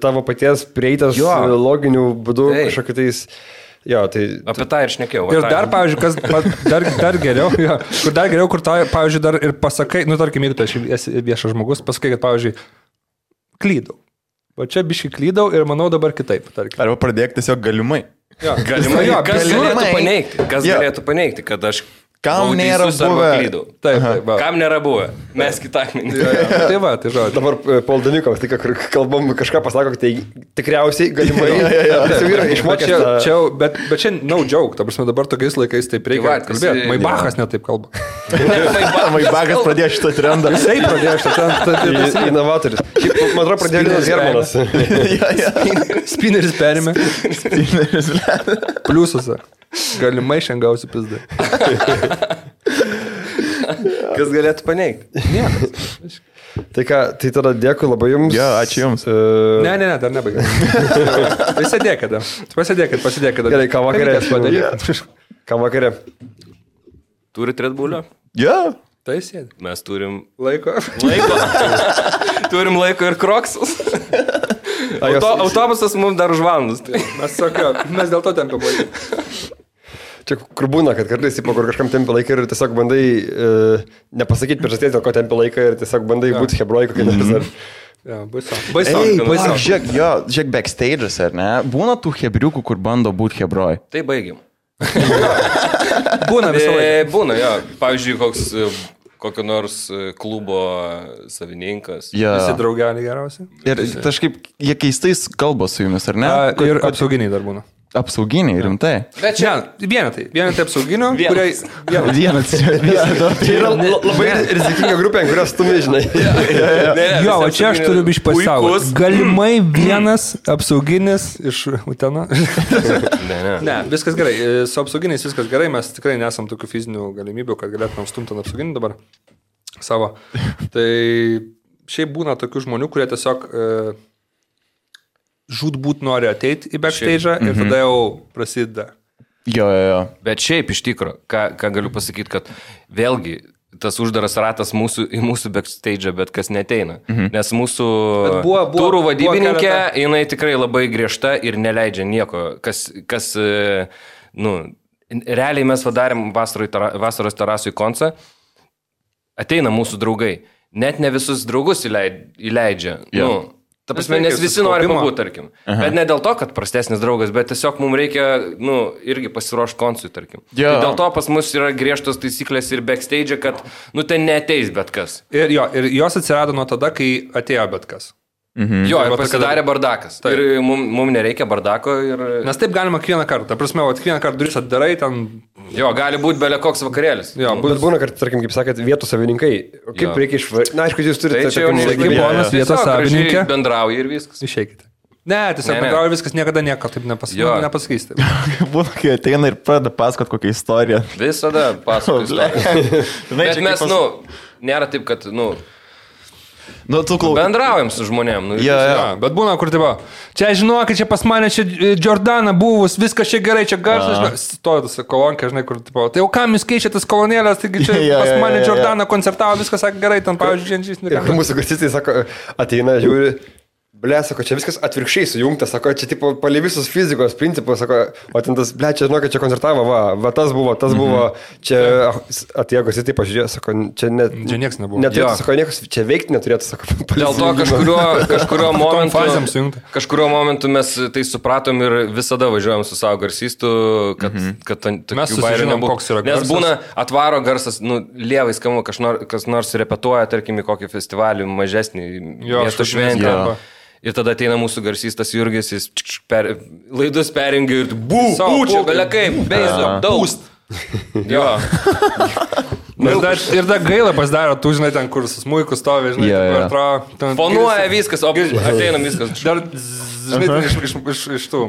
D: tavo paties prieitas loginių būdų kažkokiu tais... Jo, tai...
C: Apie tą ir šnekėjau.
B: Ir dar, pavyzdžiui, kas dar geriau, kur tau, pavyzdžiui, dar ir pasakai, tarkim, jeigu tu esi viešas žmogus, pasakai, kad, pavyzdžiui, klydau. O čia biškai klydau ir manau dabar kitaip. Tarkim.
A: Arba pradėk tiesiog galimai.
C: Galimai. Kas galėtų paneigti, kad aš
A: Kam nėra buvę?
B: Taip.
C: Kam nėra buvę? Mes kitą akmenį.
B: Tai žodžiu.
D: Dabar Poldanikovas, tai kur kalbam, kažką pasako, tai tikriausiai galimai.
B: Bet čia no joke, ta prasme dabar tokiais laikais taip reikia kalbėti. Maibachas netaip kalba.
A: Maibachas pradėjo šitą trendą.
B: Jisai pradėjo šitą trendą.
D: Jis inovatorius. Man atrodo, pradėjo Linas Hermanas.
B: Spineris perėmė. Pliusose. Galimai šiandien gausi pizdą.
C: Kas galėtų paneigti?
B: Niekas.
D: Tai ką, tai tada dėkui labai jums.
A: Jo, ačiū jums.
B: Ne, dar nebaigiau. Pasidėkit.
D: Gerai, ką vakarė? Ką vakarė?
C: Turit Red Bull'o?
A: Jo.
B: Tai sėdi.
C: Mes turim
B: laiko.
C: Turim laiko ir kroksus. Autobusas mums dar už valandas.
B: Mes dėl to tempia laiką.
D: Čia kur būna, kad kartais, kur kažkam tempia laiką ir tiesiog bandai nepasakyti priežasties, dėl ko tempia laiką ir tiesiog bandai būti hebrojku, kai nepasar.
B: Baisu.
A: Žiūrėk, backstage'as, ar ne? Būna tų hebriukų, kur bando būti hebroj.
C: Tai baigiam.
B: Būna visą laiką.
C: Būna, jo. Pavyzdžiui, kokio nors klubo savininkas.
B: Visi draugeliai geriausiai.
A: Ir kažkaip jie keistais kalba su jumis, ar ne?
B: Ir apsauginiai dar būna.
A: Apsauginiai, rimtai.
B: Bet čia vienetai apsauginio, kuriai...
A: Vienas.
D: Tai yra labai rizikinga grupė, kurios tu nežinai.
B: Jo, o čia aš turiu biškai pasaugot. Galimai vienas apsauginis iš Utena. Ne, viskas gerai. Su apsauginiais viskas gerai. Mes tikrai nesam tokių fizinių galimybių, kad galėtumėm stumti ant apsauginį dabar savo. Tai šiaip būna tokių žmonių, kurie tiesiog... žūtbūt nori ateiti į backstage'ą ir tada jau prasideda.
A: Jo.
C: Bet šiaip iš tikro, ką galiu pasakyti, kad vėlgi tas uždaras ratas į mūsų backstage'ą, bet kas neteina. Nes mūsų turų vadybininkė, jinai tikrai labai griežta ir neleidžia nieko. Realiai mes padarėm vasaros terasui koncą. ateina mūsų draugai. Net ne visus draugus įleidžia.
A: Jo.
C: Ta prasme, nes visi nori pabūti, tarkim. Bet ne dėl to, kad prastesnis draugas, bet tiesiog mums reikia, irgi pasiruošti koncui, tarkim.
A: Jo.
C: Tai dėl to pas mus yra griežtos taisyklės ir backstage, kad, ten neateis bet kas.
B: Ir jos atsirado nuo tada, kai atėjo bet kas.
C: Jo, ir pasidarė bardakas. Taip. Ir mums nereikia bardako.
B: Nes taip galima kiekvieną kartą. Ta prasme, kiekvieną kartą duris atdarai ten.
C: Jo, gali būti belė koks vakarėlis.
D: Jo, bet būna, kad, tarkim, kaip sakėt, vietų savininkai. Kaip reikia išvaryti? Na, aišku, jūs turite...
C: Tai čia jau
B: ponas vietos savininkė.
C: Bendrauja ir viskas.
B: Išeikite. Ne, tiesiog bendrauja viskas, niekada nieko taip nepasakysite.
A: Būna, kai ateina ir pradeda pasakot kokią istoriją.
C: Visada pasakot istoriją. Bet mes, nėra taip, kad, bendraujam su žmonėm.
B: Bet būna, kur tipo, čia žinokit, čia pas mane, čia Jordana buvus, viskas čia gerai, čia garsas. Stoja tas kolonkė, žinai, kur tipo, tai jau kam jūs keičiate tas kolonėlės, taigi čia pas mane Jordana koncertavo, viskas sakė gerai, ten, pavyzdžiui, Dženžys.
D: Ir mūsų garsistai sako, ateina, žiūri. Sako, čia viskas atvirkščiai sujungta, sako, čia tipo palei visus fizikos principus, sako, o ten tas, čia žinokit, čia koncertavo, va, tas buvo, čia atėjo garsistai, taip pažiūrėjo, sako, čia
B: nieks nebuvo.
D: Neturėtų, sako, niekas čia veikti neturėtų, sako.
C: Dėl to kažkurio momentu mes tai supratom ir visada važiuojam su savo garsistu, kad
B: mes susižinom, koks yra garsas.
C: Nes būna atvaro garsas, lievai skamba, kas nors repetuoja, tarkim, į kokį festivalį mažesnį miesto šventę. Ir tada ateina mūsų garsistas Jurgis, jis laidus perjungia ir čia belia kaip, beizo, daust. Jo.
B: Ir dar gaila pasidaro, tu žinai ten, kur su smuiku stovi, žinai,
C: fonuoja viskas, o ateinam viskas.
B: Dar, žinai, iš tų.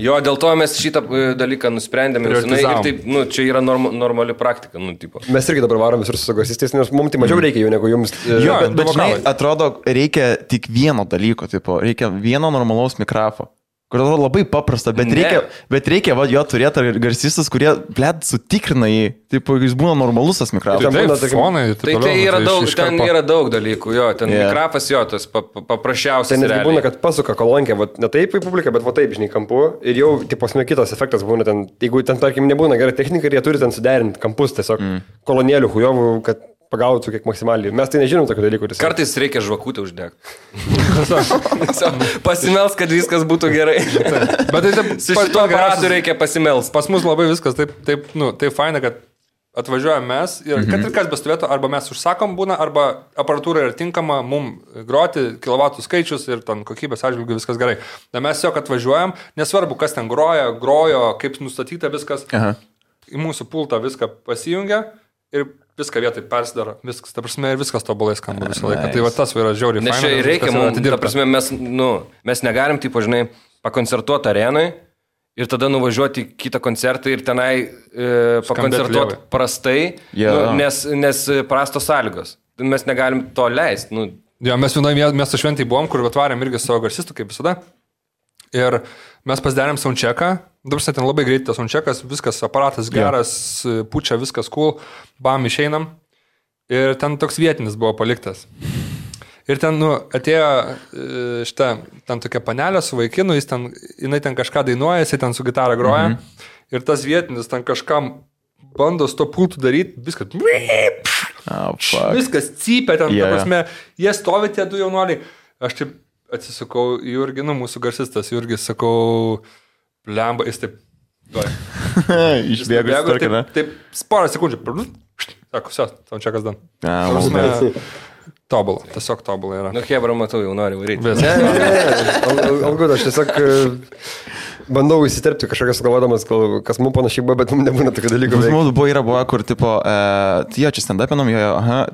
C: Jo, dėl to mes šitą dalyką nusprendėme ir taip, čia yra normali praktika, tipo.
D: Mes irgi dabar varom visur su garsistais, nes mums tai mažiau reikia jų negu jums.
A: Jo, bet žinai, atrodo, reikia tik vieno dalyko, tipo, reikia vieno normalaus mikrofo. Kur labai paprasta, bet reikia jo turėti garsistus, kurie, sutikrina jį, taip, jis būna normalus tas mikrofonas.
C: Tai yra daug dalykų, jo, ten mikrofas, jo, tas paprasčiausias.
D: Tai netgi būna, kad pasuka kolonkę, ne taip į publiką, bet taip, žinai, kampu, ir jau, tipo, kitas efektas būna ten, jeigu ten, tarkim, nebūna gera technika, ir jie turi ten suderinti kampus, tiesiog kolonėlių hujovų, kad pagautų kiek maksimaliai. Mes tai nežinom tokių dalykų.
C: Kartais reikia žvakutę uždegti. Pasimels, kad viskas būtų gerai.
B: Bet tai
C: su šituo aparatu reikia pasimels.
B: Pas mus labai viskas taip faina, kad atvažiuojam mes ir kad ir kas bestovėtų, arba mes užsakom būna, arba aparatūra yra tinkama mums groti, kilovatų skaičius ir ten kokybės atžvilgių viskas gerai. Na mes tiesiog atvažiuojam, nesvarbu, kas ten grojo, kaip nustatyta viskas, į mūsų pultą viską pasijungia ir viską vietai persidaro, viskas, ta prasme, ir viskas tobulai skamba visą laiką. Tai va tas yra žiauriai faina.
C: Nes čia reikia mums, ta prasme, mes negalim, taip, žinai, pakoncertuoti arenai ir tada nuvažiuoti į kitą koncertą ir tenai pakoncertuoti prastai, nes prastos sąlygos. Mes negalim to leisti.
B: Jo, mes vienoje miesto šventai buvom, kur atvarėm irgi savo garsistų, kaip visada. Ir mes pasidarėm soundchecką. Dabar ten labai greitai tas soundcheckas, viskas aparatas geras, pučia, viskas cool, bam, išeinam. Ir ten toks vietinis buvo paliktas. Ir ten, atėjo ten tokia panelė su vaikinu, jinai ten kažką dainuoja, jisai ten su gitara groja. Ir tas vietinis ten kažkam bando su to pultu daryti, viskas. Viskas cypia ten, ta prasme, jie stovi tie du jaunuoliai. Aš taip atsisukau į Jurgį, mūsų garsistas Jurgis, sakau, blemba, jis taip,
A: išbėgo,
B: taip, porą sekundžių, sako, tam čia kas dan. Tobulą, tiesiog tobulą yra.
C: Hebra, matau, jau noriu varyti.
D: Algud, aš tiesiog bandau įsiterpti kažkokias galvodamas, kas mums panašiai buvo, bet mums nebūna tokių dalykų.
A: Mums buvo, kur, tipo, jo, čia stand-upinam,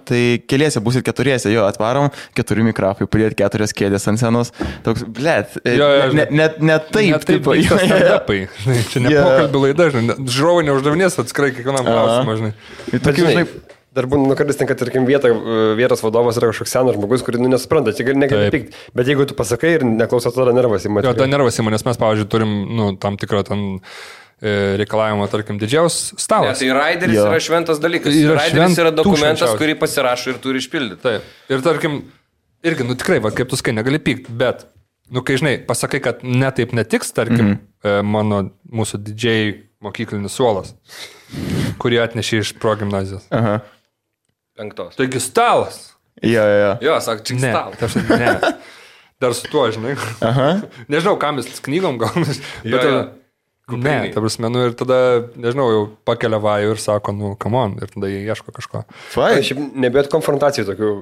A: tai keliese būsit keturiese, jo, atvarom, 4 mikrofai, pridėt 4 kėdės ant scenos. Toks, blėt, ne taip, tipo,
B: stand-upai. Čia ne pokalbių laida, žinai, žiūrovai neuždavinės atskirai kiekvienam klausimą, žinai.
D: Tokių, žinai, dar būna, kartais ten, kad, tarkim, vietos vadovas yra kažkoks senas žmogus, kurį nesupranta, čia negali pykti. Bet jeigu tu pasakai ir neklausai, tada nervas įma.
B: Jo, tada nervas įma, nes mes, pavyzdžiui, turim tam tikrą reikalavimą, tarkim, didžiaus stalas.
C: Tai raideris yra šventas dalykas. Raideris yra dokumentas, kurį pasirašo ir turi išpildyti.
B: Taip. Ir, tarkim, irgi, tikrai, kaip tu sakai, negali pykti, bet, kai, žinai, pasakai, kad netaip netiks, tarkim, mūsų didžiai mokyklinis suolas, kurį atnešė iš progimnazijos.
C: 5.
B: Taigi stalas.
A: Jo.
C: Jo, sak, čia
B: Ne,
C: stalas.
B: ne. Dar su tuo, žinai.
A: Aha.
B: Nežinau, kam jis knygom gal.
C: Jo, jo.
B: Ne, ta prasme, nu ir tada, nežinau, jau pakelia vajų ir sako, nu, come on, ir tada jie ieško kažko.
A: Fai.
D: Šiaip nebėt konfrontacijų tokių.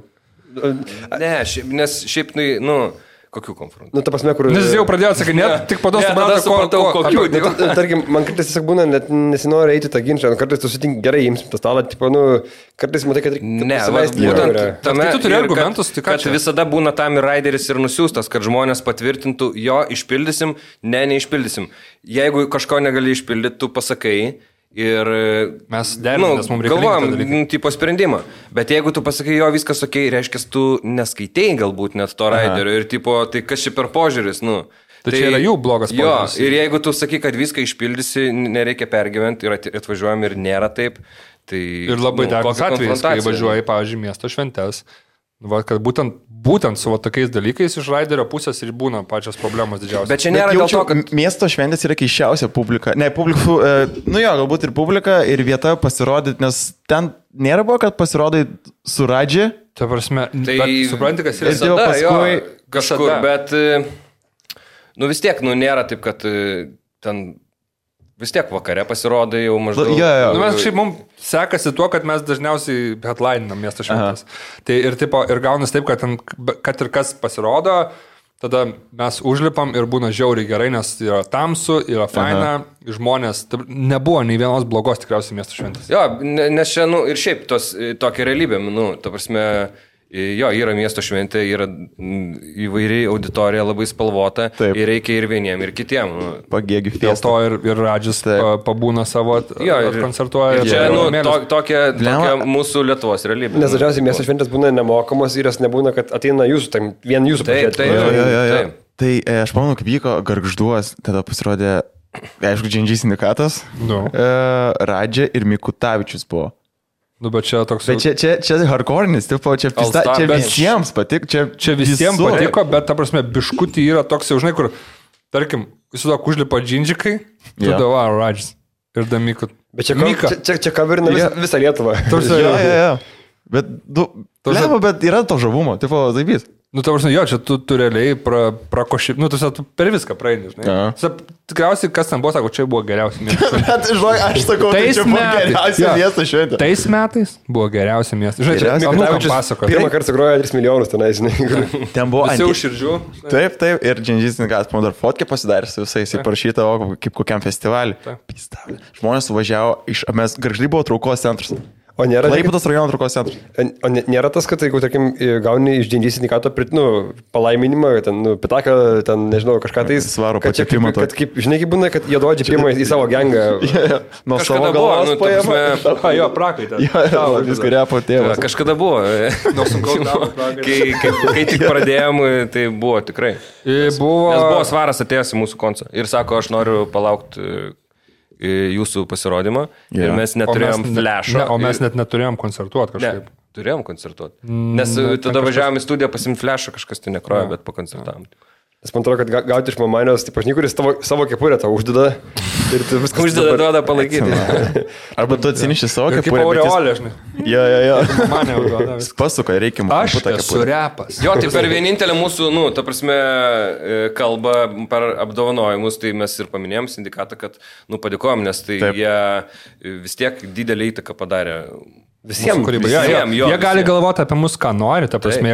C: Ne, nes šiaip, nu, kokių konfrontacijų?
D: Nu, ta prasme, kur...
B: Nes jis jau pradėjo atsakyti, tik po to
C: Ne, tada supratau, kokių.
D: Nu, tarkim, man kartais tiesiog būna, net nesinori eiti tą ginčą, kartais tu sutink gerai, imsim tą stalą, tipo, nu, kartais matai, kad reikia
C: Ne,
D: pasileisti.
C: būtent tame,
B: Tai tu turi
C: ir
B: argumentus, tai ką
C: kad
B: čia?
C: visada būna tam ir raideris ir nusiųstas, kad žmonės patvirtintų, jo, išpildysim, neišpildysim. Jeigu kažko negali išpildyti, tu pasakai ir
B: Mes derinamės, mums reikia
C: galvojam,
B: tą dalyką.
C: tipo sprendimą. Bet jeigu tu pasakai, jo, viskas ok, reiškia, tu neskaitėjai galbūt net to raiderio ir tipo, tai kas čia per požiūris, nu.
B: Tai čia yra jų blogas
C: Jo,
B: požiūris.
C: ir jeigu tu sakai, kad viską išpildysi, nereikia pergyventi ir atvažiuojam ir nėra taip, tai...
B: Ir labai dažnas
C: kokia
B: atvejis, kai
C: konfrontacija?
B: važiuoji, pavyzdžiui, miesto šventes, va, kad būtent su va, tokiais dalykais iš raiderio pusės ir būna pačios problemos didžiausios.
C: Bet čia nėra dėl to, kad...
A: Miesto šventės yra keiščiausia publika. Ne, publikų, nu jo, galbūt ir publika, ir vieta pasirodyti, nes ten nėra buvo, kad pasirodai su Radži.
B: Ta prasme,
C: Tai
B: bet supranti, kas yra.
A: Ir jau paskui
C: kažkur,
B: visada.
C: bet, nu vis tiek, nu nėra taip, kad ten vis tiek vakare pasirodai jau maždaug.
A: Jo.
B: Nu, mes šiaip mums sekasi tuo, kad mes dažniausiai headlininam miesto šventės. Tai ir, tipo, ir gaunas taip, kad ir kas pasirodo, tada mes užlipam ir būna žiauriai gerai, nes yra tamsu, yra faina, žmonės, nebuvo nei vienos blogos tikriausiai miesto šventės.
C: Jo, nes čia, nu, ir šiaip tokia realybė, nu, ta prasme, jo, yra miesto šventė, yra įvairiai auditorija labai spalvota.
A: Taip.
C: Ir reikia ir vieniem, ir kitiem. Nu.
A: Pagėgių
B: Dėl
A: fiesta.
B: to ir Radžis pabūna savo, koncertuoja.
C: Ir čia, nu,
B: mėlis.
C: tokia mūsų Lietuvos realybė.
D: Nes dažniausiai miesto šventės būna nemokamos ir jas nebūna, kad ateina jūsų, tam vien jūsų
C: Taip,
D: pažiūrėti.
A: Jo.
C: Taip.
A: Tai aš pamenu, kaip vyko Gargžduos, tada pasirodė, aišku, Džindžiai sindikatas,
B: Nu.
A: Radži ir Mikutavičius buvo.
B: Nu, bet čia toks...
A: Bet čia hardcore'nis, tipo, čia
C: All-Star, bet-
A: visiems patiko,
B: Čia visiems
A: visur.
B: patiko, bet, ta prasme, biškutį yra toks jau, žinai, kur, tarkim, įsivaizduok, užlipa džindžikai, tu
A: Jo.
B: dava Radžis ir Damika.
D: Bet
B: Mika.
D: čia kaverina visą Lietuvą.
A: Jo. Bet,
B: prasme-
A: bet yra to žavumo, tipo, taipys.
B: Nu, ta prasme, jo, čia tu realiai prakoši, nu, tu per viską praeini, žinai.
A: Aha.
B: Tikriausiai, kas ten buvo, sako, čia buvo geriausia miesto šventė.
A: Bet, žinai, aš sakau, tai
B: Tais
A: čia buvo
B: metais.
A: geriausia
B: Jo.
A: miesto šventė.
B: Tais metais buvo geriausia miesto. Žinai, čia
A: Geriausia.
B: anūkam
D: Mikutavičius
B: pasakoja.
D: pirmą kartą sugrojo 3 milijonus tenai, žinai.
A: Ten buvo
B: Visi už širdžių.
A: Taip, ir Džindžiai sindikatas, man dar fotkę pasidarė su visais, jis parašyta, kaip kokiam festivaliui. Pistavlė. Žmonės suvažiavo iš, mes Gargždai buvo traukos centras.
D: O nėra,
A: Klaipėdos rajono traukos centras.
D: o nėra tas, kad jeigu, tarkim, gauni iš Džindžiai sindikato palaiminimą, ten, pitaką, ten, nežinau, kažką tai...
A: Svarų
D: kad čia
A: pačiapimą
D: kad kaip, žinai, kaip būna, kad jie duodžia pirmą į savo gengą.
A: Nuo
C: Kažkada
A: savo
C: buvo,
A: galvos
C: nu, ta
A: paėmė.
C: prasme,
B: Jo, prakaitė.
A: Viską repo tėvas.
C: Kažkada buvo.
B: Nuo sunkaus darbo prakaitė.
C: Kai tik pradėjom, tai buvo tikrai.
B: Buvo...
C: Nes buvo Svaras atėjęs į mūsų koncą ir sako, aš noriu palaukti jūsų pasirodymą. Ir mes neturėjom flash'o.
B: Ne, o mes net neturėjom koncertuoti
C: Ne,
B: kažkaip.
C: turėjom koncertuoti. Nes tada važiavom į studiją pasimti flash'o, kažkas tai nekrojo, bet pakoncertavom.
D: Nes man atrodo, kad gauti iš mamanijos, tai pažinai, kuris savo kepurę tau uždeda. Ir tu viską
C: Uždeda duoda palaikyti.
A: Arba tu atsiniši savo
B: Kaip
A: kepurę. bet jis-
B: aureolė, žinai.
A: Jo.
B: Mane užduoda.
A: Jis pasuka, reikia man.
B: Aš esu repas.
C: Jo, tai per vienintelę mūsų, nu, ta prasme, kalbą per apdovanojimus, tai mes ir paminėjom sindikatą, kad, nu, padėkojom, nes tai
A: Taip.
C: jie vis tiek didelį įtaką padarė.
B: Visiems kūrybai.
C: Visiem, jo,
B: Jie gali
C: visiem.
B: galvoti apie mus, ką nori, ta prasme,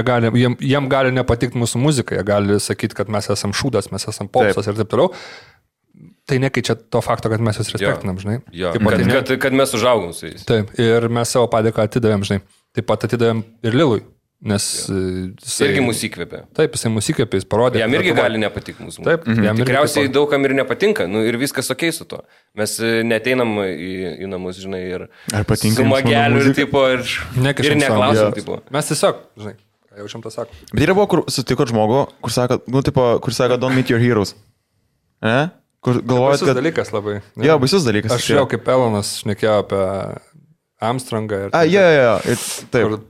B: jiem gali nepatikti mūsų muzika, jie gali sakyti, kad mes esam šūdas, mes esam popsas ir taip toliau. Tai nekeičia to fakto, kad mes juos respektinam, žinai.
C: Jo,
B: Taip pat,
C: kad mes užaugom su jais.
B: taip, ir mes savo padėką atidavėm, žinai. Taip pat atidavėm ir Lilui, nes jisai...
C: Irgi mus įkvėpė.
B: Taip, jisai mus įkvėpė, jis parodė.
C: Jam irgi
B: Lietuvoj.
C: gali nepatikti mūsų.
B: Taip, jam irgi
C: Tikriausiai
B: taip
C: daugam ir nepatinka, nu, ir viskas ok su to. Mes neteinam į namus, žinai, ir
A: Ar patinka
C: su
A: jums mano
C: mageliu ir,
A: muzika?
C: tipo, ir
B: Nekišam savo.
C: neklausom,
A: Jo.
C: tipo.
B: Mes tiesiog, žinai, ką jaučiam tą sakom.
A: Bet yra buvo, kur sutikot žmogų, kur sako, nu, tipo, kur sako, don't meet your heroes. Ne? Kur galvojat,
B: Baisus
A: kad...
B: dalykas labai. ne?
A: Jo, baisus dalykas.
B: Aš jau kaip Elonas šnekėjau apie Armstrongą. Ir,
A: Jo. Taip.
B: kur-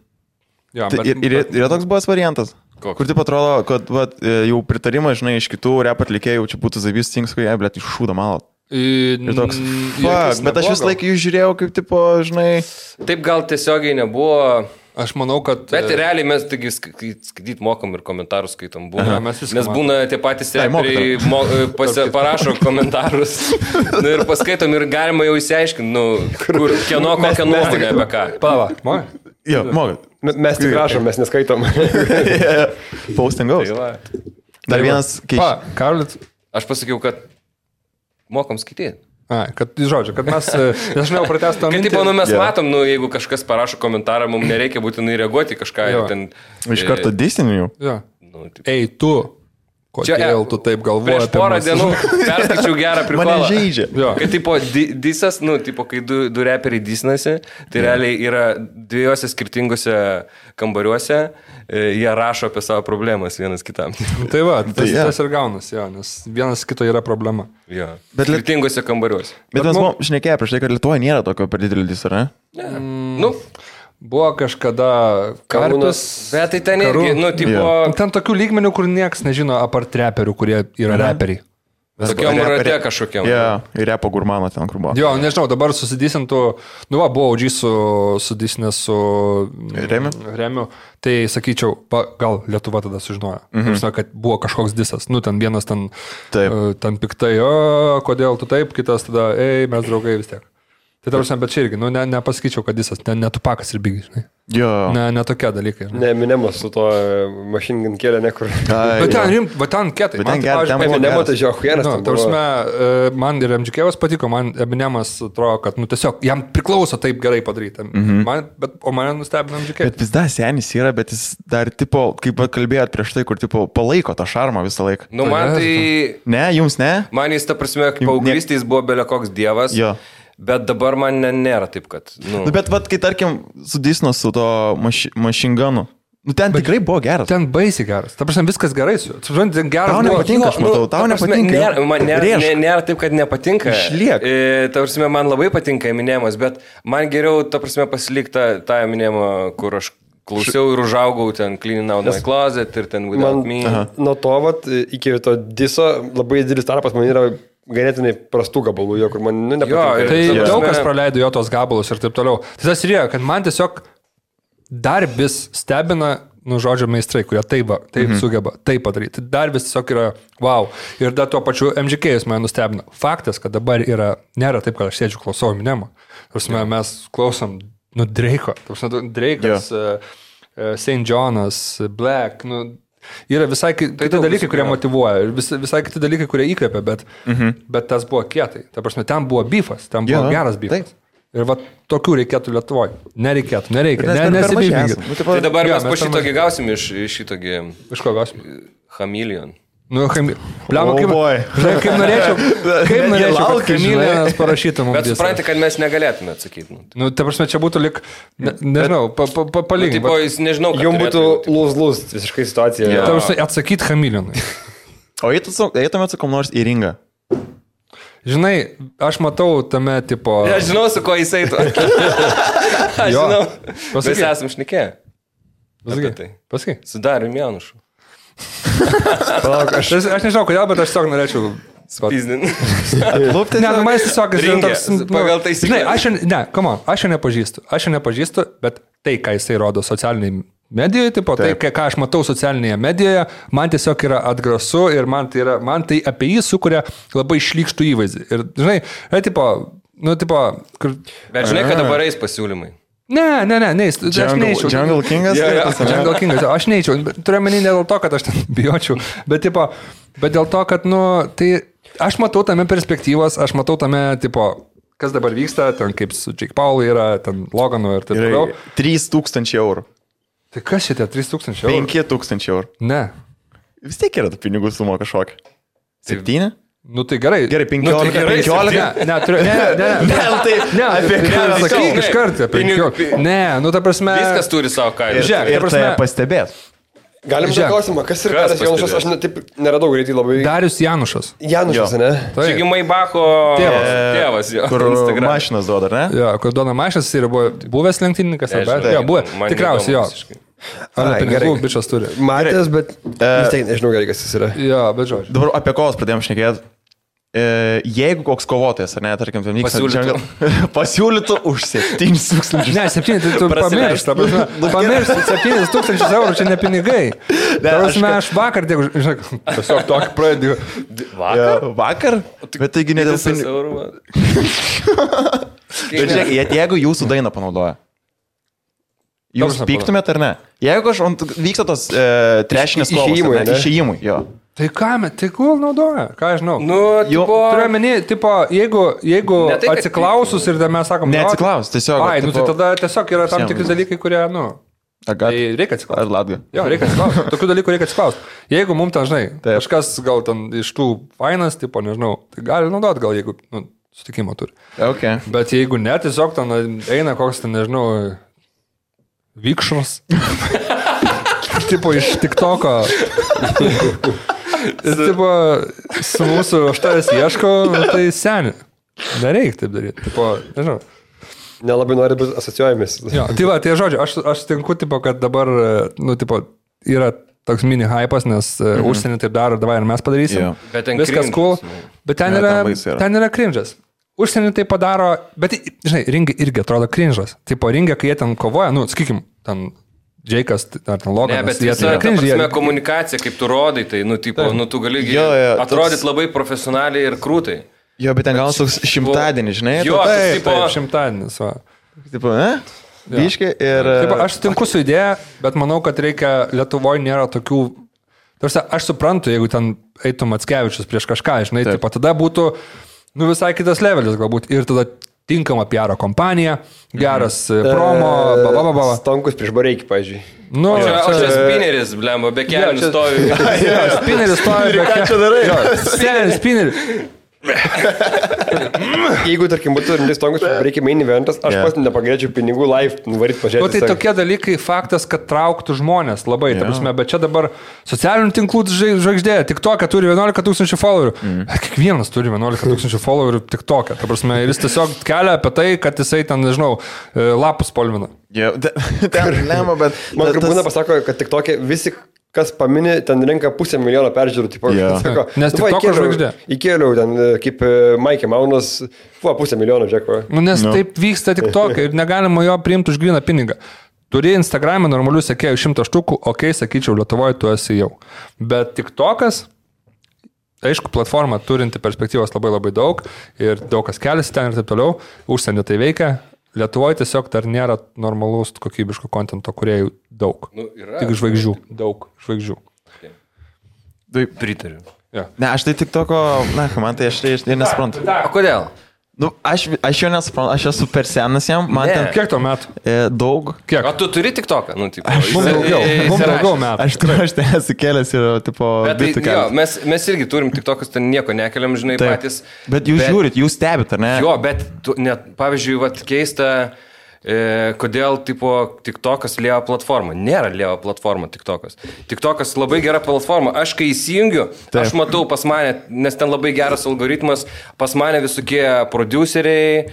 B: Jo,
A: Tai ir yra toks buvęs variantas.
C: Koks?
A: Kur taip atrodo, kad vat, jau pritarimą, žinai, iš kitų rap atlikėjų, čia būtų Zabys Tings, kai jie, blėt, iššūda malot. Ir toks, fuck, bet aš vis laiką jų žiūrėjau, kaip, tipo, žinai,
C: Taip gal tiesiogiai nebuvo,
B: Aš manau, kad...
C: Bet realiai mes taigi skaityti mokam ir komentarus skaitom. Būna,
B: mes
C: nes būna tie patys reperiai parašo komentarus ir paskaitom ir galima jau įsiaiškinti, kur kieno kokią nuomonę apie ką.
B: Pala, mokai?
A: Jo, mokai.
D: Mes tik rašom, mes neskaitom.
A: Postingaus. Dar vienas
B: keičiasi. Karolis.
C: Aš pasakiau, kad mokam skaityti.
B: Kad, žodžiu, kad mes, nežinau, pratestų
C: mintį. Kad, mes matom, jeigu kažkas parašo komentarą, mums nereikia būtinai reaguoti kažką. Ten,
A: iš karto disiniu.
B: Ei, tu, kodėl tu taip galvoji?
C: Prieš porą dienų perskaičiau gerą prikolą.
A: Mane žaidžia.
C: Kad, tipo, disas, kai du reperiai disinasi, tai realiai yra dviejose skirtingose kambariuose, jie rašo apie savo problemas vienas kitam.
B: Tai va, tas ir gaunas, nes vienas kito yra problema.
C: Jo. Bet skirtingose kambariuose.
A: Bet mes buvom šnekėję prieš tai, kad Lietuvoje nėra tokio per didelį disą, ne?
B: Buvo kažkada Karpis.
C: Bet tai ten irgi,
B: ten tokių lygmenių, kur nieks nežino apart reperių, kurie yra reperiai.
C: Tokiam rate kažkokiam.
A: Ir repo gurmano ten, kur buvo.
B: Jo, nežinau, dabar susidysintų, buvo OG sudisinęs su Remiu, tai sakyčiau, gal Lietuva tada sužinojo, kad buvo kažkoks disas, ten vienas ten piktai, kodėl tu taip, kitas tada, mes draugai vis tiek. Tai tarsi, bet čia irgi, nepasakyčiau, kad disas, ne Tupakas ir Biggie, žinai.
A: Jo.
B: Ne tokie dalykai.
D: Ne, Eminemas su to Machine Gun kėlė nekur.
B: Bet ten kietai.
D: Eminemas tai žiauhienas.
B: Man ir MGK patiko, man Eminemas atrodo, kad tiesiog jam priklauso taip gerai padaryti. O mane nustebino MGK.
A: Bet vis dar senis yra, bet jis dar, tipo, kaip kalbėjot prieš tai, kur, tipo, palaiko tą šarmą visą laiką.
C: Man tai...
A: Ne, jums ne?
C: Man jis, ta prasme, paauglystės buvo belekoks dievas.
A: Jo.
C: Bet dabar man nėra taip, kad...
A: Bet kai tarkim sudisno su to Machine Gunu, ten tikrai buvo geras.
B: Ten baisiai geras. Ta prasme, viskas gerai su juo.
A: Tau nepatinka, aš matau, tau nepatinka.
C: Man nėra taip, kad nepatinka.
A: Išliek.
C: Ta prasme, man labai patinka Eminemas, bet man geriau, ta prasme, pasilikti tą Eminemą, kur aš klausiau ir užaugau ten Cleaning Out My Closet ir ten Without Me.
D: Nuo to, iki to diso, labai didelis tarpas man yra ganėtinai prastų gabalų, kur man nepatinka.
B: Tai daug kas praleido jo tos gabalus ir taip toliau. Tai tas ir yra, kad man tiesiog dar vis stebina, žodžio meistrai, kurie taip sugeba, taip padaryti. Dar vis tiesiog yra wow. Ir dar tuo pačiu MGK mane nustebino. Faktas, kad dabar nėra taip, kad aš sėdžiu klausau Eminemą. Mes klausom Drake'o. Drake'as, St. John'as, Black, yra visai kiti dalykai, kurie motyvuoja, ir visai kiti dalykai, kurie įkvepia, bet tas buvo kietai. Ta prasme, ten buvo beefas, ten buvo geras beefas. Ir va, tokių reikėtų Lietuvoje. Nereikia. Nesibyfinkit.
C: Tai dabar mes po šitogi gausim iš šitogi...
B: Iš ko gausim?
C: Chameleon.
B: Pliamo, kaip norėčiau, kad Chameleonas parašytų mums.
C: Bet supranti, kad mes negalėtume atsakyti.
B: Ta prasme, čia būtų lik, nežinau, palyginti.
C: Nežinau, kad
D: jums būtų lūs visiškai situacija.
B: Ta prasme, atsakyti Chameleonui.
A: O eitumėt su kom nors į ringą?
B: Žinai, aš matau tame tipo...
C: Aš žinau, su ko jis eitų. Aš žinau. Mes esam šnekėję.
B: Pasakai.
C: Su Darium Janušu.
B: Palauk, aš nežinau, kodėl, bet aš tiesiog norėčiau
C: spizdinti.
B: Ne, man tiesiog
C: toks... Pagal taisyklę.
B: Aš jo nepažįstu, bet tai, ką jisai rodo socialiniai medijoje, tai, ką aš matau socialinėje medijoje, man tiesiog yra atgrasu ir man tai apie jį sukuria labai šlykštų įvaizdį. Ir, žinai,
C: Bet žinai, kad dabar eis pasiūlymai.
B: Ne, aš neįčiau.
A: Jungle Kingas?
B: Jungle Kingas, aš neįčiau. Turiu menį ne dėl to, kad aš ten bijočiau, bet dėl to, kad, tai aš matau tame perspektyvos, aš matau tame, kas dabar vyksta, ten kaip su Jake Paul yra, ten Loganu ir taip toliau.
A: 3,000 eurų.
B: Tai kas šitie 3,000 eurų?
A: 5,000 eurų.
B: Ne.
A: Vis tiek yra tų pinigų sumo kažkokia. 7?
B: Tai gerai.
A: Gerai, 15.
B: Ne, apie ką sakyk iš karto. Ne, ta prasme...
C: Viskas turi savo kainą.
A: Ir tai pastebėt.
D: Galim tą klausimą, kas yra Darius Janušas, aš taip neradau greitai labai.
B: Darius Janušas.
D: Janušas, ne?
C: Čiagi Maibacho tėvas jo.
A: Kur mašinas duoda, ne?
B: Jo, kur duoda mašinas ir buvo buvęs lenktynininkas, jo, buvo, tikriausiai jo. Ar pinigų bičas turi.
D: Matęs, bet vis tiek nežinau gerai, kas jis yra.
B: Jo, bet žodžiu.
A: Dabar apie kovas pradėjom šnekėti. Jeigu koks kovotojas, ar ne, tarkim, pasiūlytų už 7,000.
B: Ne, 7, tai tu pamiršt, pamiršt, 7,000 eurų, čia ne pinigai. Aš vakar, žinai, tiesiog tokį pradėjau.
A: Vakar? Bet taigi ne dėl pinigų. Bet žiūrėk, jeigu jūsų dainą panaudoja, jūs pyktumėt ar ne? Jeigu vyksta tos trešinės kovos, išėjimui, jo.
B: Tai ką, tai kul naudoja, ką aš žinau.
C: Nu,
B: turiu menį, tipo, jeigu atsiklausus ir mes sakom,
A: neatsiklaus, tiesiog.
B: Ai, nu tai tada tiesiog yra tam tikri dalykai, kurie, nu, tai reikia atsiklausti.
A: Ar latga?
B: Jo, reikia atsiklausti. Tokių dalykų reikia atsiklausti. Jeigu mums ten, žinai, kažkas gal ten iš tų fainas, tipo, nežinau, tai gali naudot, gal jeigu, nu, sutikimo turi.
A: Okay.
B: Bet jeigu ne, tiesiog ten eina koks ten, nežinau, vikšras. Tipo, iš TikToko. Ir tipo, su mūsų aštarės ieško, tai seni. Nereik taip daryti. Tipo, nežinau.
D: Nelabai nori būti asociuojamis.
B: Jo, tai va, tai žodžiu, aš tinku, tipo, kad dabar, nu, tipo, yra toks mini hypas, nes užsienį taip daro, davai ir mes padarysim.
C: Bet ten
B: viskas cool. Bet ten yra cringe'as. Užsienį tai padaro, bet, žinai, ringai irgi atrodo cringe'as. Tipo, ringai, kai jie ten kovoja, nu, sakykim, ten Džeikas ar ten Loganas.
C: Ne, bet visa ta komunikacija, kaip tu rodai, tai, nu, tipo, nu, tu gali atrodyti labai profesionaliai ir krūtai.
A: Jo, bet ten galas toks šimtadienis, žinai?
C: Jo,
B: taip, šimtadienis, va.
A: Tipo, biškai ir...
B: Taip, aš sutinku su idėja, bet manau, kad reikia, Lietuvoje nėra tokių... Tarsi, aš suprantu, jeigu ten eitum Mackevičius prieš kažką, žinai, taip, tada būtų, nu, visai kitas levelis galbūt ir tada tinkama PR kompanija, geras promo,
D: Stonkus prieš Bareikį, pavyzdžiui.
B: Nu,
C: čia spineris, blemba, be kelių stovi.
B: Spineris stovi, be
A: kelių. Ką čia darai?
B: Spineris.
D: Jeigu, tarkim, būtų Stonkus prieš Bareikį main eventas, aš pats nepagrėčiau pinigų live, nuvaryt pažiūrėti.
B: O tai tokie dalykai, faktas, kad trauktų žmonės labai, ta prasme, bet čia dabar socialinių tinklų žvaigždė, TikTok'e turi 11,000 followerių. Kiekvienas turi 11,000 followerių TikTok'e, ta prasme, ir jis tiesiog kelia apie tai, kad jisai ten, nežinau, lapus spalvina.
A: Ten lemą, bet...
D: Man būna pasako, kad TikTok'e visi, kas paminė, ten renka 500,000 peržiūrų. Tipo, sako,
B: nes TikTok'o žvaigždė.
D: Įkėliau ten, kaip Maikė Maunas, 500,000, džeko.
B: Nu, nes taip vyksta TikTok'e ir negalima jo priimti už gryną pinigą. Turi Instagram'e normalių sekėjų 100 štukų, okei, sakyčiau, Lietuvoje tu esi jau. Bet TikTok'as, aišku, platforma turinti perspektyvos labai labai daug ir daug kas keliasi ten ir taip toliau, užsienį tai veikia. Lietuvoje tiesiog dar nėra normalus kokybiško kontento, kurie daug.
C: Nu, yra.
B: Tik žvaigždžių. Daug žvaigždžių.
C: Taip, pritariu.
B: Ja.
A: Ne, aš tai TikToko, man tai aš nesuprantu.
C: O kodėl?
A: Nu, aš jo nesuprantu, aš esu per senas jam, man ten...
B: Kiek to metų?
A: Daug.
B: Kiek?
C: O tu turi TikToką? Nu, tipo,
B: mums daugiau metų.
A: Aš ten esu kėlęs ir, tipo,
C: bitų kelias. Mes irgi turim TikTokus, ten nieko nekeliam, žinai, patys.
A: Bet jūs žiūrit, jūs stebit, ar ne?
C: Jo, bet, pavyzdžiui, keista, kodėl, tipo, TikTokas lėjo platforma. Nėra lėjo platforma TikTokas. TikTokas labai gera platforma. Aš kai įsijungiu, aš matau pas mane, nes ten labai geras algoritmas, pas mane visokie produceriai,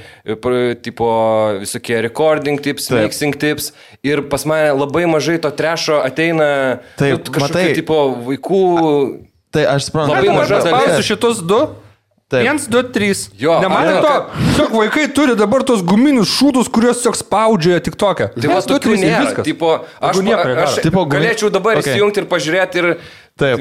C: tipo, visokie recording tips, mixing tips ir pas mane labai mažai to trešo ateina kažkokių, tipo, vaikų.
A: Tai aš suprantu.
C: Labai mažas dalis.
B: Pausiu šitus du. 1, 2, 3. Nematė to? Tiesiog vaikai turi dabar tos guminius šūdus, kuriuos tiesiog spaudžia TikTok'e.
C: Tai va, tokių nėra. Tipo, aš galėčiau dabar įsijungti ir pažiūrėti ir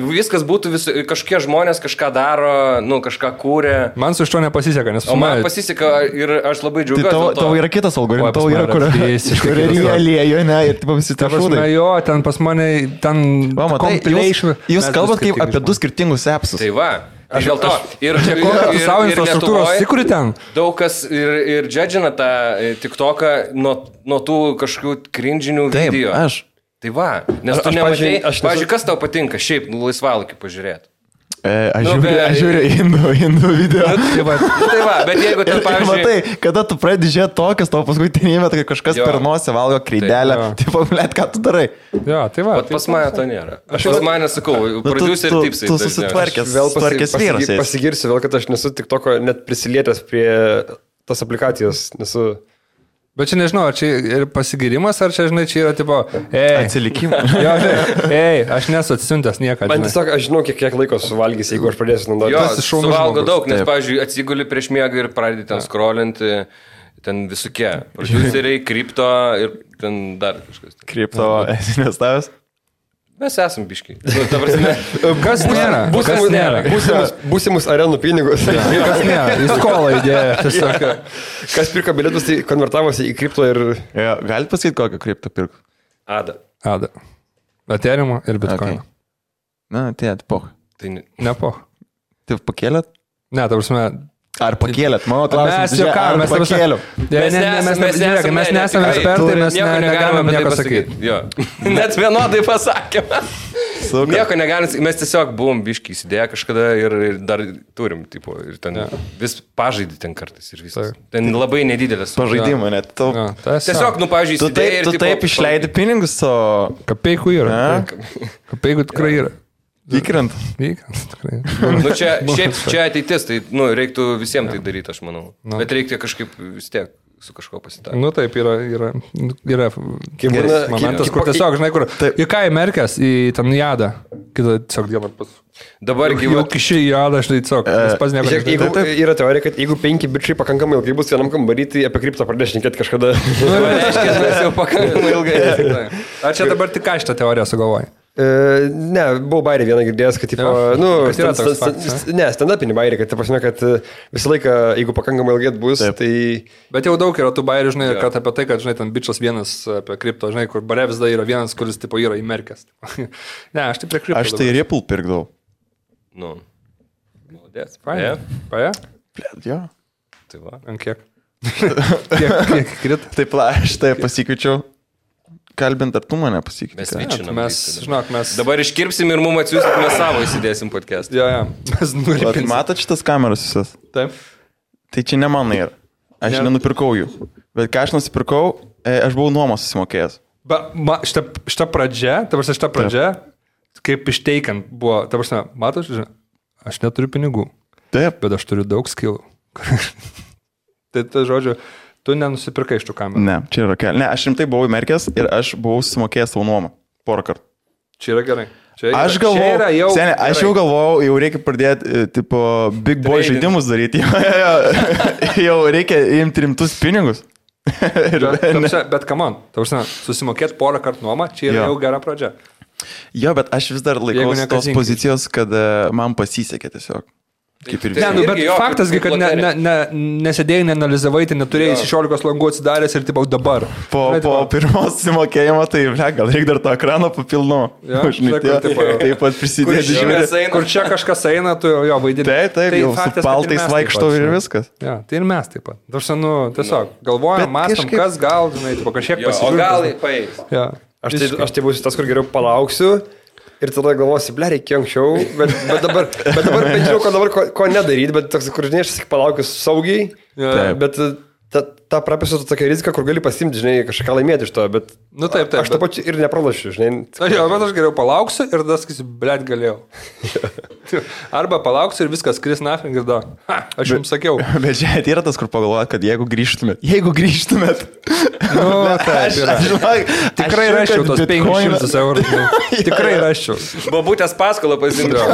C: viskas būtų, kažkokie žmonės kažką daro, nu, kažką kūrė.
B: Man su iš to nepasiseka, nes...
C: O man pasiseka ir aš labai džiaugiuosi.
A: Tavo yra kitas algoritmas, tavo yra, kur realėjo, ne, ir tipo visi tie šūdai.
B: Jo, ten pas mane, ten compilation.
A: Jūs kalbat kaip apie du skirtingus appsus.
C: Tai va. Aš dėl to. Ir
B: savo infrastruktūros įkuri ten.
C: Daug kas ir džedžina tą TikToką nuo tų kažkokių cringe'inių video.
A: Taip, aš.
C: Tai va, nes tu nematai, pavyzdžiui, kas tau patinka šiaip laisvalaikį pažiūrėti?
A: Aš žiūriu indų video.
C: Tai va, bet jeigu ten, pavyzdžiui...
A: Matai, kada tu pradedi žiūrėti tokias, tau paskui tenėjame, kai kažkas per nosį valgo kreidelę. Tipo, blėt, ką tu darai?
B: Jo, tai va.
C: Bet pas mane to nėra. Aš pas mane sakau, producer tipsai.
A: Tu susitvarkęs vyras.
D: Pasigirsiu vėl, kad aš nesu TikToko net prisilietęs prie tas aplikacijos. Nesu...
B: Bet čia nežinau, ar čia ir pasigirimas, ar čia, žinai, čia yra tipo,
A: Atsilikimas.
B: Jo, aš nesu atsiuntęs niekada.
D: Man tiesiog, aš žinau, kiek laiko suvalgys, jeigu aš pradėsiu naudoti.
C: Jo,
B: šaunus
C: suvalgo
B: žmogus.
C: daug, nes, pavyzdžiui, atsiguli prieš miegą ir pradedi ten skrolinti, ten visokie. Produceriai, kripto ir ten dar kažkas.
A: Kripto esi investavęs?
C: Mes esam biškiai. Ta prasme,
B: Kas nėra? Kas nėra?
D: Būsimus arenų pinigus.
B: Kas nėra? Į skolą įdėjo. Tiesiog.
D: Kas pirko bilietus, tai konvertavosi į kripto ir...
A: Jo, galite pasakyti, kokią kriptą pirk?
C: Ada.
B: Ethereum ir Bitcoin.
A: Na, poh.
C: Tai
B: Ne po.
A: Tai pakėlėt?
B: Ne, ta prasme.
A: Ar pakėlėt? Mano klausimas.
B: Mes juokavome, mes
A: pakėliau.
B: Mes nesame ekspertai, mes negalime nieko sakyti.
C: Jo. Net vienodai pasakėme. Nieko negalim, mes tiesiog buvom biškiai įsidėję kažkada ir dar turim, tipo, ir ten vis pažaidį ten kartais ir viskas. Ten labai nedidelės.
A: Pažaidimą net.
C: Tiesiog, pavyzdžiui, įsidėjai ir...
A: Tu taip išleidi pinigus, o...
B: Kapeikų yra. Kapeikų tikrai yra.
A: Įkrent.
B: Tikrai.
C: Čia ateitis, tai reiktų visiems tai daryti, aš manau. Bet reikia kažkaip vis tiek su kažko pasitarti.
B: Taip, yra momentas, kur tiesiog, žinai, kur į ką įmerkęs, į tam jadą, kitą tiesiog dieną pas.
C: Dabar
B: jau kiši jadą, žinai, tiesiog, pas nieko.
D: Yra teorija, kad jeigu 5 bičiai pakankamai ilgai bus vienam kambarį, tai apie kriptą pradės šnekėti kažkada.
C: Reiškia, mes jau pakankamai ilgai.
B: Ar čia dabar tik ką šitą teoriją sugalvoji?
D: Ne, buvau bairį vieną girdėjęs, kad, stand-upinį bairį, kad, kad visą laiką, jeigu pakankamai ilgai bus, tai...
B: Bet jau daug yra tų bairių, žinai, kad apie tai, kad, žinai, ten bičas vienas apie kripto, žinai, kur bare vis dar yra vienas, kuris, tipo, yra įmerkęs. Ne, aš tai prie kripto.
A: Aš tai Ripple pirkdavau.
C: Молодец.
B: Paja?
A: Jo.
C: Tai va.
B: Ant kiek? Kiek krit?
A: Taip, aš tai pasikviečiau. Kalbint, ar tu mane pasikvietei?
C: Mes vyčinam.
B: Mes...
C: Dabar iškirpsim ir mums atsiųsit, mes savo įsidėsim podcast.
B: Jo. Mes nuripinsim.
A: Matot šitas kameras visas?
B: Taip.
A: Tai čia ne mano yra. Aš nenupirkau jų. Bet ką aš nusipirkau, aš buvau nuomos susimokėjęs.
B: Šitą pradžią, kaip išteikiant buvo, ta prasme, matot, aš neturiu pinigų.
A: Taip.
B: Bet aš turiu daug skillų. Tai žodžiu, tu nenusipirkai iš tų kamerų.
A: Ne, čia yra keli. Ne, aš rimtai buvau įmerkęs ir aš buvau sumokėjęs savo nuomą. Porą kartų.
B: Čia yra gerai.
A: Aš galvojau, aš jau galvojau, jau reikia pradėti, tipo, big boy žaidimus daryti. Jau reikia imti rimtus pinigus.
B: Bet come on, susimokėti porą kartų nuomą, čia yra jau gera pradžia.
A: Jo, bet aš vis dar laikausi tos pozicijos, kad man pasisekė tiesiog.
B: Bet faktasgi, kad nesėdėjai, neanalizavai, tai neturėjai 16 langų atsidaręs ir tipo dabar.
A: Po pirmos sumokėjimo, tai gal reikia dar tą ekraną papilnu. Taip pat prisidėti žiūrėti.
B: Kur čia kažkas eina, tu jo vaidini.
A: Taip, jau su paltais vaikštau ir viskas.
B: Ja, tai ir mes taip pat. Tiesiog galvojam, mastom, kas gal, žinai, kažkiek pasižiūrėti.
C: O gal paeis.
D: Aš tai būsiu tas, kur geriau palauksiu. Ir tada galvosi, ble, reikia anksčiau, bet dabar bent žinau, ko nedaryti, bet toks, kur žinai, aš palaukiu saugiai, bet tą prapėsiu tokia rizika, kur gali pasimti, žinai, kažką laimėti iš to, bet
B: taip,
D: aš to pačiu ir nepralašiu, žinai.
B: Jo, bet aš geriau palauksiu ir tada sakysiu, ble, galėjau. Arba palauksiu ir viskas, kris nafing ir da. Aš jums sakiau. Bet
A: čia yra tas, kur pagalvojat, kad jeigu grįžtumėt.
B: Tikrai raščiau tos 500 eurų. Tikrai raščiau.
C: Babutės paskolą pasimčiau.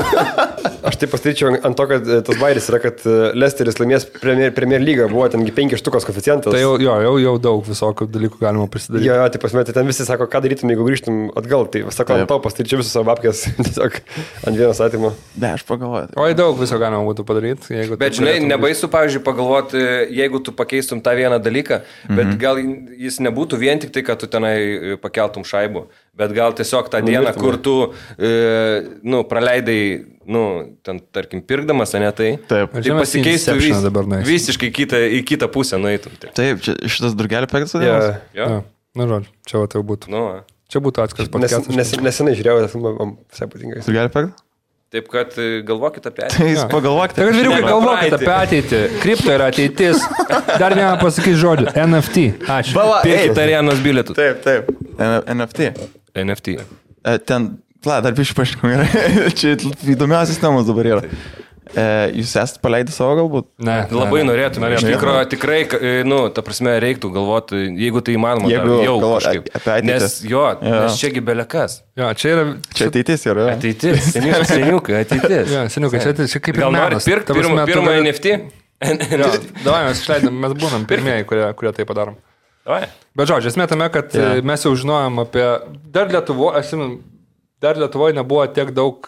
D: Aš taip pastaryčiau ant to, kad tas bairis yra, kad Leicesteris laimės Premier lygą, buvo tengi 5 štukos koeficientas.
B: Tai jau daug visokių dalykų galima prisidaryti.
D: Jo, tai pasmėti, ten visi sako, ką darytum, jeigu grįžtum atgal. Tai sako, ant to pastaryčiau visus savo apkės, tiesiog ant vienos atimų.
A: Ne, aš pagalvoju.
B: Oi, daug viso galima būtų padaryti.
C: Bet žinai, nebaisu, pavyzdžiui, pagalvoti, jeigu tu pakeistum tą vieną dalyką, bet gal jis nebūtų vien tik tai, kad tu tenai pakeltum šaibų, bet gal tiesiog tą dieną, kur tu praleidai, ten, tarkim, pirkdamas, ne tai, tai pasikeistų visiškai į kitą pusę nueitum.
A: Taip, šitas drugelį pektas vadinamas?
C: Jo.
B: Na, žodžiu, čia tai būtų. Čia būtų atskiras podcastas.
D: Nesenai žiūrėjau, visai patinka.
A: Drugelį pektas?
C: Taip, kad galvokit apie
A: ateitį. Tai pagalvokite.
B: Tai, kad vyriukai, galvokit apie ateitį. Kripto yra ateitis. Dar vieną pasakyti žodį. NFT. Ačiū.
C: Pirkit arenos bilietų.
A: Taip. NFT. Ten, dar biškai paaiškinau, čia įdomiausias temas dabar yra. Jūs esate paleidę savo galbūt?
B: Ne.
C: Labai norėtume. Iš tikrųjų, tikrai, ta prasme, reiktų galvoti, jeigu tai įmanoma, jau kažkaip.
A: Apie ateitį.
C: Nes čiagi belekas.
B: Jo, čia yra...
A: Čia ateitis yra.
C: Ateitis, seniukai, ateitis.
B: Jo, seniukai, čia kaip ir
C: gal nori pirkti pirmą NFT?
B: Davai, mes išleidom, mes būnam pirmieji, kurie tai padarom.
C: Davai.
B: Bet žodžiu, esmė tame, kad mes jau žinojom apie... Dar Lietuvoje nebuvo tiek daug...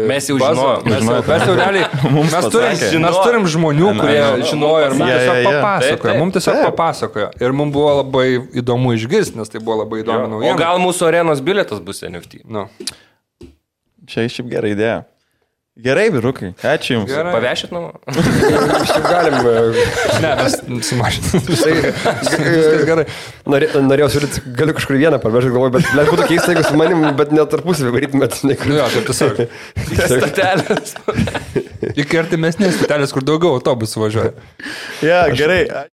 C: Mes jau žinojom.
B: Mes jau realiai... Mes turim žmonių, kurie žinojo ir mums tiesiog papasakojo. Mums tiesiog papasakojo. Ir mums buvo labai įdomu išgirsti, nes tai buvo labai įdomu naujiena.
C: O gal mūsų arenos bilietas bus NFT?
B: Nu.
C: Čia
A: šiaip gera idėja. Gerai, vyrukai. Ačiū Jums.
C: Pavešit namo?
D: Šiaip galim.
B: Ne, mes sumažinam.
D: Viskas gerai. Norėjau siūlyti, galiu kažkur vieną parvežti, galvoju, bet būtų keista, jeigu su manim, bet net tarpusavį varytumėt.
B: Jo, taip tiesiog.
C: Statelės.
B: Iki artimesnės statelės, kur daugiau autobusų važiuoja.
A: Ja, gerai.